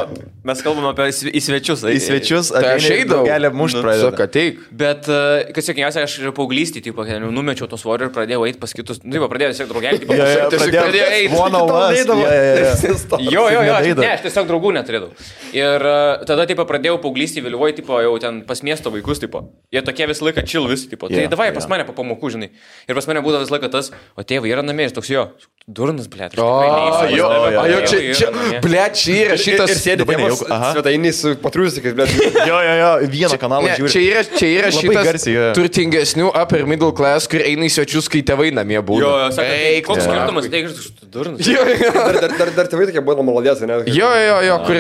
mes kalbam apie į svečius. Į svečius, aš eidavau. Gelė mušt pradėjo. Sako, ateik. Bet, kas sėkiausia, aš paauglystį, tipo, numečiau to svorio ir pradėjau eiti pas kitus. Nu, pradėjau tiesiog draugelį, tipo, pradėjau eiti. Jo, ne, aš tiesiog draugų neturėdavau. Ir tada, tipo, pradėjau paauglystį vėliavoje, tipo, jau ten pas miesto vaikus, tipo. Jie tokie visą laiką chill visi, tipo. Tai davai pas mane po pamokų, žinai. Ir pas mane būdavo visą laiką tas, o tėvai yra namie, jis toks jo. Durnas, blėt. Čia, blėt, čia yra šitas. Ir sėdi svetainys su patrūsikais, blėt. Jo, vieną kanalą žiūri. Čia yra šitas turtingesnių upper middle class, kur eina į svečius, kai tėvai namie būna. Jo, sakai, koks skirtumas, teigiai, durnas. Dar tėvai tokie buvo malodės, ne? Jo, kur,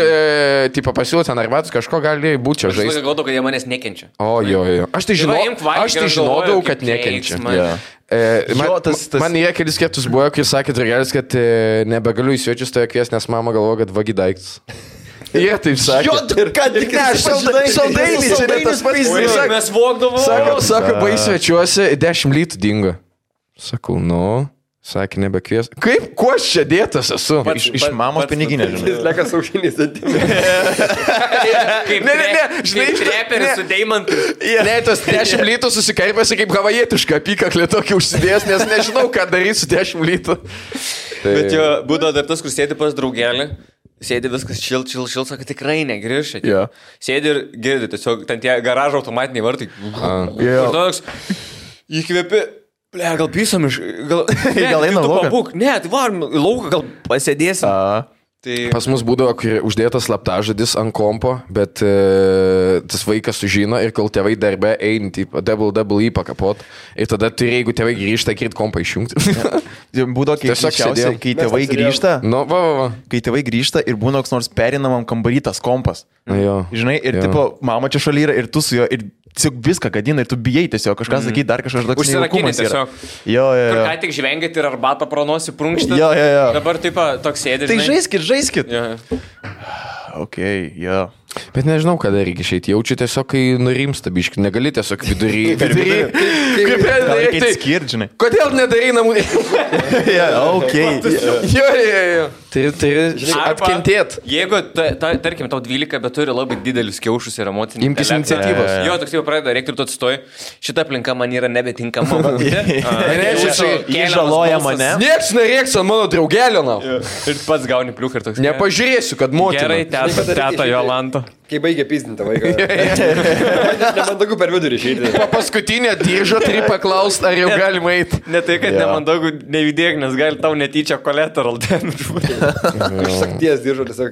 tipo, pasiūlė ten arbatus, kažko gali būti čia žaisti. Aš galvodavau, kad jie manęs nekenčia. O, jo. Aš tai žinodavau, kad nekenčia. Man jie kelis kartus buvo, kai sakė draugelis, kad nebegaliu į svečius toje kvies, nes mama galvoja, kad vagi daiktus. Jie taip sakė. Jo, kad tik saldainiai, čia ne tas pats. Mes vogdavom. Sako, bai svečiuose 10 litų dingo. Sakau, sakė, nebekvies. Kaip, kuo aš čia dėtas esu? Iš mamos piniginė, žinai. Jis leka saušiniais dantimis. Žinai, treperis su deimantu. Ne, tas 10 litų susikarpėsi kaip havajietiška apykaklė tokį užsidėjęs, nes nežinau, ką daryti su 10 litų. Bet jo, būdavo dar tas, kur sėdi pas draugelį. Sėdi viskas šil, sako, tikrai negrįžti. Yeah. Sėdi ir girdi, tiesiog ten tie garažo automatiniai vartai. Ir toks, įkvėpi. Ble, gal pysom iš... Gal eina lauką? Ne, tai varom į lauką, gal pasėdėsim. Tai... Pas mus būdavo uždėtas slaptažodis ant kompo, bet tas vaikas sužino ir kol tėvai darbe eini, tipo, double pakapot. Ir tada turi, jeigu tėvai grįžta, kirt kompą išjungti. Būdavo keisčiausiai, kai tėvai grįžta. Kai tėvai grįžta ir būna koks nors perinamam kambarytas kompas. Žinai, ir tipo, mama čia šalia yra ir tu su juo. Ir tiesiog viską gadina ir tu bijai tiesiog kažką sakyti, dar kažkas toks nejaukumas yra. Jo. Kur ką tik žvengėt ir arbatą pronosi prunkštą. Jo. Dabar taip toks sėdi. Tai žaiskit. Jo. Bet nežinau, kada reikia išeiti. Jaučiu tiesiog, kai nurimsta biški. Negali tiesiog vidury. Kaip reikia skirti, žinai. Kodėl nedarai namų? Jo. Turi atkentėti. Jeigu, tarkim, tau 12, bet turi labai didelius kiaušus ir emocinį. Imkis iniciatyvos. Jo, toks jau pradeda reikti ir tu atsistoji. Šita aplinka man yra nebetinkama. Jie žaloja mane. Niekas nerėks ant mano draugelio. Ir pats gauni pliuką ir toks. Nepažiūrėsiu, kad motina. Gerai, teta Jolanta. Kai baigia pizdinti vaiką. Nemandagu per vidurį išeiti. Paskutinė diržo turi paklausti, ar jau galima eiti. Ne tai, kad nemandagu nejudėk, nes gali tau netyčia collateral damage. Sakties diržo tiesiog.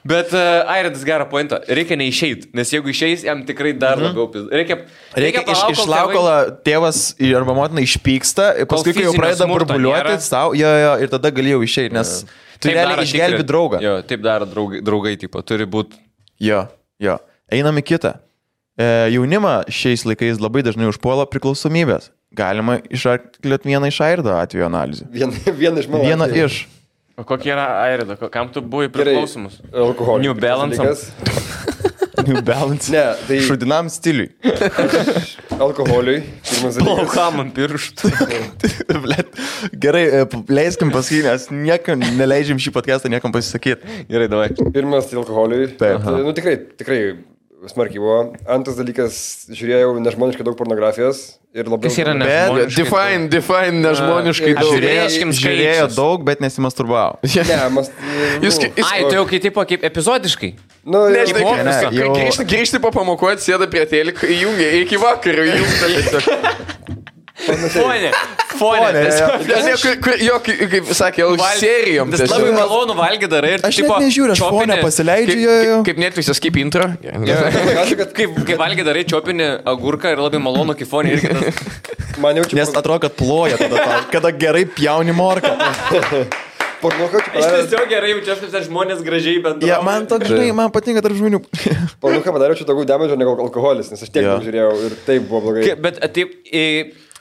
Bet Airidas gerą pointą. Reikia neišeiti, nes jeigu išeis, jam tikrai dar labiau pizda. Reikia išlauk, kol tėvas arba motina išpyksta, paskui kai jau pradeda burbuliuoti savo, ir tada galėjau išeiti, nes tu realiai išgelbi draugą. Jo, taip daro draugai, tipo, turi būti. Jo. Einam į kitą. Jaunimą šiais laikais labai dažnai užpuola priklausomybės. Galima išarklėti vieną iš Airido atveju analizę. Vieną iš mano. Vieną iš. O kokie yra Airido? Kam tu buvai priklausomus? Alkoholis. New Balance. New Balance. Ne, tai... Šudinam stiliui. Alkoholiui. Plaukam ant pirštų. Gerai, leiskim pasakyti, nes niekam neleidžiam šį podcastą niekam pasisakyti. Gerai, davai. Pirmas tai alkoholiui. Taip. Nu tikrai smarkiai buvo. Antras dalykas, žiūrėjau nežmoniškai daug pornografijos. Ir labai... Kas yra nežmoniškai? Define nežmoniškai daug. Žiūrėjo daug, bet nesimasturbavo. Ai, tu jau kaip epizodiškai? Nu, grįžti po pamokų, sėda prie teliko, įjungia iki vakarų, Fonė. Jo, kaip sakė, serijom. Labai malonu valgyti darai ir aš net nežiūriu, aš fonę pasileidžiu. Kaip Netflix'as, kaip intro. Kaip valgyti darai, čiopini agurką ir labai malonu, kaip fonė irgi tas. Nes atrodo, kad ploja tada, kada gerai pjauni morką. Aš tiesiog gerai jaučiuosi, kad žmonės gražiai bendrauja. Ja, man toks, žinai, man patinka tarp žmonių. Pornuką padariau čia daugiau damedžio negu alkoholis, nes aš tiek žiūrėjau ir taip buvo blogai. Bet taip...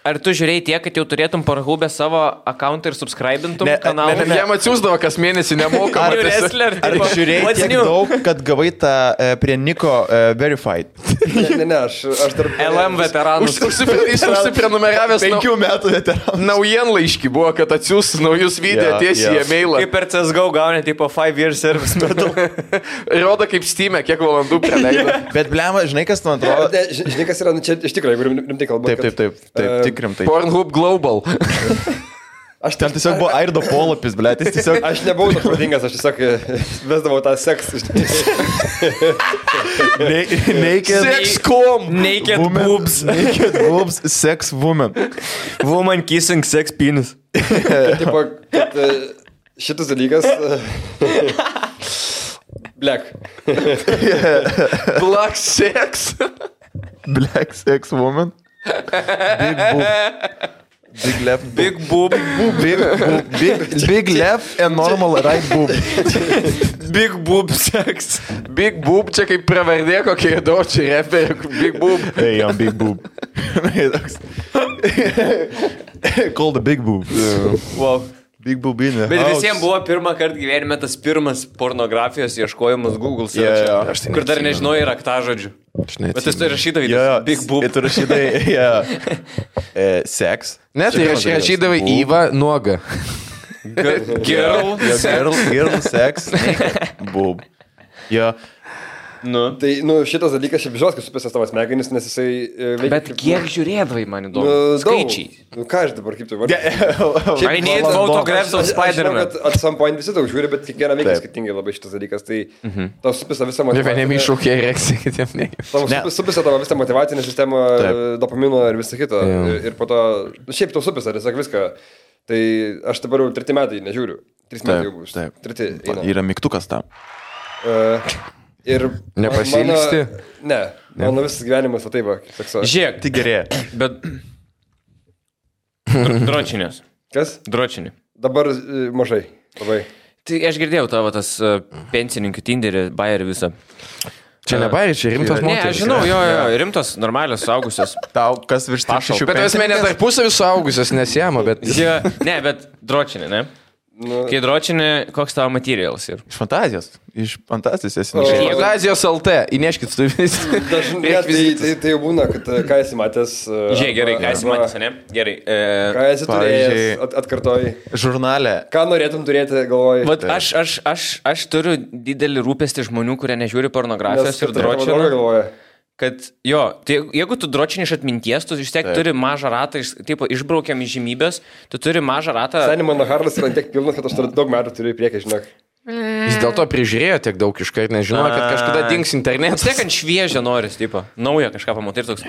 Ar tu žiūrėjai tiek, kad jau turėtum Pornhub'e savo akauntą ir subscribintum kanalą? Jam atsiųsdavo kas mėnesį nemokamą. Ar žiūrėjai tiek daug, kad gavai tą prie Niko Verified? Ne, aš dar... LM veteranus. Jis užsiprenumeravęs 5 metų veteranus. Naujienlaiškį buvo, kad atsiūs naujus video tiesiai į e-mailą. Kaip per CSGO gauni, tipo 5 years service metu. Rodo kaip Steam'e, kiek valandų praleido. Bet blema, žinai, kas man atrodo? Žinai, kas yra, čia iš tikrųjų, jeigu rimtai kalbant. Taip. Pornhub Global. Aš ten tiesiog buvo Airido polapis, blėt, jis tiesiog... Aš nebuvau toks pradingas, aš tiesiog vesdavau tą seksą. Sex.com. Naked boobs. Naked boobs, sex woman. Woman kissing sex penis. Tipo, kad šitas dalykas... Black. Black sex. Black sex woman. Big boob. Big left boob. Big left and normal right boob. Big boob sex. Big boob, čia kaip pravardė kokie dočiai reperi. Big boob. Hey, I'm big boob. Call the big boob. Wow. Big boobinė. Bet visiems buvo pirmą kartą gyvenime tas pirmas pornografijos ieškojimas Google search. Kur dar nežinojai raktažodžių. Bet tu rašydavai big boob. Tu rašydavai sex. Ne, tai rašydavai Iva nuoga. Girl sex. Boob. Jo. Tai, šitas dalykas šiaip žinot, kad supėsės tavo smegenis, nes jisai... Bet kiek žiūrėdavai, man įdomu? Skaičiai. Ką aš dabar kaip tu vardai? I need photographs of Spider-Man. Aš žinau, kad at some point visi daug žiūri, bet kiekvieną veikia skirtingai labai šitas dalykas. Tai tau supėsė visą motivaciją. Vieniem iššūkė erekcija, kitiem ne. Tau supėsė tavo visą motivacinę sistemą, dopamino ir visą kitą. Ir po to... Šiaip tau supėsė, tiesiog viską. Tai aš dabar jau 3 metai nežiūriu. 3 metai jau bus. 3 eina. Yra mygtukas tam. Ir nepasiilgsti? Ne, mano visas gyvenimas va taip, Žiūrėk, tai gerėja. Bet... Dročinės. Kas? Dročinė. Dabar mažai, labai. Tai aš girdėjau tavo tas pensininkų Tinderį, bairį visą. Čia ne bairį, čia rimtos moteris. Ne, aš žinau, jo, rimtos, normalios, suaugusios. Tau kas virš 6 pensininkės? Bet esmė ne tarpusavį suaugusios nesijama, bet... Ne, bet dročinė, ne? Kai dročinė, koks tavo materialas ir? Iš fantazijos. Iš fantazijos esi. Fantazijos LT, įneškit tu vis. Tai jau būna, kad ką esi matęs. Žiūrėk, gerai, ką esi matęs, ne? Gerai. Ką esi turėjęs, atkartoji. Žurnale. Ką norėtum turėti, galvoji. Vat aš turiu didelį rūpestį žmonių, kurie nežiūri pornografijos ir dročinę. Kad jo, tai jeigu tu dročini iš atminties, tu vis tiek turi mažą ratą, išbraukiam į žymybės, tu turi mažą ratą. Seniai mano hardas yra tiek pilnas, kad aš daug metų turiu į priekį, žinok. Jis dėl to prižiūrėjo tiek daug iškart, nežinojo, kad kažkada dings internetas. Tiek ant šviežio noris, tipo, naują kažką pamatai ir toks.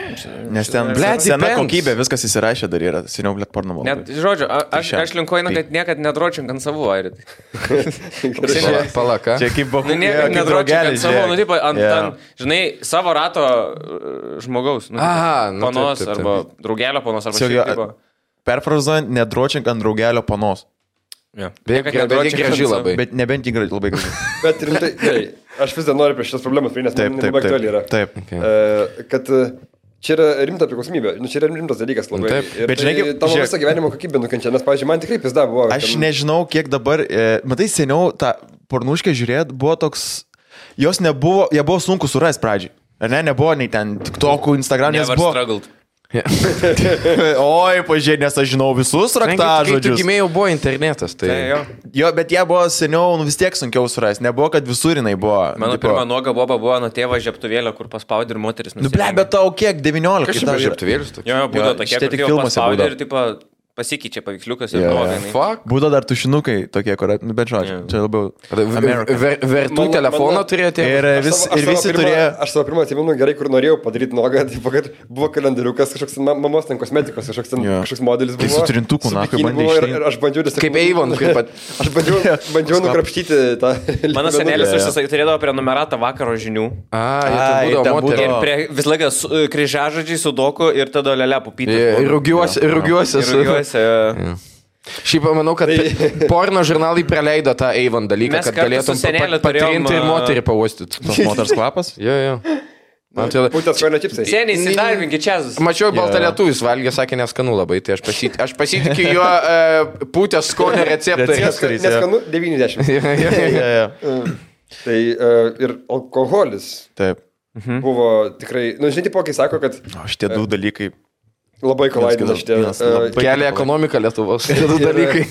Nes ten, sena kokybė, viskas įsirašė dar yra, seniau, blėt, porno malai. Net, žodžiu, aš linkuoju, kad niekad nedročink ant savų, Airit. Palaka. Čia kaip buvo, niekad nedročink ant savų, tipo, ant, žinai, savo rato žmogaus. Panos arba draugelio panos arba šiaip, tipo. Perfrazuojant, nedročink ant draugelio panos. Ja. Bet graži labai. Bet nebent jį labai graži. Bet rimtai, gerai, aš vis dar noriu prie šios problemos, nes man labai aktuali yra. Taip. Kad čia yra rimta priklausomybė, čia yra rimtas dalykas labai. Taip. Ir Bet žinai, tavo visą gyvenimo kokybę nukenčia, nes, pavyzdžiui, man tikrai pizda buvo. Aš nežinau, kiek dabar, matai, seniau tą pornuškę žiūrėt, buvo toks, jos nebuvo, jie buvo sunku surasti pradžiai. Ar ne, nebuvo nei ten TikTok'ų, Instagram, nes buvo... struggled. Oi, pažiūrėjau, nes aš žinau visus raktažodžius. Kai tu gimėjau, buvo internetas. Tai... Jo, bet jie buvo seniau, vis tiek sunkiau surasti. Nebuvo, kad visur jinai buvo. Mano pirma nuoga boba buvo nuo tėvo žiaptuvėlio, kur paspaudė ir moteris Nu, ble, bet tau kiek, 19? Kas čia žiaptuvėlis toks? Jo, būdavo tokie, šitie kur tik tėvo filmuose paspaudė būdavo. ir tipo pasikeičia paveiksliukas ir nuoga. Fuck. Būdavo dar tušinukai tokie, kur, nu, bet žodžiu, čia labiau... Vertų telefoną turėjote? Ir visi turėjo... Aš savo pirmą atsimenu gerai, kur norėjau padaryti nuogą, tai kad buvo kalendariukas, kažkoks mamos ten kosmetikos, kažkoks modelis buvo. Tai su trintuku, na, kaip bandė išeiti. Ir aš bandžiau tiesiog... Kaip Avon, kaip pat... Aš bandžiau nukrapštyti tą... Mano senelis turėdavo prenumeratą vakaro žinių. Tai būdavo moterį. Ir vis laikas kryžiažodžiai sudoku ir tada lelė pupytė. Rūgiuosi. Šiaip manau, kad porno žurnalai praleido tą Avon dalyką, kad galėtum patrinti ir moterį pauostyti. Tos moters kvapas? Jo. Man atrodo... Būtent skonio čipsai. Seniai, įsidarbinkit čia. Mačiau baltą lietuvis valgė, sakė neskanu labai, tai aš pasitikiu jo pūtės skonio receptais. Neskanu 90. Tai ir alkoholis. Taip. Buvo tikrai, nu žinai, tipo, kai sako, kad... Šitie du dalykai. Labai kolaidina šitie. Kelia ekonomiką Lietuvos. Šitie du dalykai.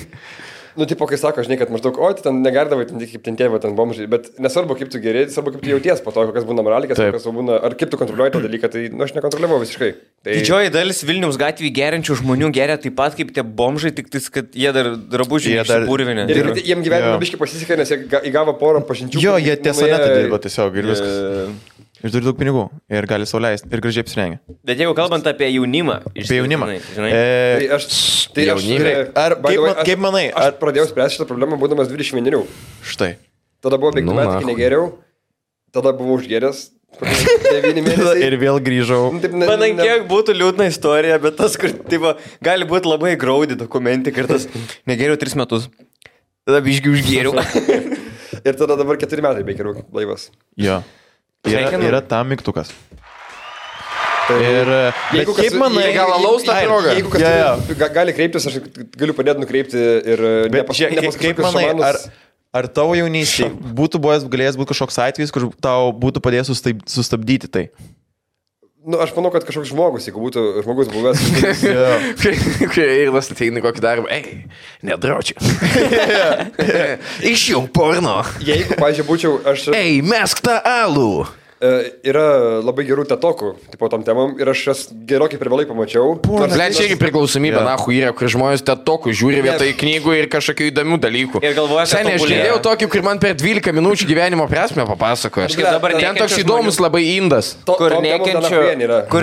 Nu, tipo, kai sako, žinai, kad maždaug, o, ten negardavai, kaip ten tėvai, ten bomžai, bet nesvarbu, kaip tu geri, svarbu, kaip tu jauties po to, kokias būna moralikas, kokias būna, ar kaip tu kontroliuoji tą dalyką, tai, nu, aš nekontroliavau visiškai. Tai... Didžioji dalis Vilniaus gatvėje geriančių žmonių geria taip pat kaip tie bomžai, tik tais, kad jie dar drabužiai išsipurvinė. Ir jiem gyvenime biškai pasisekė, nes jie įgavo porą pažinčių. Jo, jie tiesonetą dirba tiesiog ir viskas. Ir turi daug pinigų ir gali sau leisti ir gražiai apsirengia. Bet jeigu kalbant apie jaunimą. Apie jaunimą. Kaip manai? Aš pradėjau spręsti šitą problemą būdamas 21. Štai. Tada buvo 5 metų, kai negeriau. Tada buvau užgeręs. 9 mėnesiai. Ir vėl grįžau. Manai, kiek būtų liūdna istorija, bet tas, kur tipo, gali būti labai graudi dokumentika ir tas negeriau 3 metus. Tada biškai užgėriau. Ir tada dabar 4 metai beikeriau blaivas. Jo. Yra tam mygtukas. Ir jeigu kaip manai, gal alaus tą progą? Jeigu kas gali kreiptis, aš galiu padėti nukreipti ir kaip manai, ar tavo jaunystėje būtų galėjęs būti kažkoks atvejis, kur tau būtų padėjęs sustabdyti tai? Nu, aš manau, kad kažkoks žmogus, jeigu būtų žmogus buvęs. Kai eilas ateina kokį darbą, nedraučiu. Išjung porno. Jeigu, pažiūrėjau, būčiau aš... Mesk tą alų. Yra labai gerų tetokų, tipo tom temam, ir aš jas gerokai per vėlai pamačiau. Čia irgi priklausomybė, yra, kur žmonės tetokų žiūri vietoj knygų ir kažkokių įdomių dalykų. Ir galvoja, kad... Seniai, aš girdėjau tokį, kur man per 12 minučių gyvenimo prasme papasakoja. Ten toks įdomus labai indas. Kur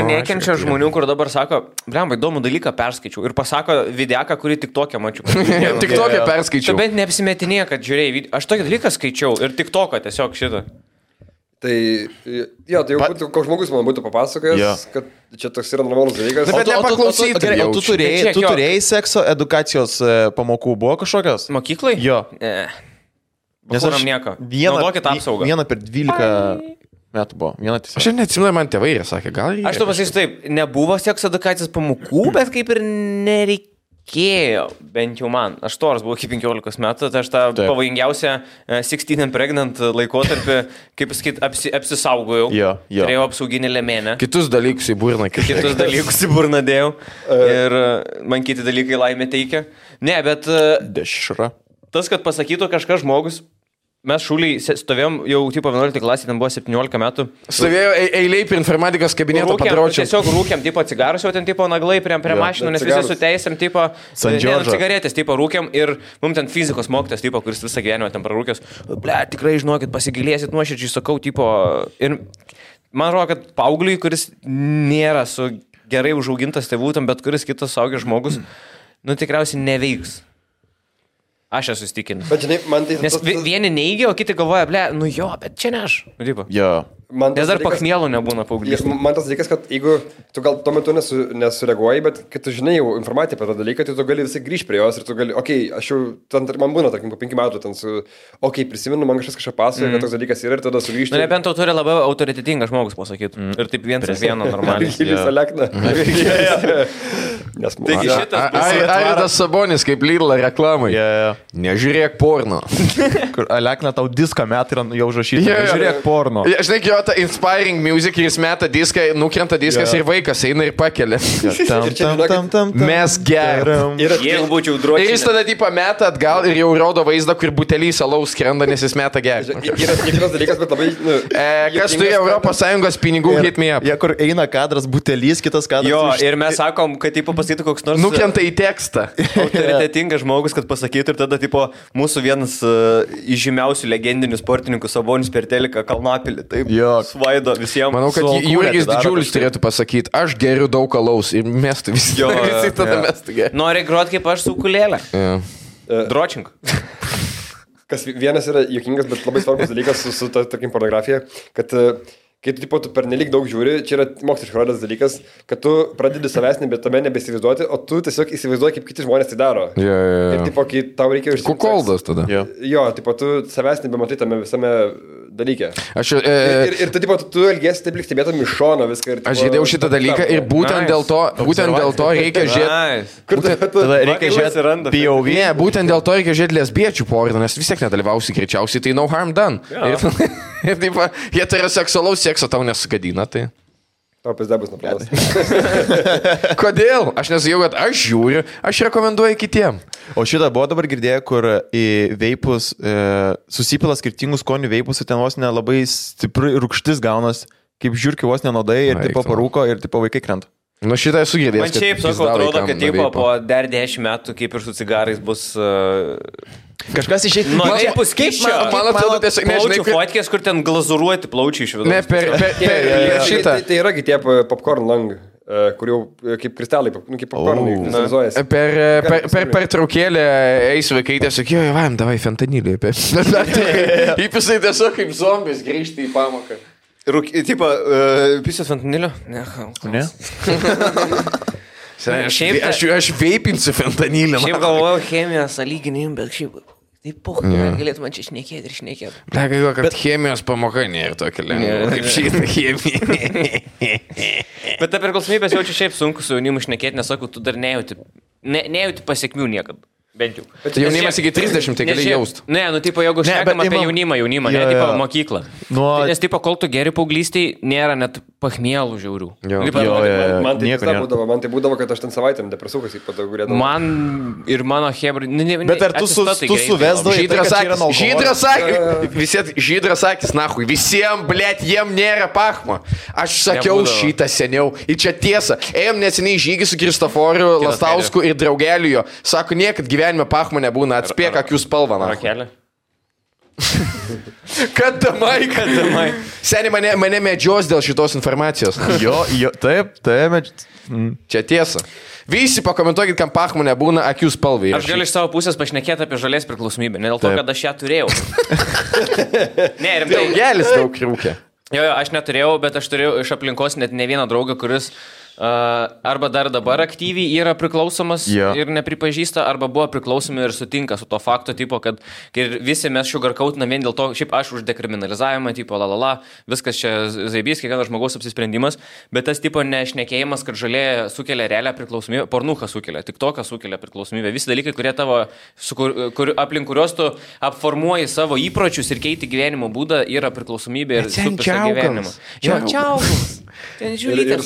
nekenčia žmonių, kur dabar sako, blemba, įdomų dalyką perskaičiau. Ir pasako videaką, kurį tik tokią mačiau. Tik tokią perskaičiau. Tu bent neapsimetinė, kad žiūrėjai, aš tokį dalyką skaičiau ir tik toką tiesiog šitą. Tai, jo, tai jau būtų, koks žmogus man būtų papasakojęs, kad čia toks yra normalus dalykas. Bet nepaklausyti. O tu turėjai sekso edukacijos pamokų, buvo kažkokios? Mokyklai? Jo. Nes aš nieko. Naudokit apsaugą. Vieną per 12 metų buvo. Aš neatsimenu, man tėvai ir sakė, gal reikia. Aš to pasakysiu taip, nebuvo sekso edukacijos pamokų, bet kaip ir nereikėjo. Bent jau man. Aš toras buvau iki 15 metų, tai aš tą pavojingiausią 16 and pregnant laikotarpį, kaip pasakyt, apsisaugojau. Turėjau apsauginį lėmenę. Kitus dalykus į burną. Kitus dalykus į burną dėjau. Ir man kiti dalykai laimė teikia. Ne, bet... Dešra. Tas, kad pasakytų kažkas žmogus... Mes šūliai stovėjom jau tipo 11 klasė, ten buvo 17 metų. Stovėjo eiliai prie informatikos kabineto padraučiam. Tiesiog rūkiam, tipo cigarus, jau ten tipo naglai prie mašinų, nes visi su teisėm, tipo cigaretės, tipo rūkiam ir mums ten fizikos mokytas, tipo, kuris visą gyvenimą ten prarūkęs. Ble, tikrai žinokit, pasigilėsit nuoširdžiai, sakau, tipo. Ir man atrodo, kad paaugliui, kuris nėra su gerai užaugintas tėvų, tam bet kuris kitas suaugęs žmogus, nu tikriausiai neveiks. Aš esu įstikinęs. Bet žinai, man tai... Nes vieni neigia, o kiti galvoja, ble, nu jo, bet čia ne aš. Jo. Nes dar pakmielų nebūna paauglys. Man tas dalykas, kad jeigu tu gal tuo metu nesureaguoji, bet kai tu žinai jau informaciją apie tą dalyką, tai tu gali visai grįžti prie jos ir tu gali, aš jau, man būna, tarkim, po 5 metų, prisimenu, man kažką pasakoja, kad toks dalykas yra ir tada sugrįžti. Nebent to turi labai autoritetingas žmogus pasakyti. Ir taip vienas vieno normaliai. Visą lekną. Taigi šitas Aidas Sabonis kaip Lidl reklamai. Nežiūrėk porno. Kur Alekna tau diską met ir jau užrašyti. Nežiūrėk porno. Žinai, jo ta inspiring music ir jis meta diską, nukrenta diskas ir vaikas eina ir pakelia. Mes geriam. Jeigu būčiau dročiai. Ir jis tada tipo meta atgal ir jau rodo vaizdą, kur butelys alaus skrenda, nes jis meta gerti. Yra tikras dalykas, bet labai... Kas turi ES pinigų, hit me up. Kur eina kadras butelys, kitas kadras. Jo, ir mes sakom, kad tipo pasakytų koks nors... Nukrenta į tekstą. Autoritetingas žmogus, kad pasakytų ir tada tipo mūsų vienas iš žymiausių legendinių sportininkų Sabonis per teliką Kalnapilį. Taip, svaido visiems. Manau, kad Jurgis Didžiulis turėtų pasakyti, aš geriu daug alaus ir mestų visi. Visi tada mestų geriu. Nori grot kaip aš su ukulėle. Dročink. Kas vienas yra juokingas, bet labai svarbus dalykas su tarkim, pornografija, kad kai tu pernelik daug žiūri, čia yra moksliškai rodęs dalykas, kad tu pradedi savęs tame nebesivaizduoti, o tu tiesiog įsivaizduoji, kaip kiti žmonės tai daro. Ir tipo, kai tau reikia užsiimti... Kukoldas tada. Jo, tipo, tu savęs nebematai tame visame dalyke. Ir tu elgiesi taip lyg stebėtum iš šono viską. Ir, tipo, aš žiūrėjau šitą dalyką ir būtent dėl to reikia žiūrėti... Tada reikia žiūrėti POV. Ne, būtent dėl to reikia žiūrėti lesbiečių porną, nes vis tiek nedalyvausi greičiausiai, tai no harm done. Ir taip, heteroseksualaus sekso tau nesugadina, tai... Tau pizda bus nuplanas. Kodėl? Aš nesakiau, kad aš žiūriu, aš rekomenduoju kitiem. O šitą buvo dabar girdėję, kur į veipus susipila skirtingų skonių veipus ir ten vos nelabai stipri rūgštis gaunas, kaip žiūrkiu vos nenodai ir tipo parūko ir tipo vaikai krenta. Nu šitą esu girdėjęs. Man šiaip sakau, atrodo, kad tipo, po dar 10 metų, kaip ir su cigarais, bus... Kažkas išėjti. Nu, veipus keičia. Man atrodo, tiesiog nežinai. Plaučių fotkės, kur ten glazuruoti plaučiai iš vidų. Ne, per šitą. Tai yragi tie popcorn lang, kur jau kaip kristalai, kaip popcornai vizualizuojasi. Per traukėlę eis vaikai tiesiog, jo, vaim, davai fentanilį. Įpisai tiesiog kaip zombis grįžti į pamoką. Tipo, pisės fentanilio? Ne. Aš veipinsiu fentanilį. Šiaip galvoju chemijos sąlyginim, bet šiaip taip poch, galėtų man čia šnekėti ir šnekėti. Galvoju, kad chemijos pamoka nėra tokia lengva, kaip šitą chemiją. Bet ta priklausomybės jaučiu šiaip sunku su jaunimu šnekėti, nes sakau, tu dar nejauti pasiekmių niekad. Bent jau. Bet jaunimas iki 30, tai gali jaust. Ne, nu, tipo, jeigu šnekam apie jaunimą, ne, tipo, mokyklą. Nes, tipo, kol tu geri paauglystėj, nėra net pachmielų žiaurių. Man tai būdavo, kad aš ten savaitėm depresukas į patagurėdavau. Man ir mano hebra... Bet ar tu suvesdavai? Žydras akis, nahui, visiems, blėt, jiem nėra pachmo. Aš sakiau šitą seniau. Ir čia tiesa. Ėjom neseniai žygį su Kristoforiu Lastausku ir draugeliu jo. Sako, niekad gyvenime pachmo nebūna, atspėk akių spalvą. Rakelė. Kadamai. Seniai mane medžios dėl šitos informacijos. Taip. Čia tiesa. Visi pakomentuokit, kam pachmo nebūna akių spalvai. Aš galiu iš savo pusės pašnekėti apie žalės priklausomybę, ne dėl to, kad aš ją turėjau. Ne, rimtai. Daugelis daug rūkė. Jo, aš neturėjau, bet aš turėjau iš aplinkos net ne vieną draugą, kuris arba dar dabar aktyviai yra priklausomas ir nepripažįsta, arba buvo priklausomi ir sutinka su to fakto, tipo, kad visi mes sugarkautinam vien dėl to, šiaip aš už dekriminalizavimą, tipo, viskas čia zaibys, kiekvienas žmogaus apsisprendimas, bet tas tipo nešnekėjimas, kad žalė sukelia realią priklausomybę, pornucha sukelia, tik toką sukelia priklausomybę, visi dalykai, kurie tavo, aplink kurios tu apformuoji savo įpročius ir keiti gyvenimo būdą, yra priklausomybė ir supisa gyvenimą. Ten žiūrėte,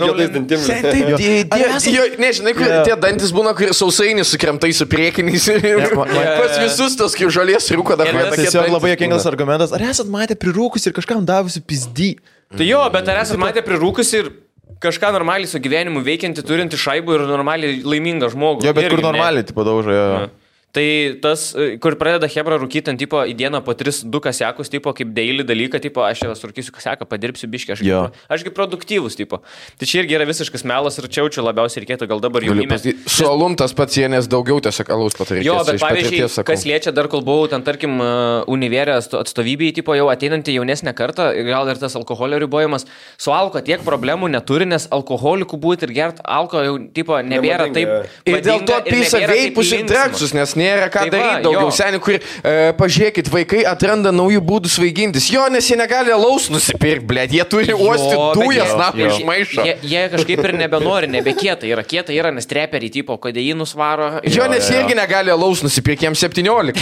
juodais dantim. Nežinai, tie dantis būna, kur sausainiai sukremtai su priekiniais. Pas visus tos kaip žalės rūko dar. Tiesiog labai juokingas argumentas. Ar esat matę prirūkus ir kažkam davusi pizdy? Tai jo, bet ar esat matę prirūkus ir kažką normaliai su gyvenimu veikianti, turinti šaibų ir normaliai laimingą žmogų? Jo, bet kur normaliai, tipo, daužo, jo. Tai tas, kur pradeda hebra rūkyti ant tipo į dieną po 3-2 kasiakus, tipo kaip daily dalyką, tipo aš jau surkysiu kasiaką, padirbsiu biškį, ašgi produktyvus, tipo. Tai čia irgi yra visiškas melas ir čiaučiu labiausiai reikėtų gal dabar jaunimė. Su alum tas pats jienės daugiau tiesiog alaus patarėkės. Jo, bet pavyzdžiui, kas liečia dar kol buvau ten, tarkim, univerė atstovybėje, tipo jau ateinantį jaunesnę kartą, gal ir tas alkoholio ribojimas, su alko tiek problemų neturi, nes alkoholikų būti ir gert alko jau, tipo, nebėra taip. Ir dėl to pisa veipus ir dreksus, nes nėra ką daryti daugiau. Seniai, kur, pažiūrėkit, vaikai atranda naujų būdų svaigintis. Jo, nes jie negali alaus nusipirkti, blėt, jie turi uostyti dujas, iš maišo. Jie kažkaip ir nebenori, nebekieta yra, nes treperiai, tipo, kodeinus varo. Jo, nes jie irgi negali alaus nusipirkti, jiems 17.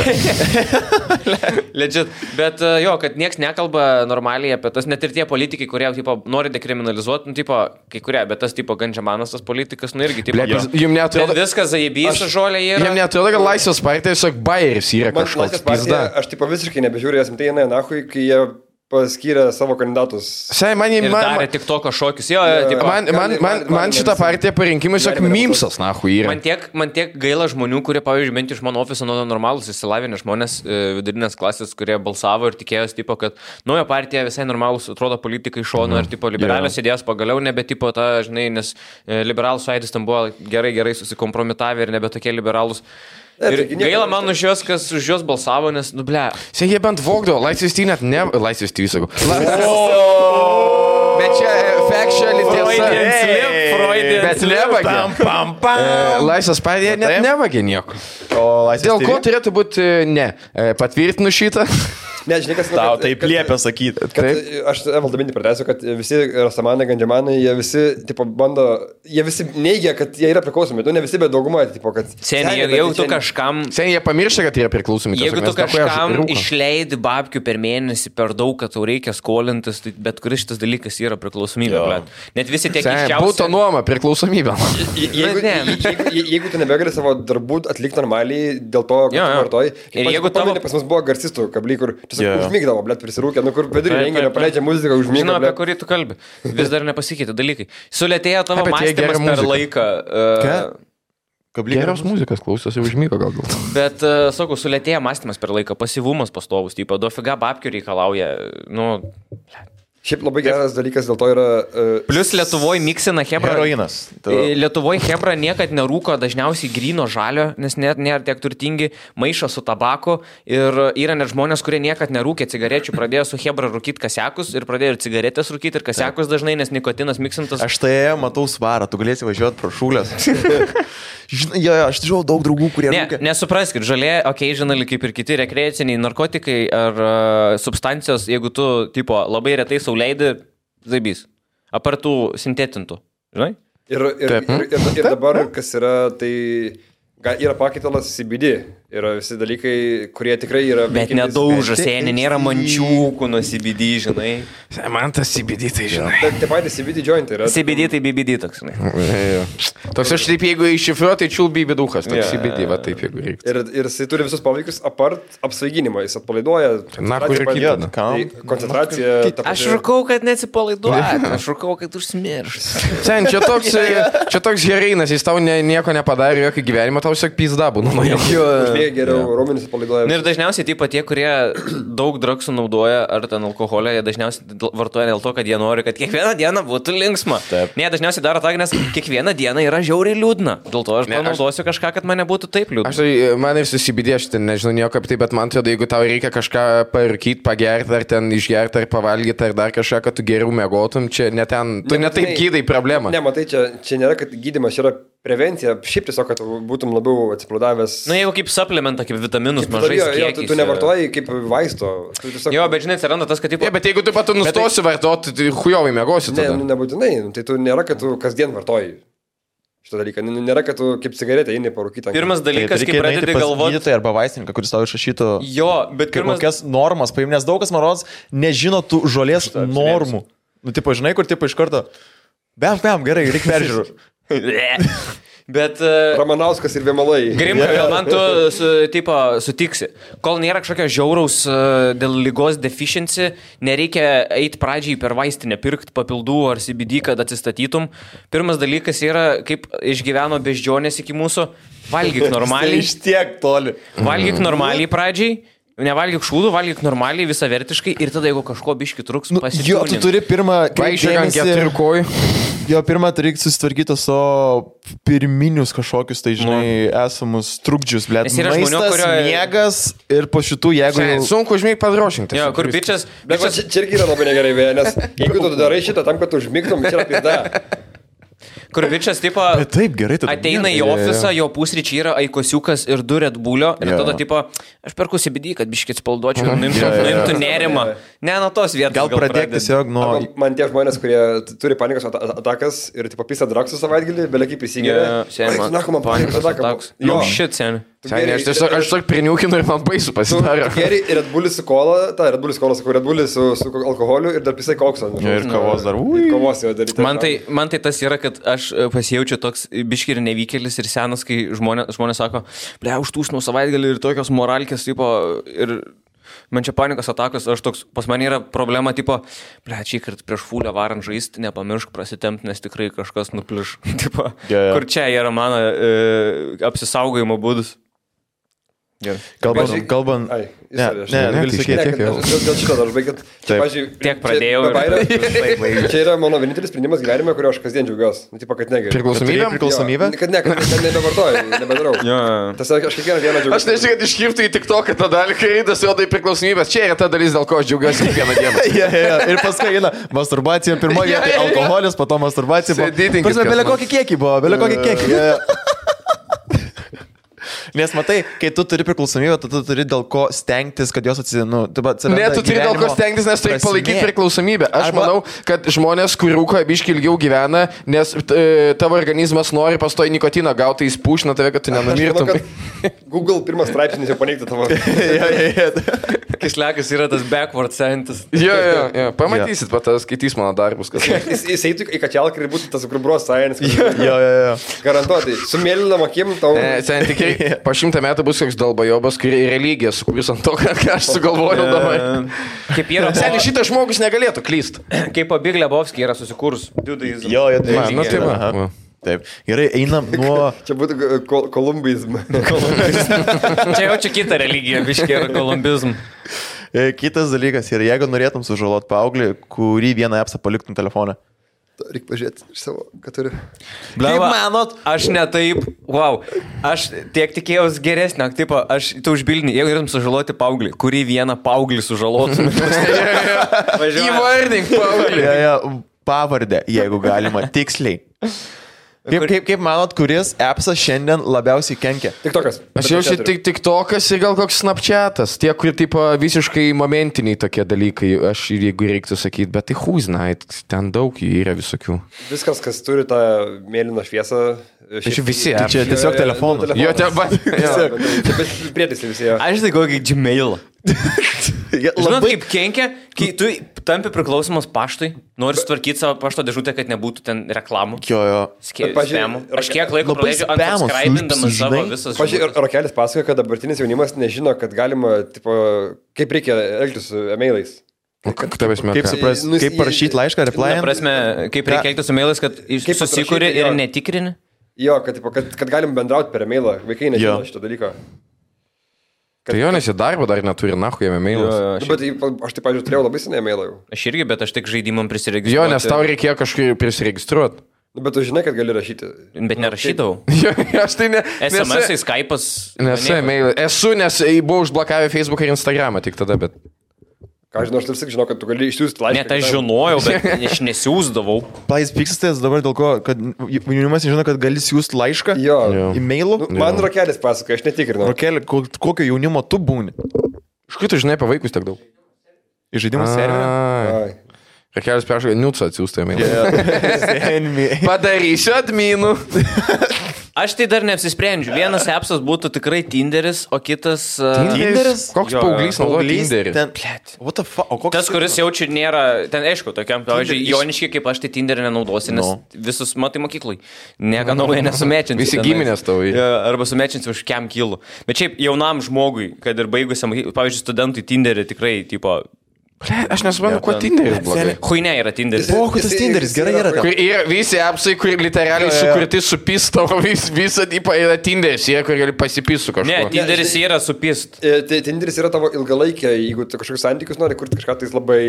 Legit. Bet jo, kad nieks nekalba normaliai apie tas, net ir tie politikai, kurie, tipo, nori dekriminalizuoti, nu, tipo, kai kurie, bet tas, tipo, Gandžiamanas, tas politikas, nu, irgi, tipo, jums neatrodo, viskas zaibys, žolė yra. Jums neatrodo, kad Laisvės partija tiesiog bairis yra kažkoks pizda. Aš, tipo, visiškai nebežiūrėjau, esam tai eina nahui, kai jie paskyrė savo kandidatus. Darė tik toko šokius. Jo, man šitą partiją parinkimai tiesiog mimsas, nahui, yra. Man tiek gaila žmonių, kurie, pavyzdžiui, bent iš mano ofiso normalus įsilavinę žmonės, vidurinės klasės, kurie balsavo ir tikėjosi, tipo, kad nauja partija visai normalus, atrodo, politikai šono ir, tipo, liberalios idėjos pagaliau nebe, tipo, ta, žinai, nes liberalų sąjūdis tam buvo gerai susikompromitavę ir nebe tokie liberalus. Ir gaila man už juos, kas už juos balsavo, nes, nu, ble. Jie bent vogdavo, Laisvės TV net ne... Laisvės TV, sakau. Bet čia factually tiesa. Bet nevagė. Laisvės partija net nevagė nieko. Dėl ko turėtų būti ne? Patvirtinu šitą. Ne, žinai, kas... Tau taip liepia sakyti. Aš valdomintį pratęsiu, kad visi Rastamanai, Gandžiamanai, jie visi, tipo, bando, jie visi neigia, kad jie yra priklausomi. Tu ne visi, bet dauguma, tipo, kad... Seniai, jeigu tu kažkam... Seniai, jie pamiršta, kad jie yra priklausomi. Jeigu tu kažkam išleidi babkių per mėnesį per daug, kad tau reikia skolintis, tai bet kuris šitas dalykas yra priklausomybė. Net visi tiek iščiausi... Būtų nuoma priklausomybė. Jeigu tu nebegali savo darbų atlikti normaliai, dėl to, kad tu vartoji... Ir jeigu tavo... Pas mus buvo garsistų kabliai, kur užmygdavo, blėt, prisirūkė, nu kur vidurį renginio paleidžia muziką, užmygdavo. Žinau, apie kurį tu kalbi. Vis dar nepasikeitė dalykai. Sulėtėjo tavo mąstymas per laiką. Geros muzikas klausosi, užmygo gal. Bet, sakau, sulėtėjo mąstymas per laiką, pasyvumas pastovus, tipo, dofiga babkių reikalauja, nu... Šiaip labai geras dalykas dėl to yra... Plus Lietuvoje miksina hebra. Heroinas. Lietuvoje hebra niekad nerūko dažniausiai gryno žalio, nes net nėra tiek turtingi, maišo su tabaku ir yra net žmonės, kurie niekad nerūkė cigarečių, pradėjo su hebra rūkyti kasiakus ir pradėjo ir cigaretės rūkyti ir kasiakus dažnai, nes nikotinas miksintas. Aš tai matau svarą, tu galėsi važiuoti pro šūlės. Žinai, aš žinau daug draugų, kurie rūkė. Nesupraskit, žalė, occasionally kaip ir kiti rekreaciniai narkotikai ar substancijos, jeigu tu, tipo, labai retai leidi zaibys, apartų sintetintų, žinai? Ir dabar, kas yra, tai yra pakaitalas CBD. Yra visi dalykai, kurie tikrai yra... Bet nedaužas, seniai, nėra mančiūkų nuo CBD, žinai. Man tas CBD, tai žinai. Tai patys CBD joint yra. CBD tai BBD toks, žinai. Toks aš taip, jeigu iššifruoju, tai čiul BB duhas, toks CBD, va taip, jeigu reikia. Ir jis turi visus poveikius apart apsvaiginimo, jis atpalaiduoja. Na, kur ir kitą. Koncentracija. Aš rūkau, kad neatsipalaiduoja, aš rūkau, kad užsimirš. Sen, čia toks heroinas, jis tau nieko nepadarė, jokio gyvenimo, tau tiesiog pizda būna. Geriau raumenis atpalaiduoja. Ir dažniausiai taip pat tie, kurie daug drugsų naudoja ar ten alkoholio, jie dažniausiai vartoja dėl to, kad jie nori, kad kiekvieną dieną būtų linksma. Ne, dažniausiai daro tą, nes kiekvieną dieną yra žiauriai liūdna. Dėl to aš panaudosiu kažką, kad man nebūtų taip liūdna. Aš tai, man ir susibidė, aš ten nežinau nieko apie tai, bet man atrodo, jeigu tau reikia kažką parūkyti, pagerti, ar ten išgerti, ar pavalgyti, ar dar kažką, kad tu geriau mėgotum, čia ne ten, tu ne taip gydai problemą. Ne, matai, čia nėra, kad gydymas yra prevencija, šiaip tiesiog, kad būtum labiau atsipalaidavęs. Na, jeigu kaip suplementą, kaip vitaminus mažai kiekiais. Tu nevartoji kaip vaisto. Tiesiog... Jo, bet žinai, atsiranda tas, kad... Tipo... Bet jeigu tu pat nustosi vartoti, tai hujovai mėgosi tada. Ne, nebūtinai. Tai tu nėra, kad tu kasdien vartoji šitą dalyką. Nėra, kad tu kaip cigaretę eini parūkyti. Pirmas dalykas, kai pradedi galvoti... Gydytoją arba vaistininką, kuris tau išrašytų... Jo, bet pirmas... Kokias normas paim, nes daug kas, man rodos, nežino tų žolės normų. Nu, tipo, žinai, kur tipo iš karto... Bam, gerai, reikia peržiūrų. Bet... Ramanauskas ir Vėmalai. Grimka, gal man tu sutiksi. Kol nėra kažkokio žiauraus dėl lygos deficiency, nereikia eiti pradžiai per vaistinę, pirkti papildų ar CBD, kad atsistatytum. Pirmas dalykas yra, kaip išgyveno beždžionės iki mūsų. Valgyk normaliai. Iš tiek toli. Valgyk normaliai pradžiai. Nevalgyk šūdų, valgyk normaliai, visavertiškai ir tada, jeigu kažko biški truks, pasitūnint. Jo, tu turi pirmą... Jo, pirmą turi susitvarkyti su pirminius kažkokius, tai žinai, esamus trukdžius, blėt. Maistas, miegas ir po šitų, jeigu... Sunku užmėg padrošinti. Jo, kur bičias... Bet čia irgi yra labai negerai, nes jeigu tu darai šitą tam, kad tu užmigtum, čia yra pizda. Kur bičias, tipo, taip, gerai, ateina į ofisą, jo pusryčiai yra aikosiukas ir 2 Red Bullio ir tada, tipo, aš perku CBD, kad biškit spalduočiau, nuimtų nerimą. Ne, nuo tos vietos. Gal pradėk tiesiog nuo... Man tie žmonės, kurie turi panikos atakas ir, tipo, pisa draksų savaitgalį, belekiai prisigėrė. Panikos atakas. Jo, shit, seni. Aš tiesiog priniukinu ir man baisu pasidaro. Geri ir Red Bullis su kola, Red Bullis sakau, Red Bullis su alkoholiu ir dar pisai kokso. Ir kavos dar. Kavos jau daryti. Man tai tas yra, kad aš pasijaučiu toks biški ir nevykėlis ir senas, kai žmonės sako, ble, užtūsnau savaitgalį ir tokios moralkės, tipo, ir man čia panikos atakos, aš toks, pas mane yra problema, tipo, ble, čia kart prieš fulę varant žaisti, nepamiršk prasitempt, nes tikrai kažkas nupliš, tipo, kur čia yra mano apsisaugojimo būdus. Kalbant... Gali sakyti, dėl šito dar užbaigit. Tiek pradėjau. Čia yra mano vienintelis sprendimas gyvenime, kurio aš kasdien džiaugiuosi. Tipo, kad negeriu. Priklausomybę? Kad nebevartoju, nebedarau. Tas aš kiekvieną dieną džiaugiuosi. Aš nežinau, kad iškirptų į TikToką tą dalį, kai eidas jo tai priklausomybės. Čia yra ta dalis, dėl ko aš džiaugiuosi kiekvieną dieną. Ir paskui eina masturbacija, pirmoje vietoje alkoholis, po to masturbacija. Bele kokį kiekį buvo, bele kokį kiekį. Nes matai, kai tu turi priklausomybę, tu turi dėl ko stengtis, kad jos atsiranda. Ne, tu turi dėl ko stengtis, nes turi palaikyti priklausomybę. Aš manau, kad žmonės, kur rūko biški ilgiau gyvena, nes tavo organizmas nori pastoji nikotiną gauti, jis pušina tave, kad tu nenumirtum. Google pirmas straipsnis jau paneigti tavo. Kislekas yra tas backward scientist. Jo. Pamatysit, skaitys mano darbus. Jis eitų į kačialką ir būtų tas grubros science. Jo. Garantuotai. Su mėlynom akim tau. Po 100 metų bus koks dalbajobas, kuri religija sukūrus ant to, ką aš sugalvojau dabar. Kaip yra... Seniai, šitas žmogus negalėtų klyst. Kaip Big Lebowski yra susikūrus. Jo, tai. Taip. Gerai, einam nuo... Čia būtų kolumbizm. Čia kita religija, biškiai yra kolumbizm. Kitas dalykas yra, jeigu norėtum sužalot paauglį, kurį vieną appsą paliktum telefoną. Reikia pažiūrėti iš savo, ką turi. Kaip manot? Aš netaip, aš tiek tikėjausi geresnio, tipo, tu užbildini, jeigu norėtum sužaloti paauglį, kurį vieną paauglį sužalotum. Įvardink paauglį. Pavardę, jeigu galima, tiksliai. Kaip manot, kuris appsas šiandien labiausiai kenkia? TikTokas. Aš jaučiu TikTokas ir gal koks Snapchatas. Tie, kur tipo visiškai momentiniai tokie dalykai, aš jeigu reiktų sakyti, bet tai who's night, ten daug jų yra visokių. Viskas, kas turi tą mėlyną šviesą. Aš visi. Čia tiesiog telefonų. Jo, bet prietaisai visi. Aš tai kokį Gmailą. Žinot, kaip kenkia, kai tu tampi priklausomas paštui, nori sutvarkyti savo pašto dėžutę, kad nebūtų ten reklamų. Jo. Spamų. Aš kiek laiko praleidžiu unsubscribindamas savo visas. Pavyzdžiui, Rokelis pasakoja, kad dabartinis jaunimas nežino, kad galima, tipo, kaip reikia elgtis su emailais. Kaip parašyti laišką, reply? Prasme, kaip reikia elgtis su emailais, kad susikuri ir netikrini? Jo, kad galim bendrauti per emailą. Vaikai nežino šito dalyko. Tai jo, nes į darbą dar neturi, nahu, jame mailus. Bet aš taip, pavyzdžiui, turėjau labai senai mailą jau. Aš irgi, bet aš tik žaidimam prisiregistruoti. Jo, nes tau reikėjo kažkaip prisiregistruoti. Bet tu žinai, kad gali rašyti. Bet nerašydavau. Jo, aš tai ne... SMS-ai, Skype'as. Nesu mailai. Esu, nes buvau užblokavę Facebooką ir Instagramą tik tada, bet... Ką žinau, aš tarsi žinau, kad tu gali išsiųsti laišką. Net aš žinojau, bet aš nesiūsdavau. Pais pyksitės dabar dėl ko, kad jaunimas nežino, kad gali siūsti laišką e-mailu? Man Rokelis pasakoja, aš netikrinau. Rokelį, kokio jaunimo tu būni? Iš kur tu žinai apie vaikus tiek daug? Iš žaidimų serverio? Rokelis peršokai, niutsą atsiųstą e-mailą. Padarysiu adminų. Aš tai dar neapsisprendžiu. Vienas appsas būtų tikrai Tinderis, o kitas... Tinderis? Koks paauglys naudoja Tinderį? What the fuck? O koks Tas, kuris jaučia nėra, ten aišku, tokiam, pavyzdžiui, Joniškiai, kaip aš tai Tinderį nenaudosi, nes visus matai mokyklai. Nieko naujo nesumečinsi. Visi giminės tavo. Arba sumečinsi už kiam kilų. Bet šiaip jaunam žmogui, kad ir baigusiam, pavyzdžiui, studentui Tinderį tikrai, tipo... Aš nesuprantu, kuo Tinderis blogai. Huine yra Tinderis. O, tas Tinderis, gerai yra. Kur yra visi appsai, kur literaliai sukurti su pisto, visą tipą yra Tinderis, kur gali pasipisų kažko. Ne, Tinderis yra su pist. Tinderis yra tavo ilgalaikė, jeigu tu kažkokius santykius nori kurti kažką, tai labai...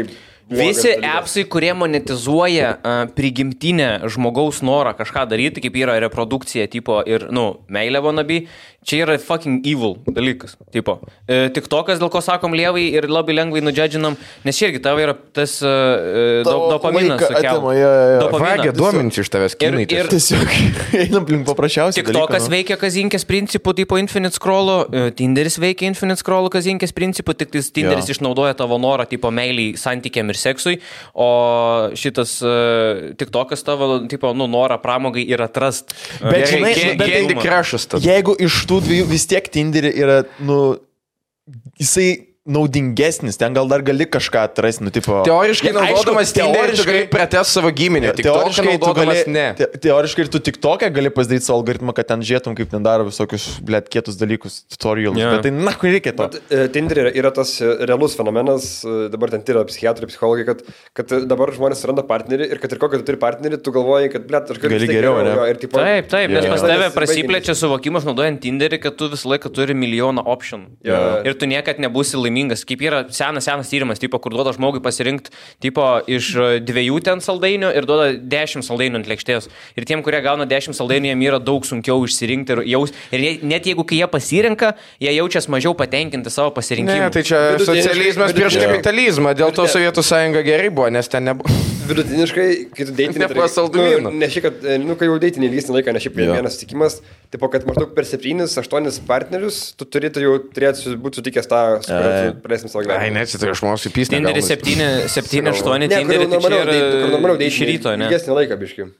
Visi appsai, kurie monetizuoja prigimtinę žmogaus norą kažką daryti, kaip yra reprodukcija tipo ir, meilė wannabe, čia yra fucking evil dalykas. Tipo. TikTokas, dėl ko sakom lievai ir labai lengvai nudžedžinam, nes čia irgi tavo yra tas dopaminas. Vagia duomenys iš tavęs kinai. Ir tiesiog einam link paprasčiausiai. TikTokas veikia kazinkės principų, tipo Infinite Scroll'o, Tinderis veikia Infinite Scroll'o kazinkės principų, tik tai Tinderis išnaudoja tavo norą, tipo meiliai santykiam ir seksui, o šitas TikTokas tavo, tipo, norą pramogai ir atrast. Bet Candy Crush'as tada. Jeigu iš tų dviejų vis tiek Tinderį yra, jisai naudingesnis, ten gal dar gali kažką atrasti, Teoriškai naudodamas Tinderį, tu gali pratęsti savo giminę, TikToką naudodamas ne. Teoriškai ir tu TikToką gali pasidaryti savo algoritmą, kad ten žiūrėtum, kaip ten daro visokius, kietus dalykus, tutorialus, bet tai, kur reikia to? Tinderį yra tas realus fenomenas, dabar ten tyria psichiatrai, psichologai, kad dabar žmonės suranda partnerį ir kad ir kokį tu turi partnerį, tu galvoji, kad, aš gali geriau, ne? Taip, nes pas tave prasiplečia suvokimas naudojant Tinderį, kad tu visą laiką turi milijoną option. Ir tu niekad nebūsi laimingas. Kaip yra senas tyrimas, tipo, kur duoda žmogui pasirinkti tipo, iš 2 ten saldainių ir duoda 10 saldainių ant lėkštės. Ir tiem, kurie gauna 10 saldainių, jiem yra daug sunkiau išsirinkti ir net jeigu kai jie pasirenka, jie jaučias mažiau patenkinti savo pasirinkimu. Ne, tai čia socializmas prieš kapitalizmą, dėl to Sovietų sąjunga gerai buvo, nes ten nebuvo. Vidutiniškai, kai tu deitinį... Ne šiaip, kad, kai jau deitinį ilgesnį laiką, ne šiaip vienas sutikimas, tipo, kad maždaug per 7-8 partnerius tu turėtų būti sutikęs tą, su kuriuo tu praleistum savo gyvenimą. Ai, ne, čia aš manau, supysnė. Tinderis 7-8 Tinderį, tai čia yra iš ryto, ne? Ilgesnį laiką, biškai.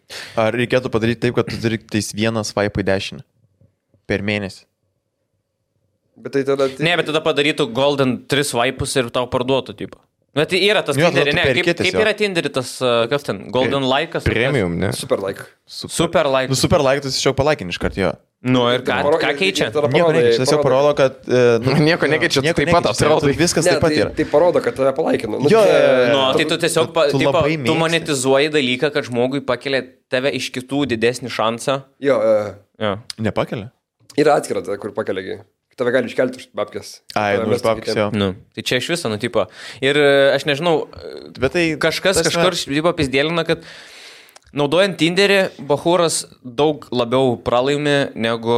Ar reikėtų padaryti taip, kad tu turi tais vieną swipe į dešinę per mėnesį? Bet tai tada... Ne, bet tada padarytų golden 3 swipus ir tau parduotų, tipo. Bet tai yra tas Tinderį, ne? Kaip yra Tinderį tas, kas ten, golden like'as? Premium, ne? Super like. Super like. Super like, tu tiesiog palaikinį iš karto, jo. Ir ką keičia? Nieko nekeičia, tiesiog parodo, kad... Nieko nekeičia, taip pat atrodo. Viskas taip pat yra. Tai parodo, kad tave palaikino. Tai tu tiesiog, tu monetizuoji dalyką, kad žmogui pakelia tave iš kitų didesnį šansą. Jo. Nepakelia? Yra atskira, kur pakeliagi. Tave gali iškelti už babkės. Už babkės, jo. Tai čia iš viso, tipo. Ir aš nežinau, bet tai kažkur pizdėlina, kad naudojant Tinderį, bachūras daug labiau pralaimi negu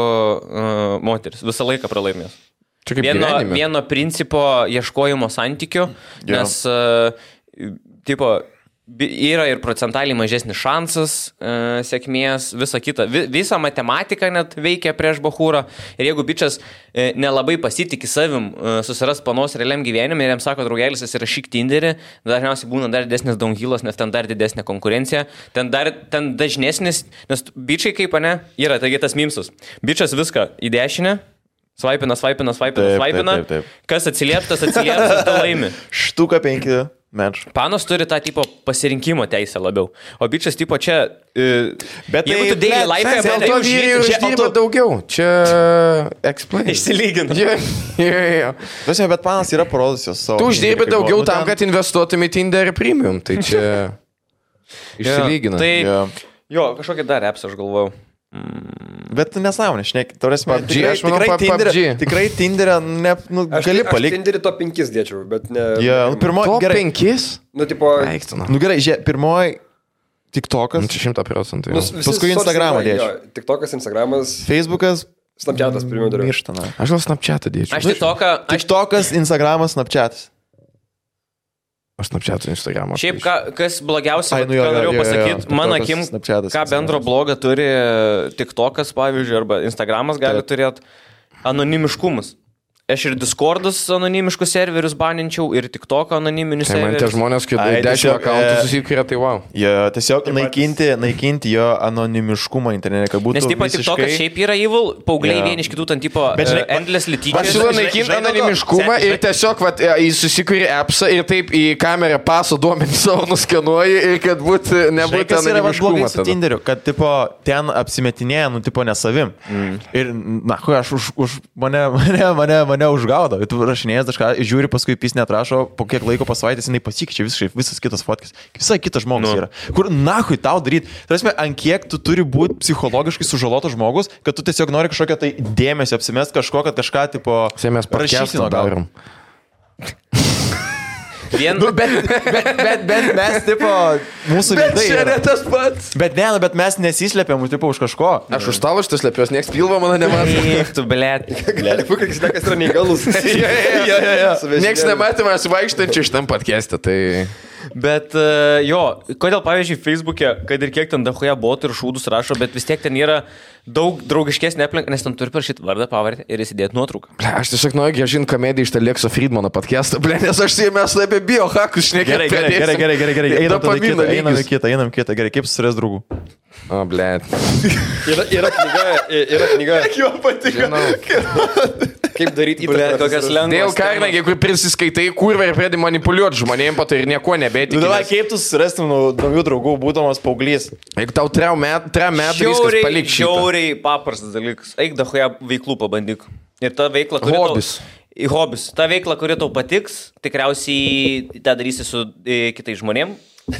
moteris. Visą laiką pralaimės. Vieno principo ieškojimo santykių, nes, tipo, yra ir procentaliai mažesnis šansas sėkmės, visa kita. Visa matematika net veikia prieš bachūrą. Ir jeigu bičias nelabai pasitikė savim susiras panos realiam gyvenime ir jam sako, draugelis, įsirašyk Tinderį, dažniausiai būna dar didesnis downhillas, nes ten dar didesnė konkurencija. Ten dažnesnis, nes bičiai kaip, ne, yra, taigi tas mimsus. Bičias viską į dešinę. Svaipina. Kas atsilieptas, tu laimi. Štuka 5. Menš. Panos turi tą tipo pasirinkimo teisę labiau. O bičias tipo čia... Bet jeigu tu daily life... Dėl to vyrai uždirba daugiau. Čia... Explain. Išsilygina. Bet panas yra parodusios savo... Tu uždirbi daugiau tam, kad investuotum į Tinder Premium. Tai čia... Išsilygina. Jo, kažkokį dar appsą aš galvojau. Bet nesąmonė, šneki, tikrai Tinderę gali palikti. Aš Tinderį top 5 dėčiau, bet ne... Top 5? Gerai, žiūrėk, pirmoji TikTokas. 100%. Paskui Instagramą dėčiau. TikTokas, Instagramas. Facebookas. Snapchatas pirmiau dariau. Mirštana. Aš gal Snapchatą dėčiau. TikTokas, Instagramas, Snapchatas. Aš Snapchat'u Instagramą. Šiaip, kas blogiausia, ką norėjau pasakyti, mano akim, ką bendro blogą turi TikTokas, pavyzdžiui, arba Instagramas gali turėti, anonimiškumas. aš ir Discord'us anonimiškus serverius baninčiau, ir TikTok anoniminius serverius. Man tie žmonės, kai 10 akauntų susikūrė, tai wow. Jo, tiesiog naikinti jo anonimiškumą internete, kad būtų nes tipo visiškai... TikTokas šiaip yra evil, paaugliai vieni iš kitų ten tipo endless lityčias. Aš siūlau naikinti anonimiškumą ir tiesiog jis susikūrė appsą ir taip į kamerą paso duomenį savo nuskenuoji ir kad nebūtų anonimiškumo. Su Tinderiu, kad tipo ten apsimetinėja, tipo nesavim. Ir, aš už mane užgaudo. Tu rašinėjęs kažką, žiūri, paskui pis netrašo, po kiek laiko po savaitės jinai pasikeičia visas kitas fotkis. Visai kitas žmogus yra. Kur nahui tau daryti? Tarsi, ant kiek tu turi būti psichologiškai sužalotas žmogus, kad tu tiesiog nori kažkokią tai dėmesio apsimest kažko, kad kažką tipo rašysino darom. Bet mes, tipo, mūsų veidai. Bet čia ne tas pats. Bet mes nesislepiam, tipo, už kažko. Aš už talo šitas slepios, nieks pilvo mano nemato. Tu, blėt. Gali būti, kad jis yra neįgalus. Nieks nematė manęs vaikštančių šitam podcast'e, tai... Bet kodėl, pavyzdžiui, Facebook'e, kad ir kiek ten dahoje botų ir šūdus rašo, bet vis tiek ten yra daug draugiškesnė aplinka, nes ten turi parašyti vardą, pavardę ir įsidėti nuotrauką. Aš tiesiog noriu grąžinti komediją iš Lekso Friedmano podcast'ą, nes aš mes apie biohakus šnekėjome. Gerai. Einam kitą. Gerai, kaip susirasti draugų? O, blėt. Yra knyga. Jo patiko. Kaip daryti įtaką, kokias lengvas. Dėl Karnegį, kur prisiskaitai kurvą ir pradedi manipuliuoti žmonėm, po to ir nieko nebetiki. Kaip tu susirastum naujų draugų, būdamas paauglys? Jeigu tau 3 metų viskas palik šitą. Žiauriai paprastas dalykas. Eik dahoje veiklų pabandyk. Ir ta veikla, hobis. Ta veikla, kuri tau patiks, tikriausiai tą darysi su kitais žmonėm.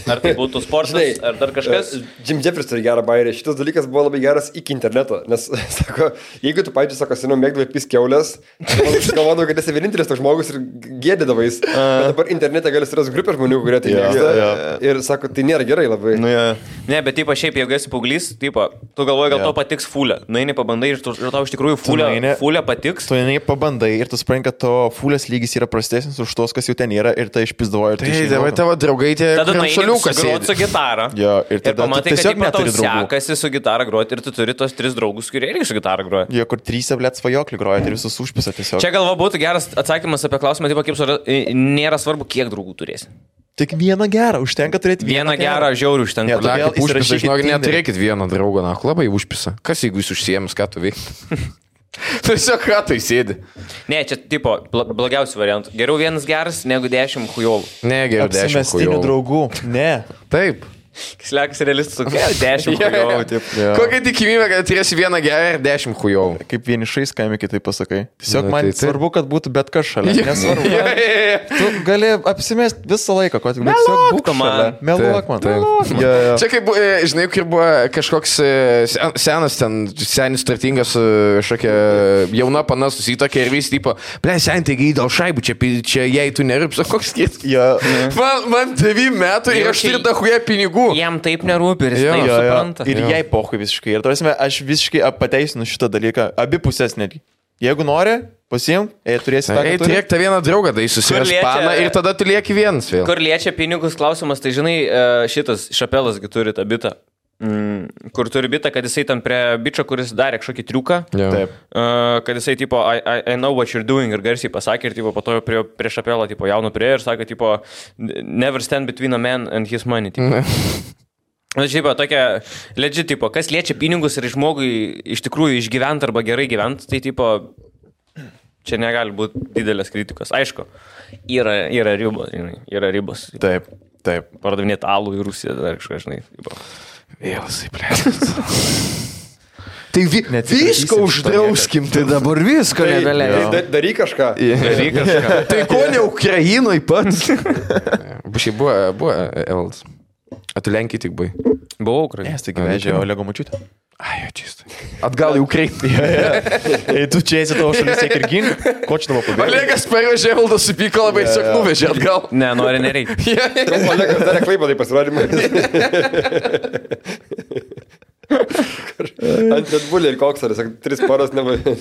Ar tai būtų sportas, ar dar kažkas? Jim Jeffries turi gerą bairį. Šitas dalykas buvo labai geras iki interneto. Nes, sako, jeigu tu, pavyzdžiui, sako, seniau mėgdavai piskiaulės, galvodavau, kad esi vienintelis toks žmogus ir gėdydavais. Bet dabar internete gali surasti grupę žmonių, kurie tai mėgsta. Ir sako, tai nėra gerai labai. Ne, bet tipo, šiaip, jeigu esi paauglys, tipo, tu galvoji, gal to patiks fulė. Nueini pabandai ir tau iš tikrųjų fulė patiks. Tu eini pabandai ir tu supranti, kad to fulės lygis yra prastesnis už tos, kas jau ten yra ir tai išpizdavoja. Tai tavo draugai tie groti su gitara. Jo, ir pamatai, kad tau sekasi su gitara groti ir tu turi tos 3 draugus, kurie irgi su gitara groja. Jo, kur 3 blėt svajoklį groja ir visus užpisa tiesiog. Čia galva būtų geras atsakymas apie klausimą, tipo, kaip nėra svarbu, kiek draugų turėsi. Tik vieną gerą, užtenka turėti vieną gerą, žiaurių užtenka. Neturėkit vieną draugą, labai užpisa. Kas jeigu jūs užsiėmės, ką tu veikti? Tiesiog ratai sėdi. Ne, čia tipo blogiausių variantų. Geriau vienas geras negu 10 chujovų. Ne, geriau 10 chujovų. Draugų. Ne. Taip. Slekas realistas, 10 chujovų. Kokia tikimybė, kad turėsi vieną gerą ir 10 chujovų? Kaip vienišais kaime kitaip pasakai. Tiesiog man svarbu, kad būtų bet kas šalia. Nesvarbu. Tu gali apsimest visą laiką, kad tiesiog būk šalia. Meluok man. Čia kaip, žinai, kur buvo kažkoks senas ten, senis turtingas, šokia jauna pana susitokė ir vis tipo, sen taigi dėl šaibų, čia jei tu nerūps, koks skėt. Man 9 metų ir aš turiu dahuja pinigų. Jam taip nerūpi ir jis taip supranta. Ir jai pohui visiškai. Ir tarsi aš visiškai pateisinu šitą dalyką. Abi pusės netgi. Jeigu nori, pasiimk, turėsi tą. Turėk tą vieną draugą, tai susirasti paną ir tada tu lieki vienas vėl. Kur liečia pinigus klausimas, tai žinai, šitas Šapelasgi turi tą bitą. Kur turi bitą, kad jisai tam prie bičio, kuris darė kažkokį triuką. Taip. Kad jisai tipo, I know what you're doing ir garsiai pasakė ir tipo, po to prie Šapelą tipo, jaunu prie ir sakė, tipo, never stand between a man and his money. Tipo. Šiaip, tokia legit, tipo, kas liečia pinigus ir žmogui iš tikrųjų išgyventi arba gerai gyventi, tai tipo, čia negali būti didelės kritikos. Aišku, yra ribos, žinai, yra ribos. Taip. Pardavinėti alų į Rusiją, dar kažką, žinai. Vėlasai, plėtas. Tai viską uždrauskim, tai dabar visko nebeleidžiam. Daryk kažką. Tai ko ne Ukrainoje pats? Šiaip buvo Evaldas. A tu Lenkijai tik buvai? Buvau Ukrainoje. Nes taigi vežė Olego močiutę. Ai, jo, čistai. Atgal į Ukrainą. Tu čia esi tavo šalis tiek ir gink, ko čia tavo pabėgė? Olegas pavežė, Evaldas supyko labai, tiesiog nuvežė atgal. Ne, nereikia. Olegas darė klaipą, tai pasirodymą. Ant Red Bull ir koksaris, 3 paras nebuvo.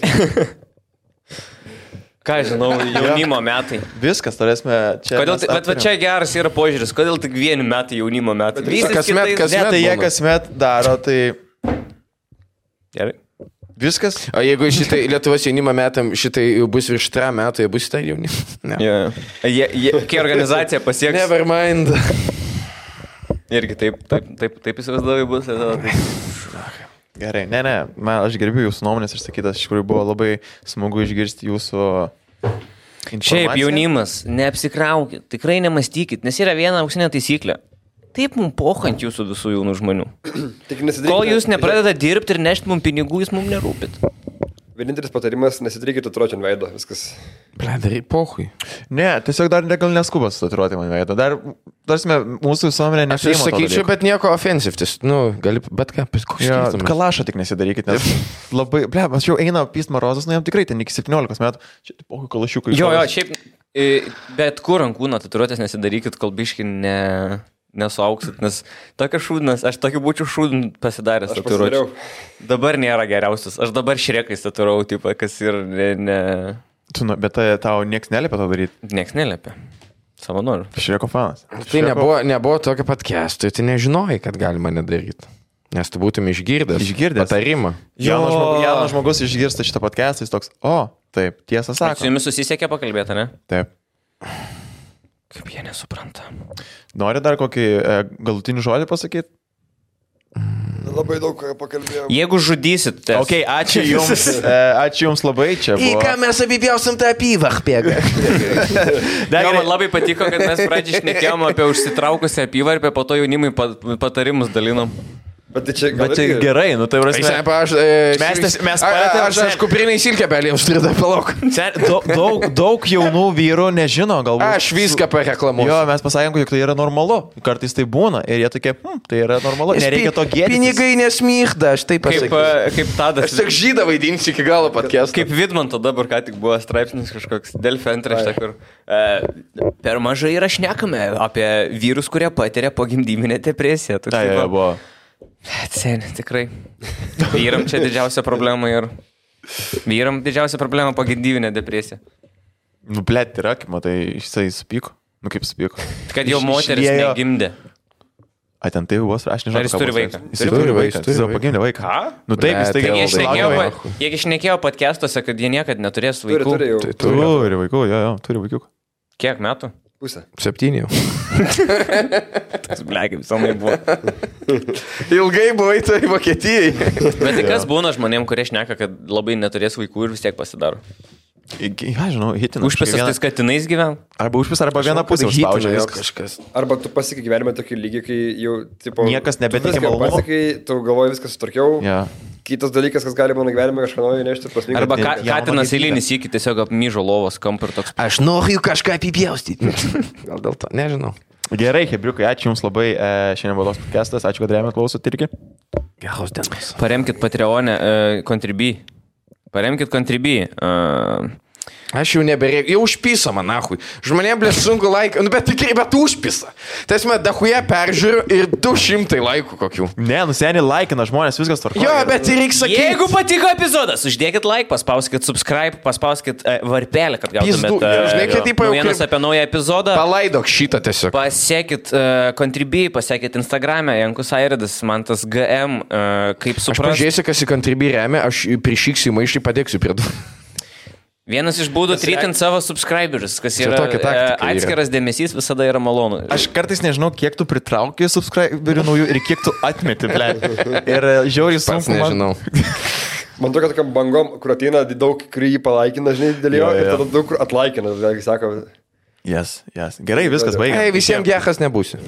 Ką žinau, jaunimo metai. Viskas, turėsime čia. Bet čia geras yra požiūris, kodėl tik 1 metai jaunimo metai? Kasmet tai jie kasmet daro, tai... Gerai. Viskas. O jeigu šitai Lietuvos jaunimo metam šitai jau bus virš 3 metų, jie bus tai jauni. Ne. Yeah. Kai organizacija pasieks... Never mind. Irgi taip įsivaizduoju bus. Gerai, aš gerbiu jūsų nuomonės ir sakytas, iš tikrųjų buvo labai smagu išgirsti jūsų informaciją. Šiaip jaunimas, neapsikraukit, tikrai nemastykit, nes yra viena auksinė taisyklė. Taip mums pohant jūsų visų jaunų žmonių. Kol jūs nepradeda dirbti ir nešti mums pinigų, jūs mums nerūpit. Vienintelis patarimas, nesidarykit tatuiruotę ant veido, viskas. Darai pohui. Ne, tiesiog dar gal neskubas tatuiruoti man veidą. Dar, mūsų visuomenė nepriima. Aš sakyčiau, bet nieko offensive. Gali, bet ką, kalašą tik nesidarykit, nes labai, aš jau eina Pist Marozas, jam tikrai ten iki 17 metų. Čia pohui kalašiukai. Jo, šiaip, bet kur ant kūno tatuiruotės nesidarykit, kol biški nesuauksit, nes tokia šūdnas, aš tokį būčiau šūdin pasidaręs tatuiruotę. Dabar nėra geriausias, aš dabar šrekais tatuirau, tipo, kas ir ne... Bet tau nieks neliepia to daryti? Nieks neliepia. Savo noriu. Šreko fanas. Tai nebuvo tokio podcast'o, tai nežinojai, kad galima nedaryti. Nes tu būtum išgirdęs patarimą. Jaunas žmogus išgirsta šitą podcast'ą, jis toks, taip, tiesą sako. Su jumis susisiekė pakalbėti, ne? Taip. Kaip jie nesupranta. Nori dar kokį galutinį žodį pasakyti? Labai daug pakalbėjome. Jeigu žudysit, tai... Ok, ačiū jums. Ačiū jums labai čia. Į ką mes apipjausim tą apyvarpę? Man labai patiko, kad mes pradžiai šnekėjom apie užsitraukusią apyvarpę, po to jaunimui patarimus dalinom. Bet čia gerai, tai prasme. Aš kuprinai silkę belį, aš turiu dar palauk. Daug jaunų vyrų nežino, galbūt. Aš viską pareklamuosiu. Jo, mes pasakėm, kad tai yra normalu. Kartais tai būna ir jie tokie, tai yra normalu. Nereikia to gėdintis. Pinigai nesmyhda, aš taip pasakysiu. Kaip Tadas. Aš tik žydą vaidinsiu iki galo podcast'o. Kaip Vidmanto dabar ką tik buvo straipsnis kažkoks Delfi antraštė, kur per mažai yra šnekame apie vyrus, kurie patiria pogimdyminę depresiją. Tai buvo. Seniai, tikrai. Vyram čia didžiausia problema ir... Vyram didžiausia problema pogimdyminė depresija. Blet, yra, kaip matai, jisai supyko. Kaip supyko. Kad jau moteris negimdė. Ten tai buvo, aš nežinau. Ar jis turi vaiką? Jis turi vaiką. Jis pagimdė vaiką. Ką? Taip, jis tai Jie šnekėjo podcastuose, kad jie niekad neturės vaikų. Turi vaikų, turi vaikų. Kiek metų? Pusę. 7 jau. Tas blegiai visomai buvo. Ilgai buvai tai Vokietijai. Bet tai kas būna žmonėm, kurie šneka, kad labai neturės vaikų ir vis tiek pasidaro? Žinau, hitina. Užpisas tais katinais gyven? Arba užpis, arba viena pusė užspaudžia kažkas. Arba tu pasiekai gyvenime tokį lygį, kai jau, tipo... Niekas nebetikė malonumo. Pasiekai, tu galvoji viskas sutvarkiau. Kitas dalykas, kas gali mano gyvenime kažką naujo nešti. Arba katinas eilinis iki tiesiog apmyžo lovos kampą ir toks. Aš noriu kažką apipjaustyti. Gal dėl to, nežinau. Gerai, Hebriukai, ačiū Jums labai. Šiandien buvo toks podcastas. Ačiū, kad rėmėt klausot irgi. Geros dienos. Paremkit Patreonę, Contribui. Paremkit Contribui. Aš jau nebereikia, jau užpisa man, nahui. Žmonėm blės sunku laiką, bet tikrai, bet užpisa. Tiesme, dahuje peržiūriu ir 200 laikų kokių. Ne, seniai laikina žmonės, viskas tvarkoja. Jo, bet reikia sakyti. Jeigu patiko epizodas, uždėkit like, paspauskit subscribe, paspauskit varpelį, kad gautumėt naujienas apie naują epizodą. Palaidok šitą tiesiog. Pasiekit Contribui, pasiekit Instagram'e, Jankus Airidas, man tas GM, kaip suprast. Aš pažiūrėsiu, kas į Contribui remia, aš prišiksiu maišį, padėksiu prie du. Vienas iš būdų tritint savo subscriberius, kas yra atskiras dėmesys, visada yra malonu. Aš kartais nežinau, kiek tu pritrauki subscriberių naujų ir kiek tu atmeti, ble. Ir žiauriai sunku. Nežinau. Man tokia tokiam bangom, kur ateina daug, kur jį palaikina, žinai, dėl jo, ir tada daug kur atlaikina, vėlgi sako. Yes. Gerai, viskas baigia. Visiems geras nebūsiu.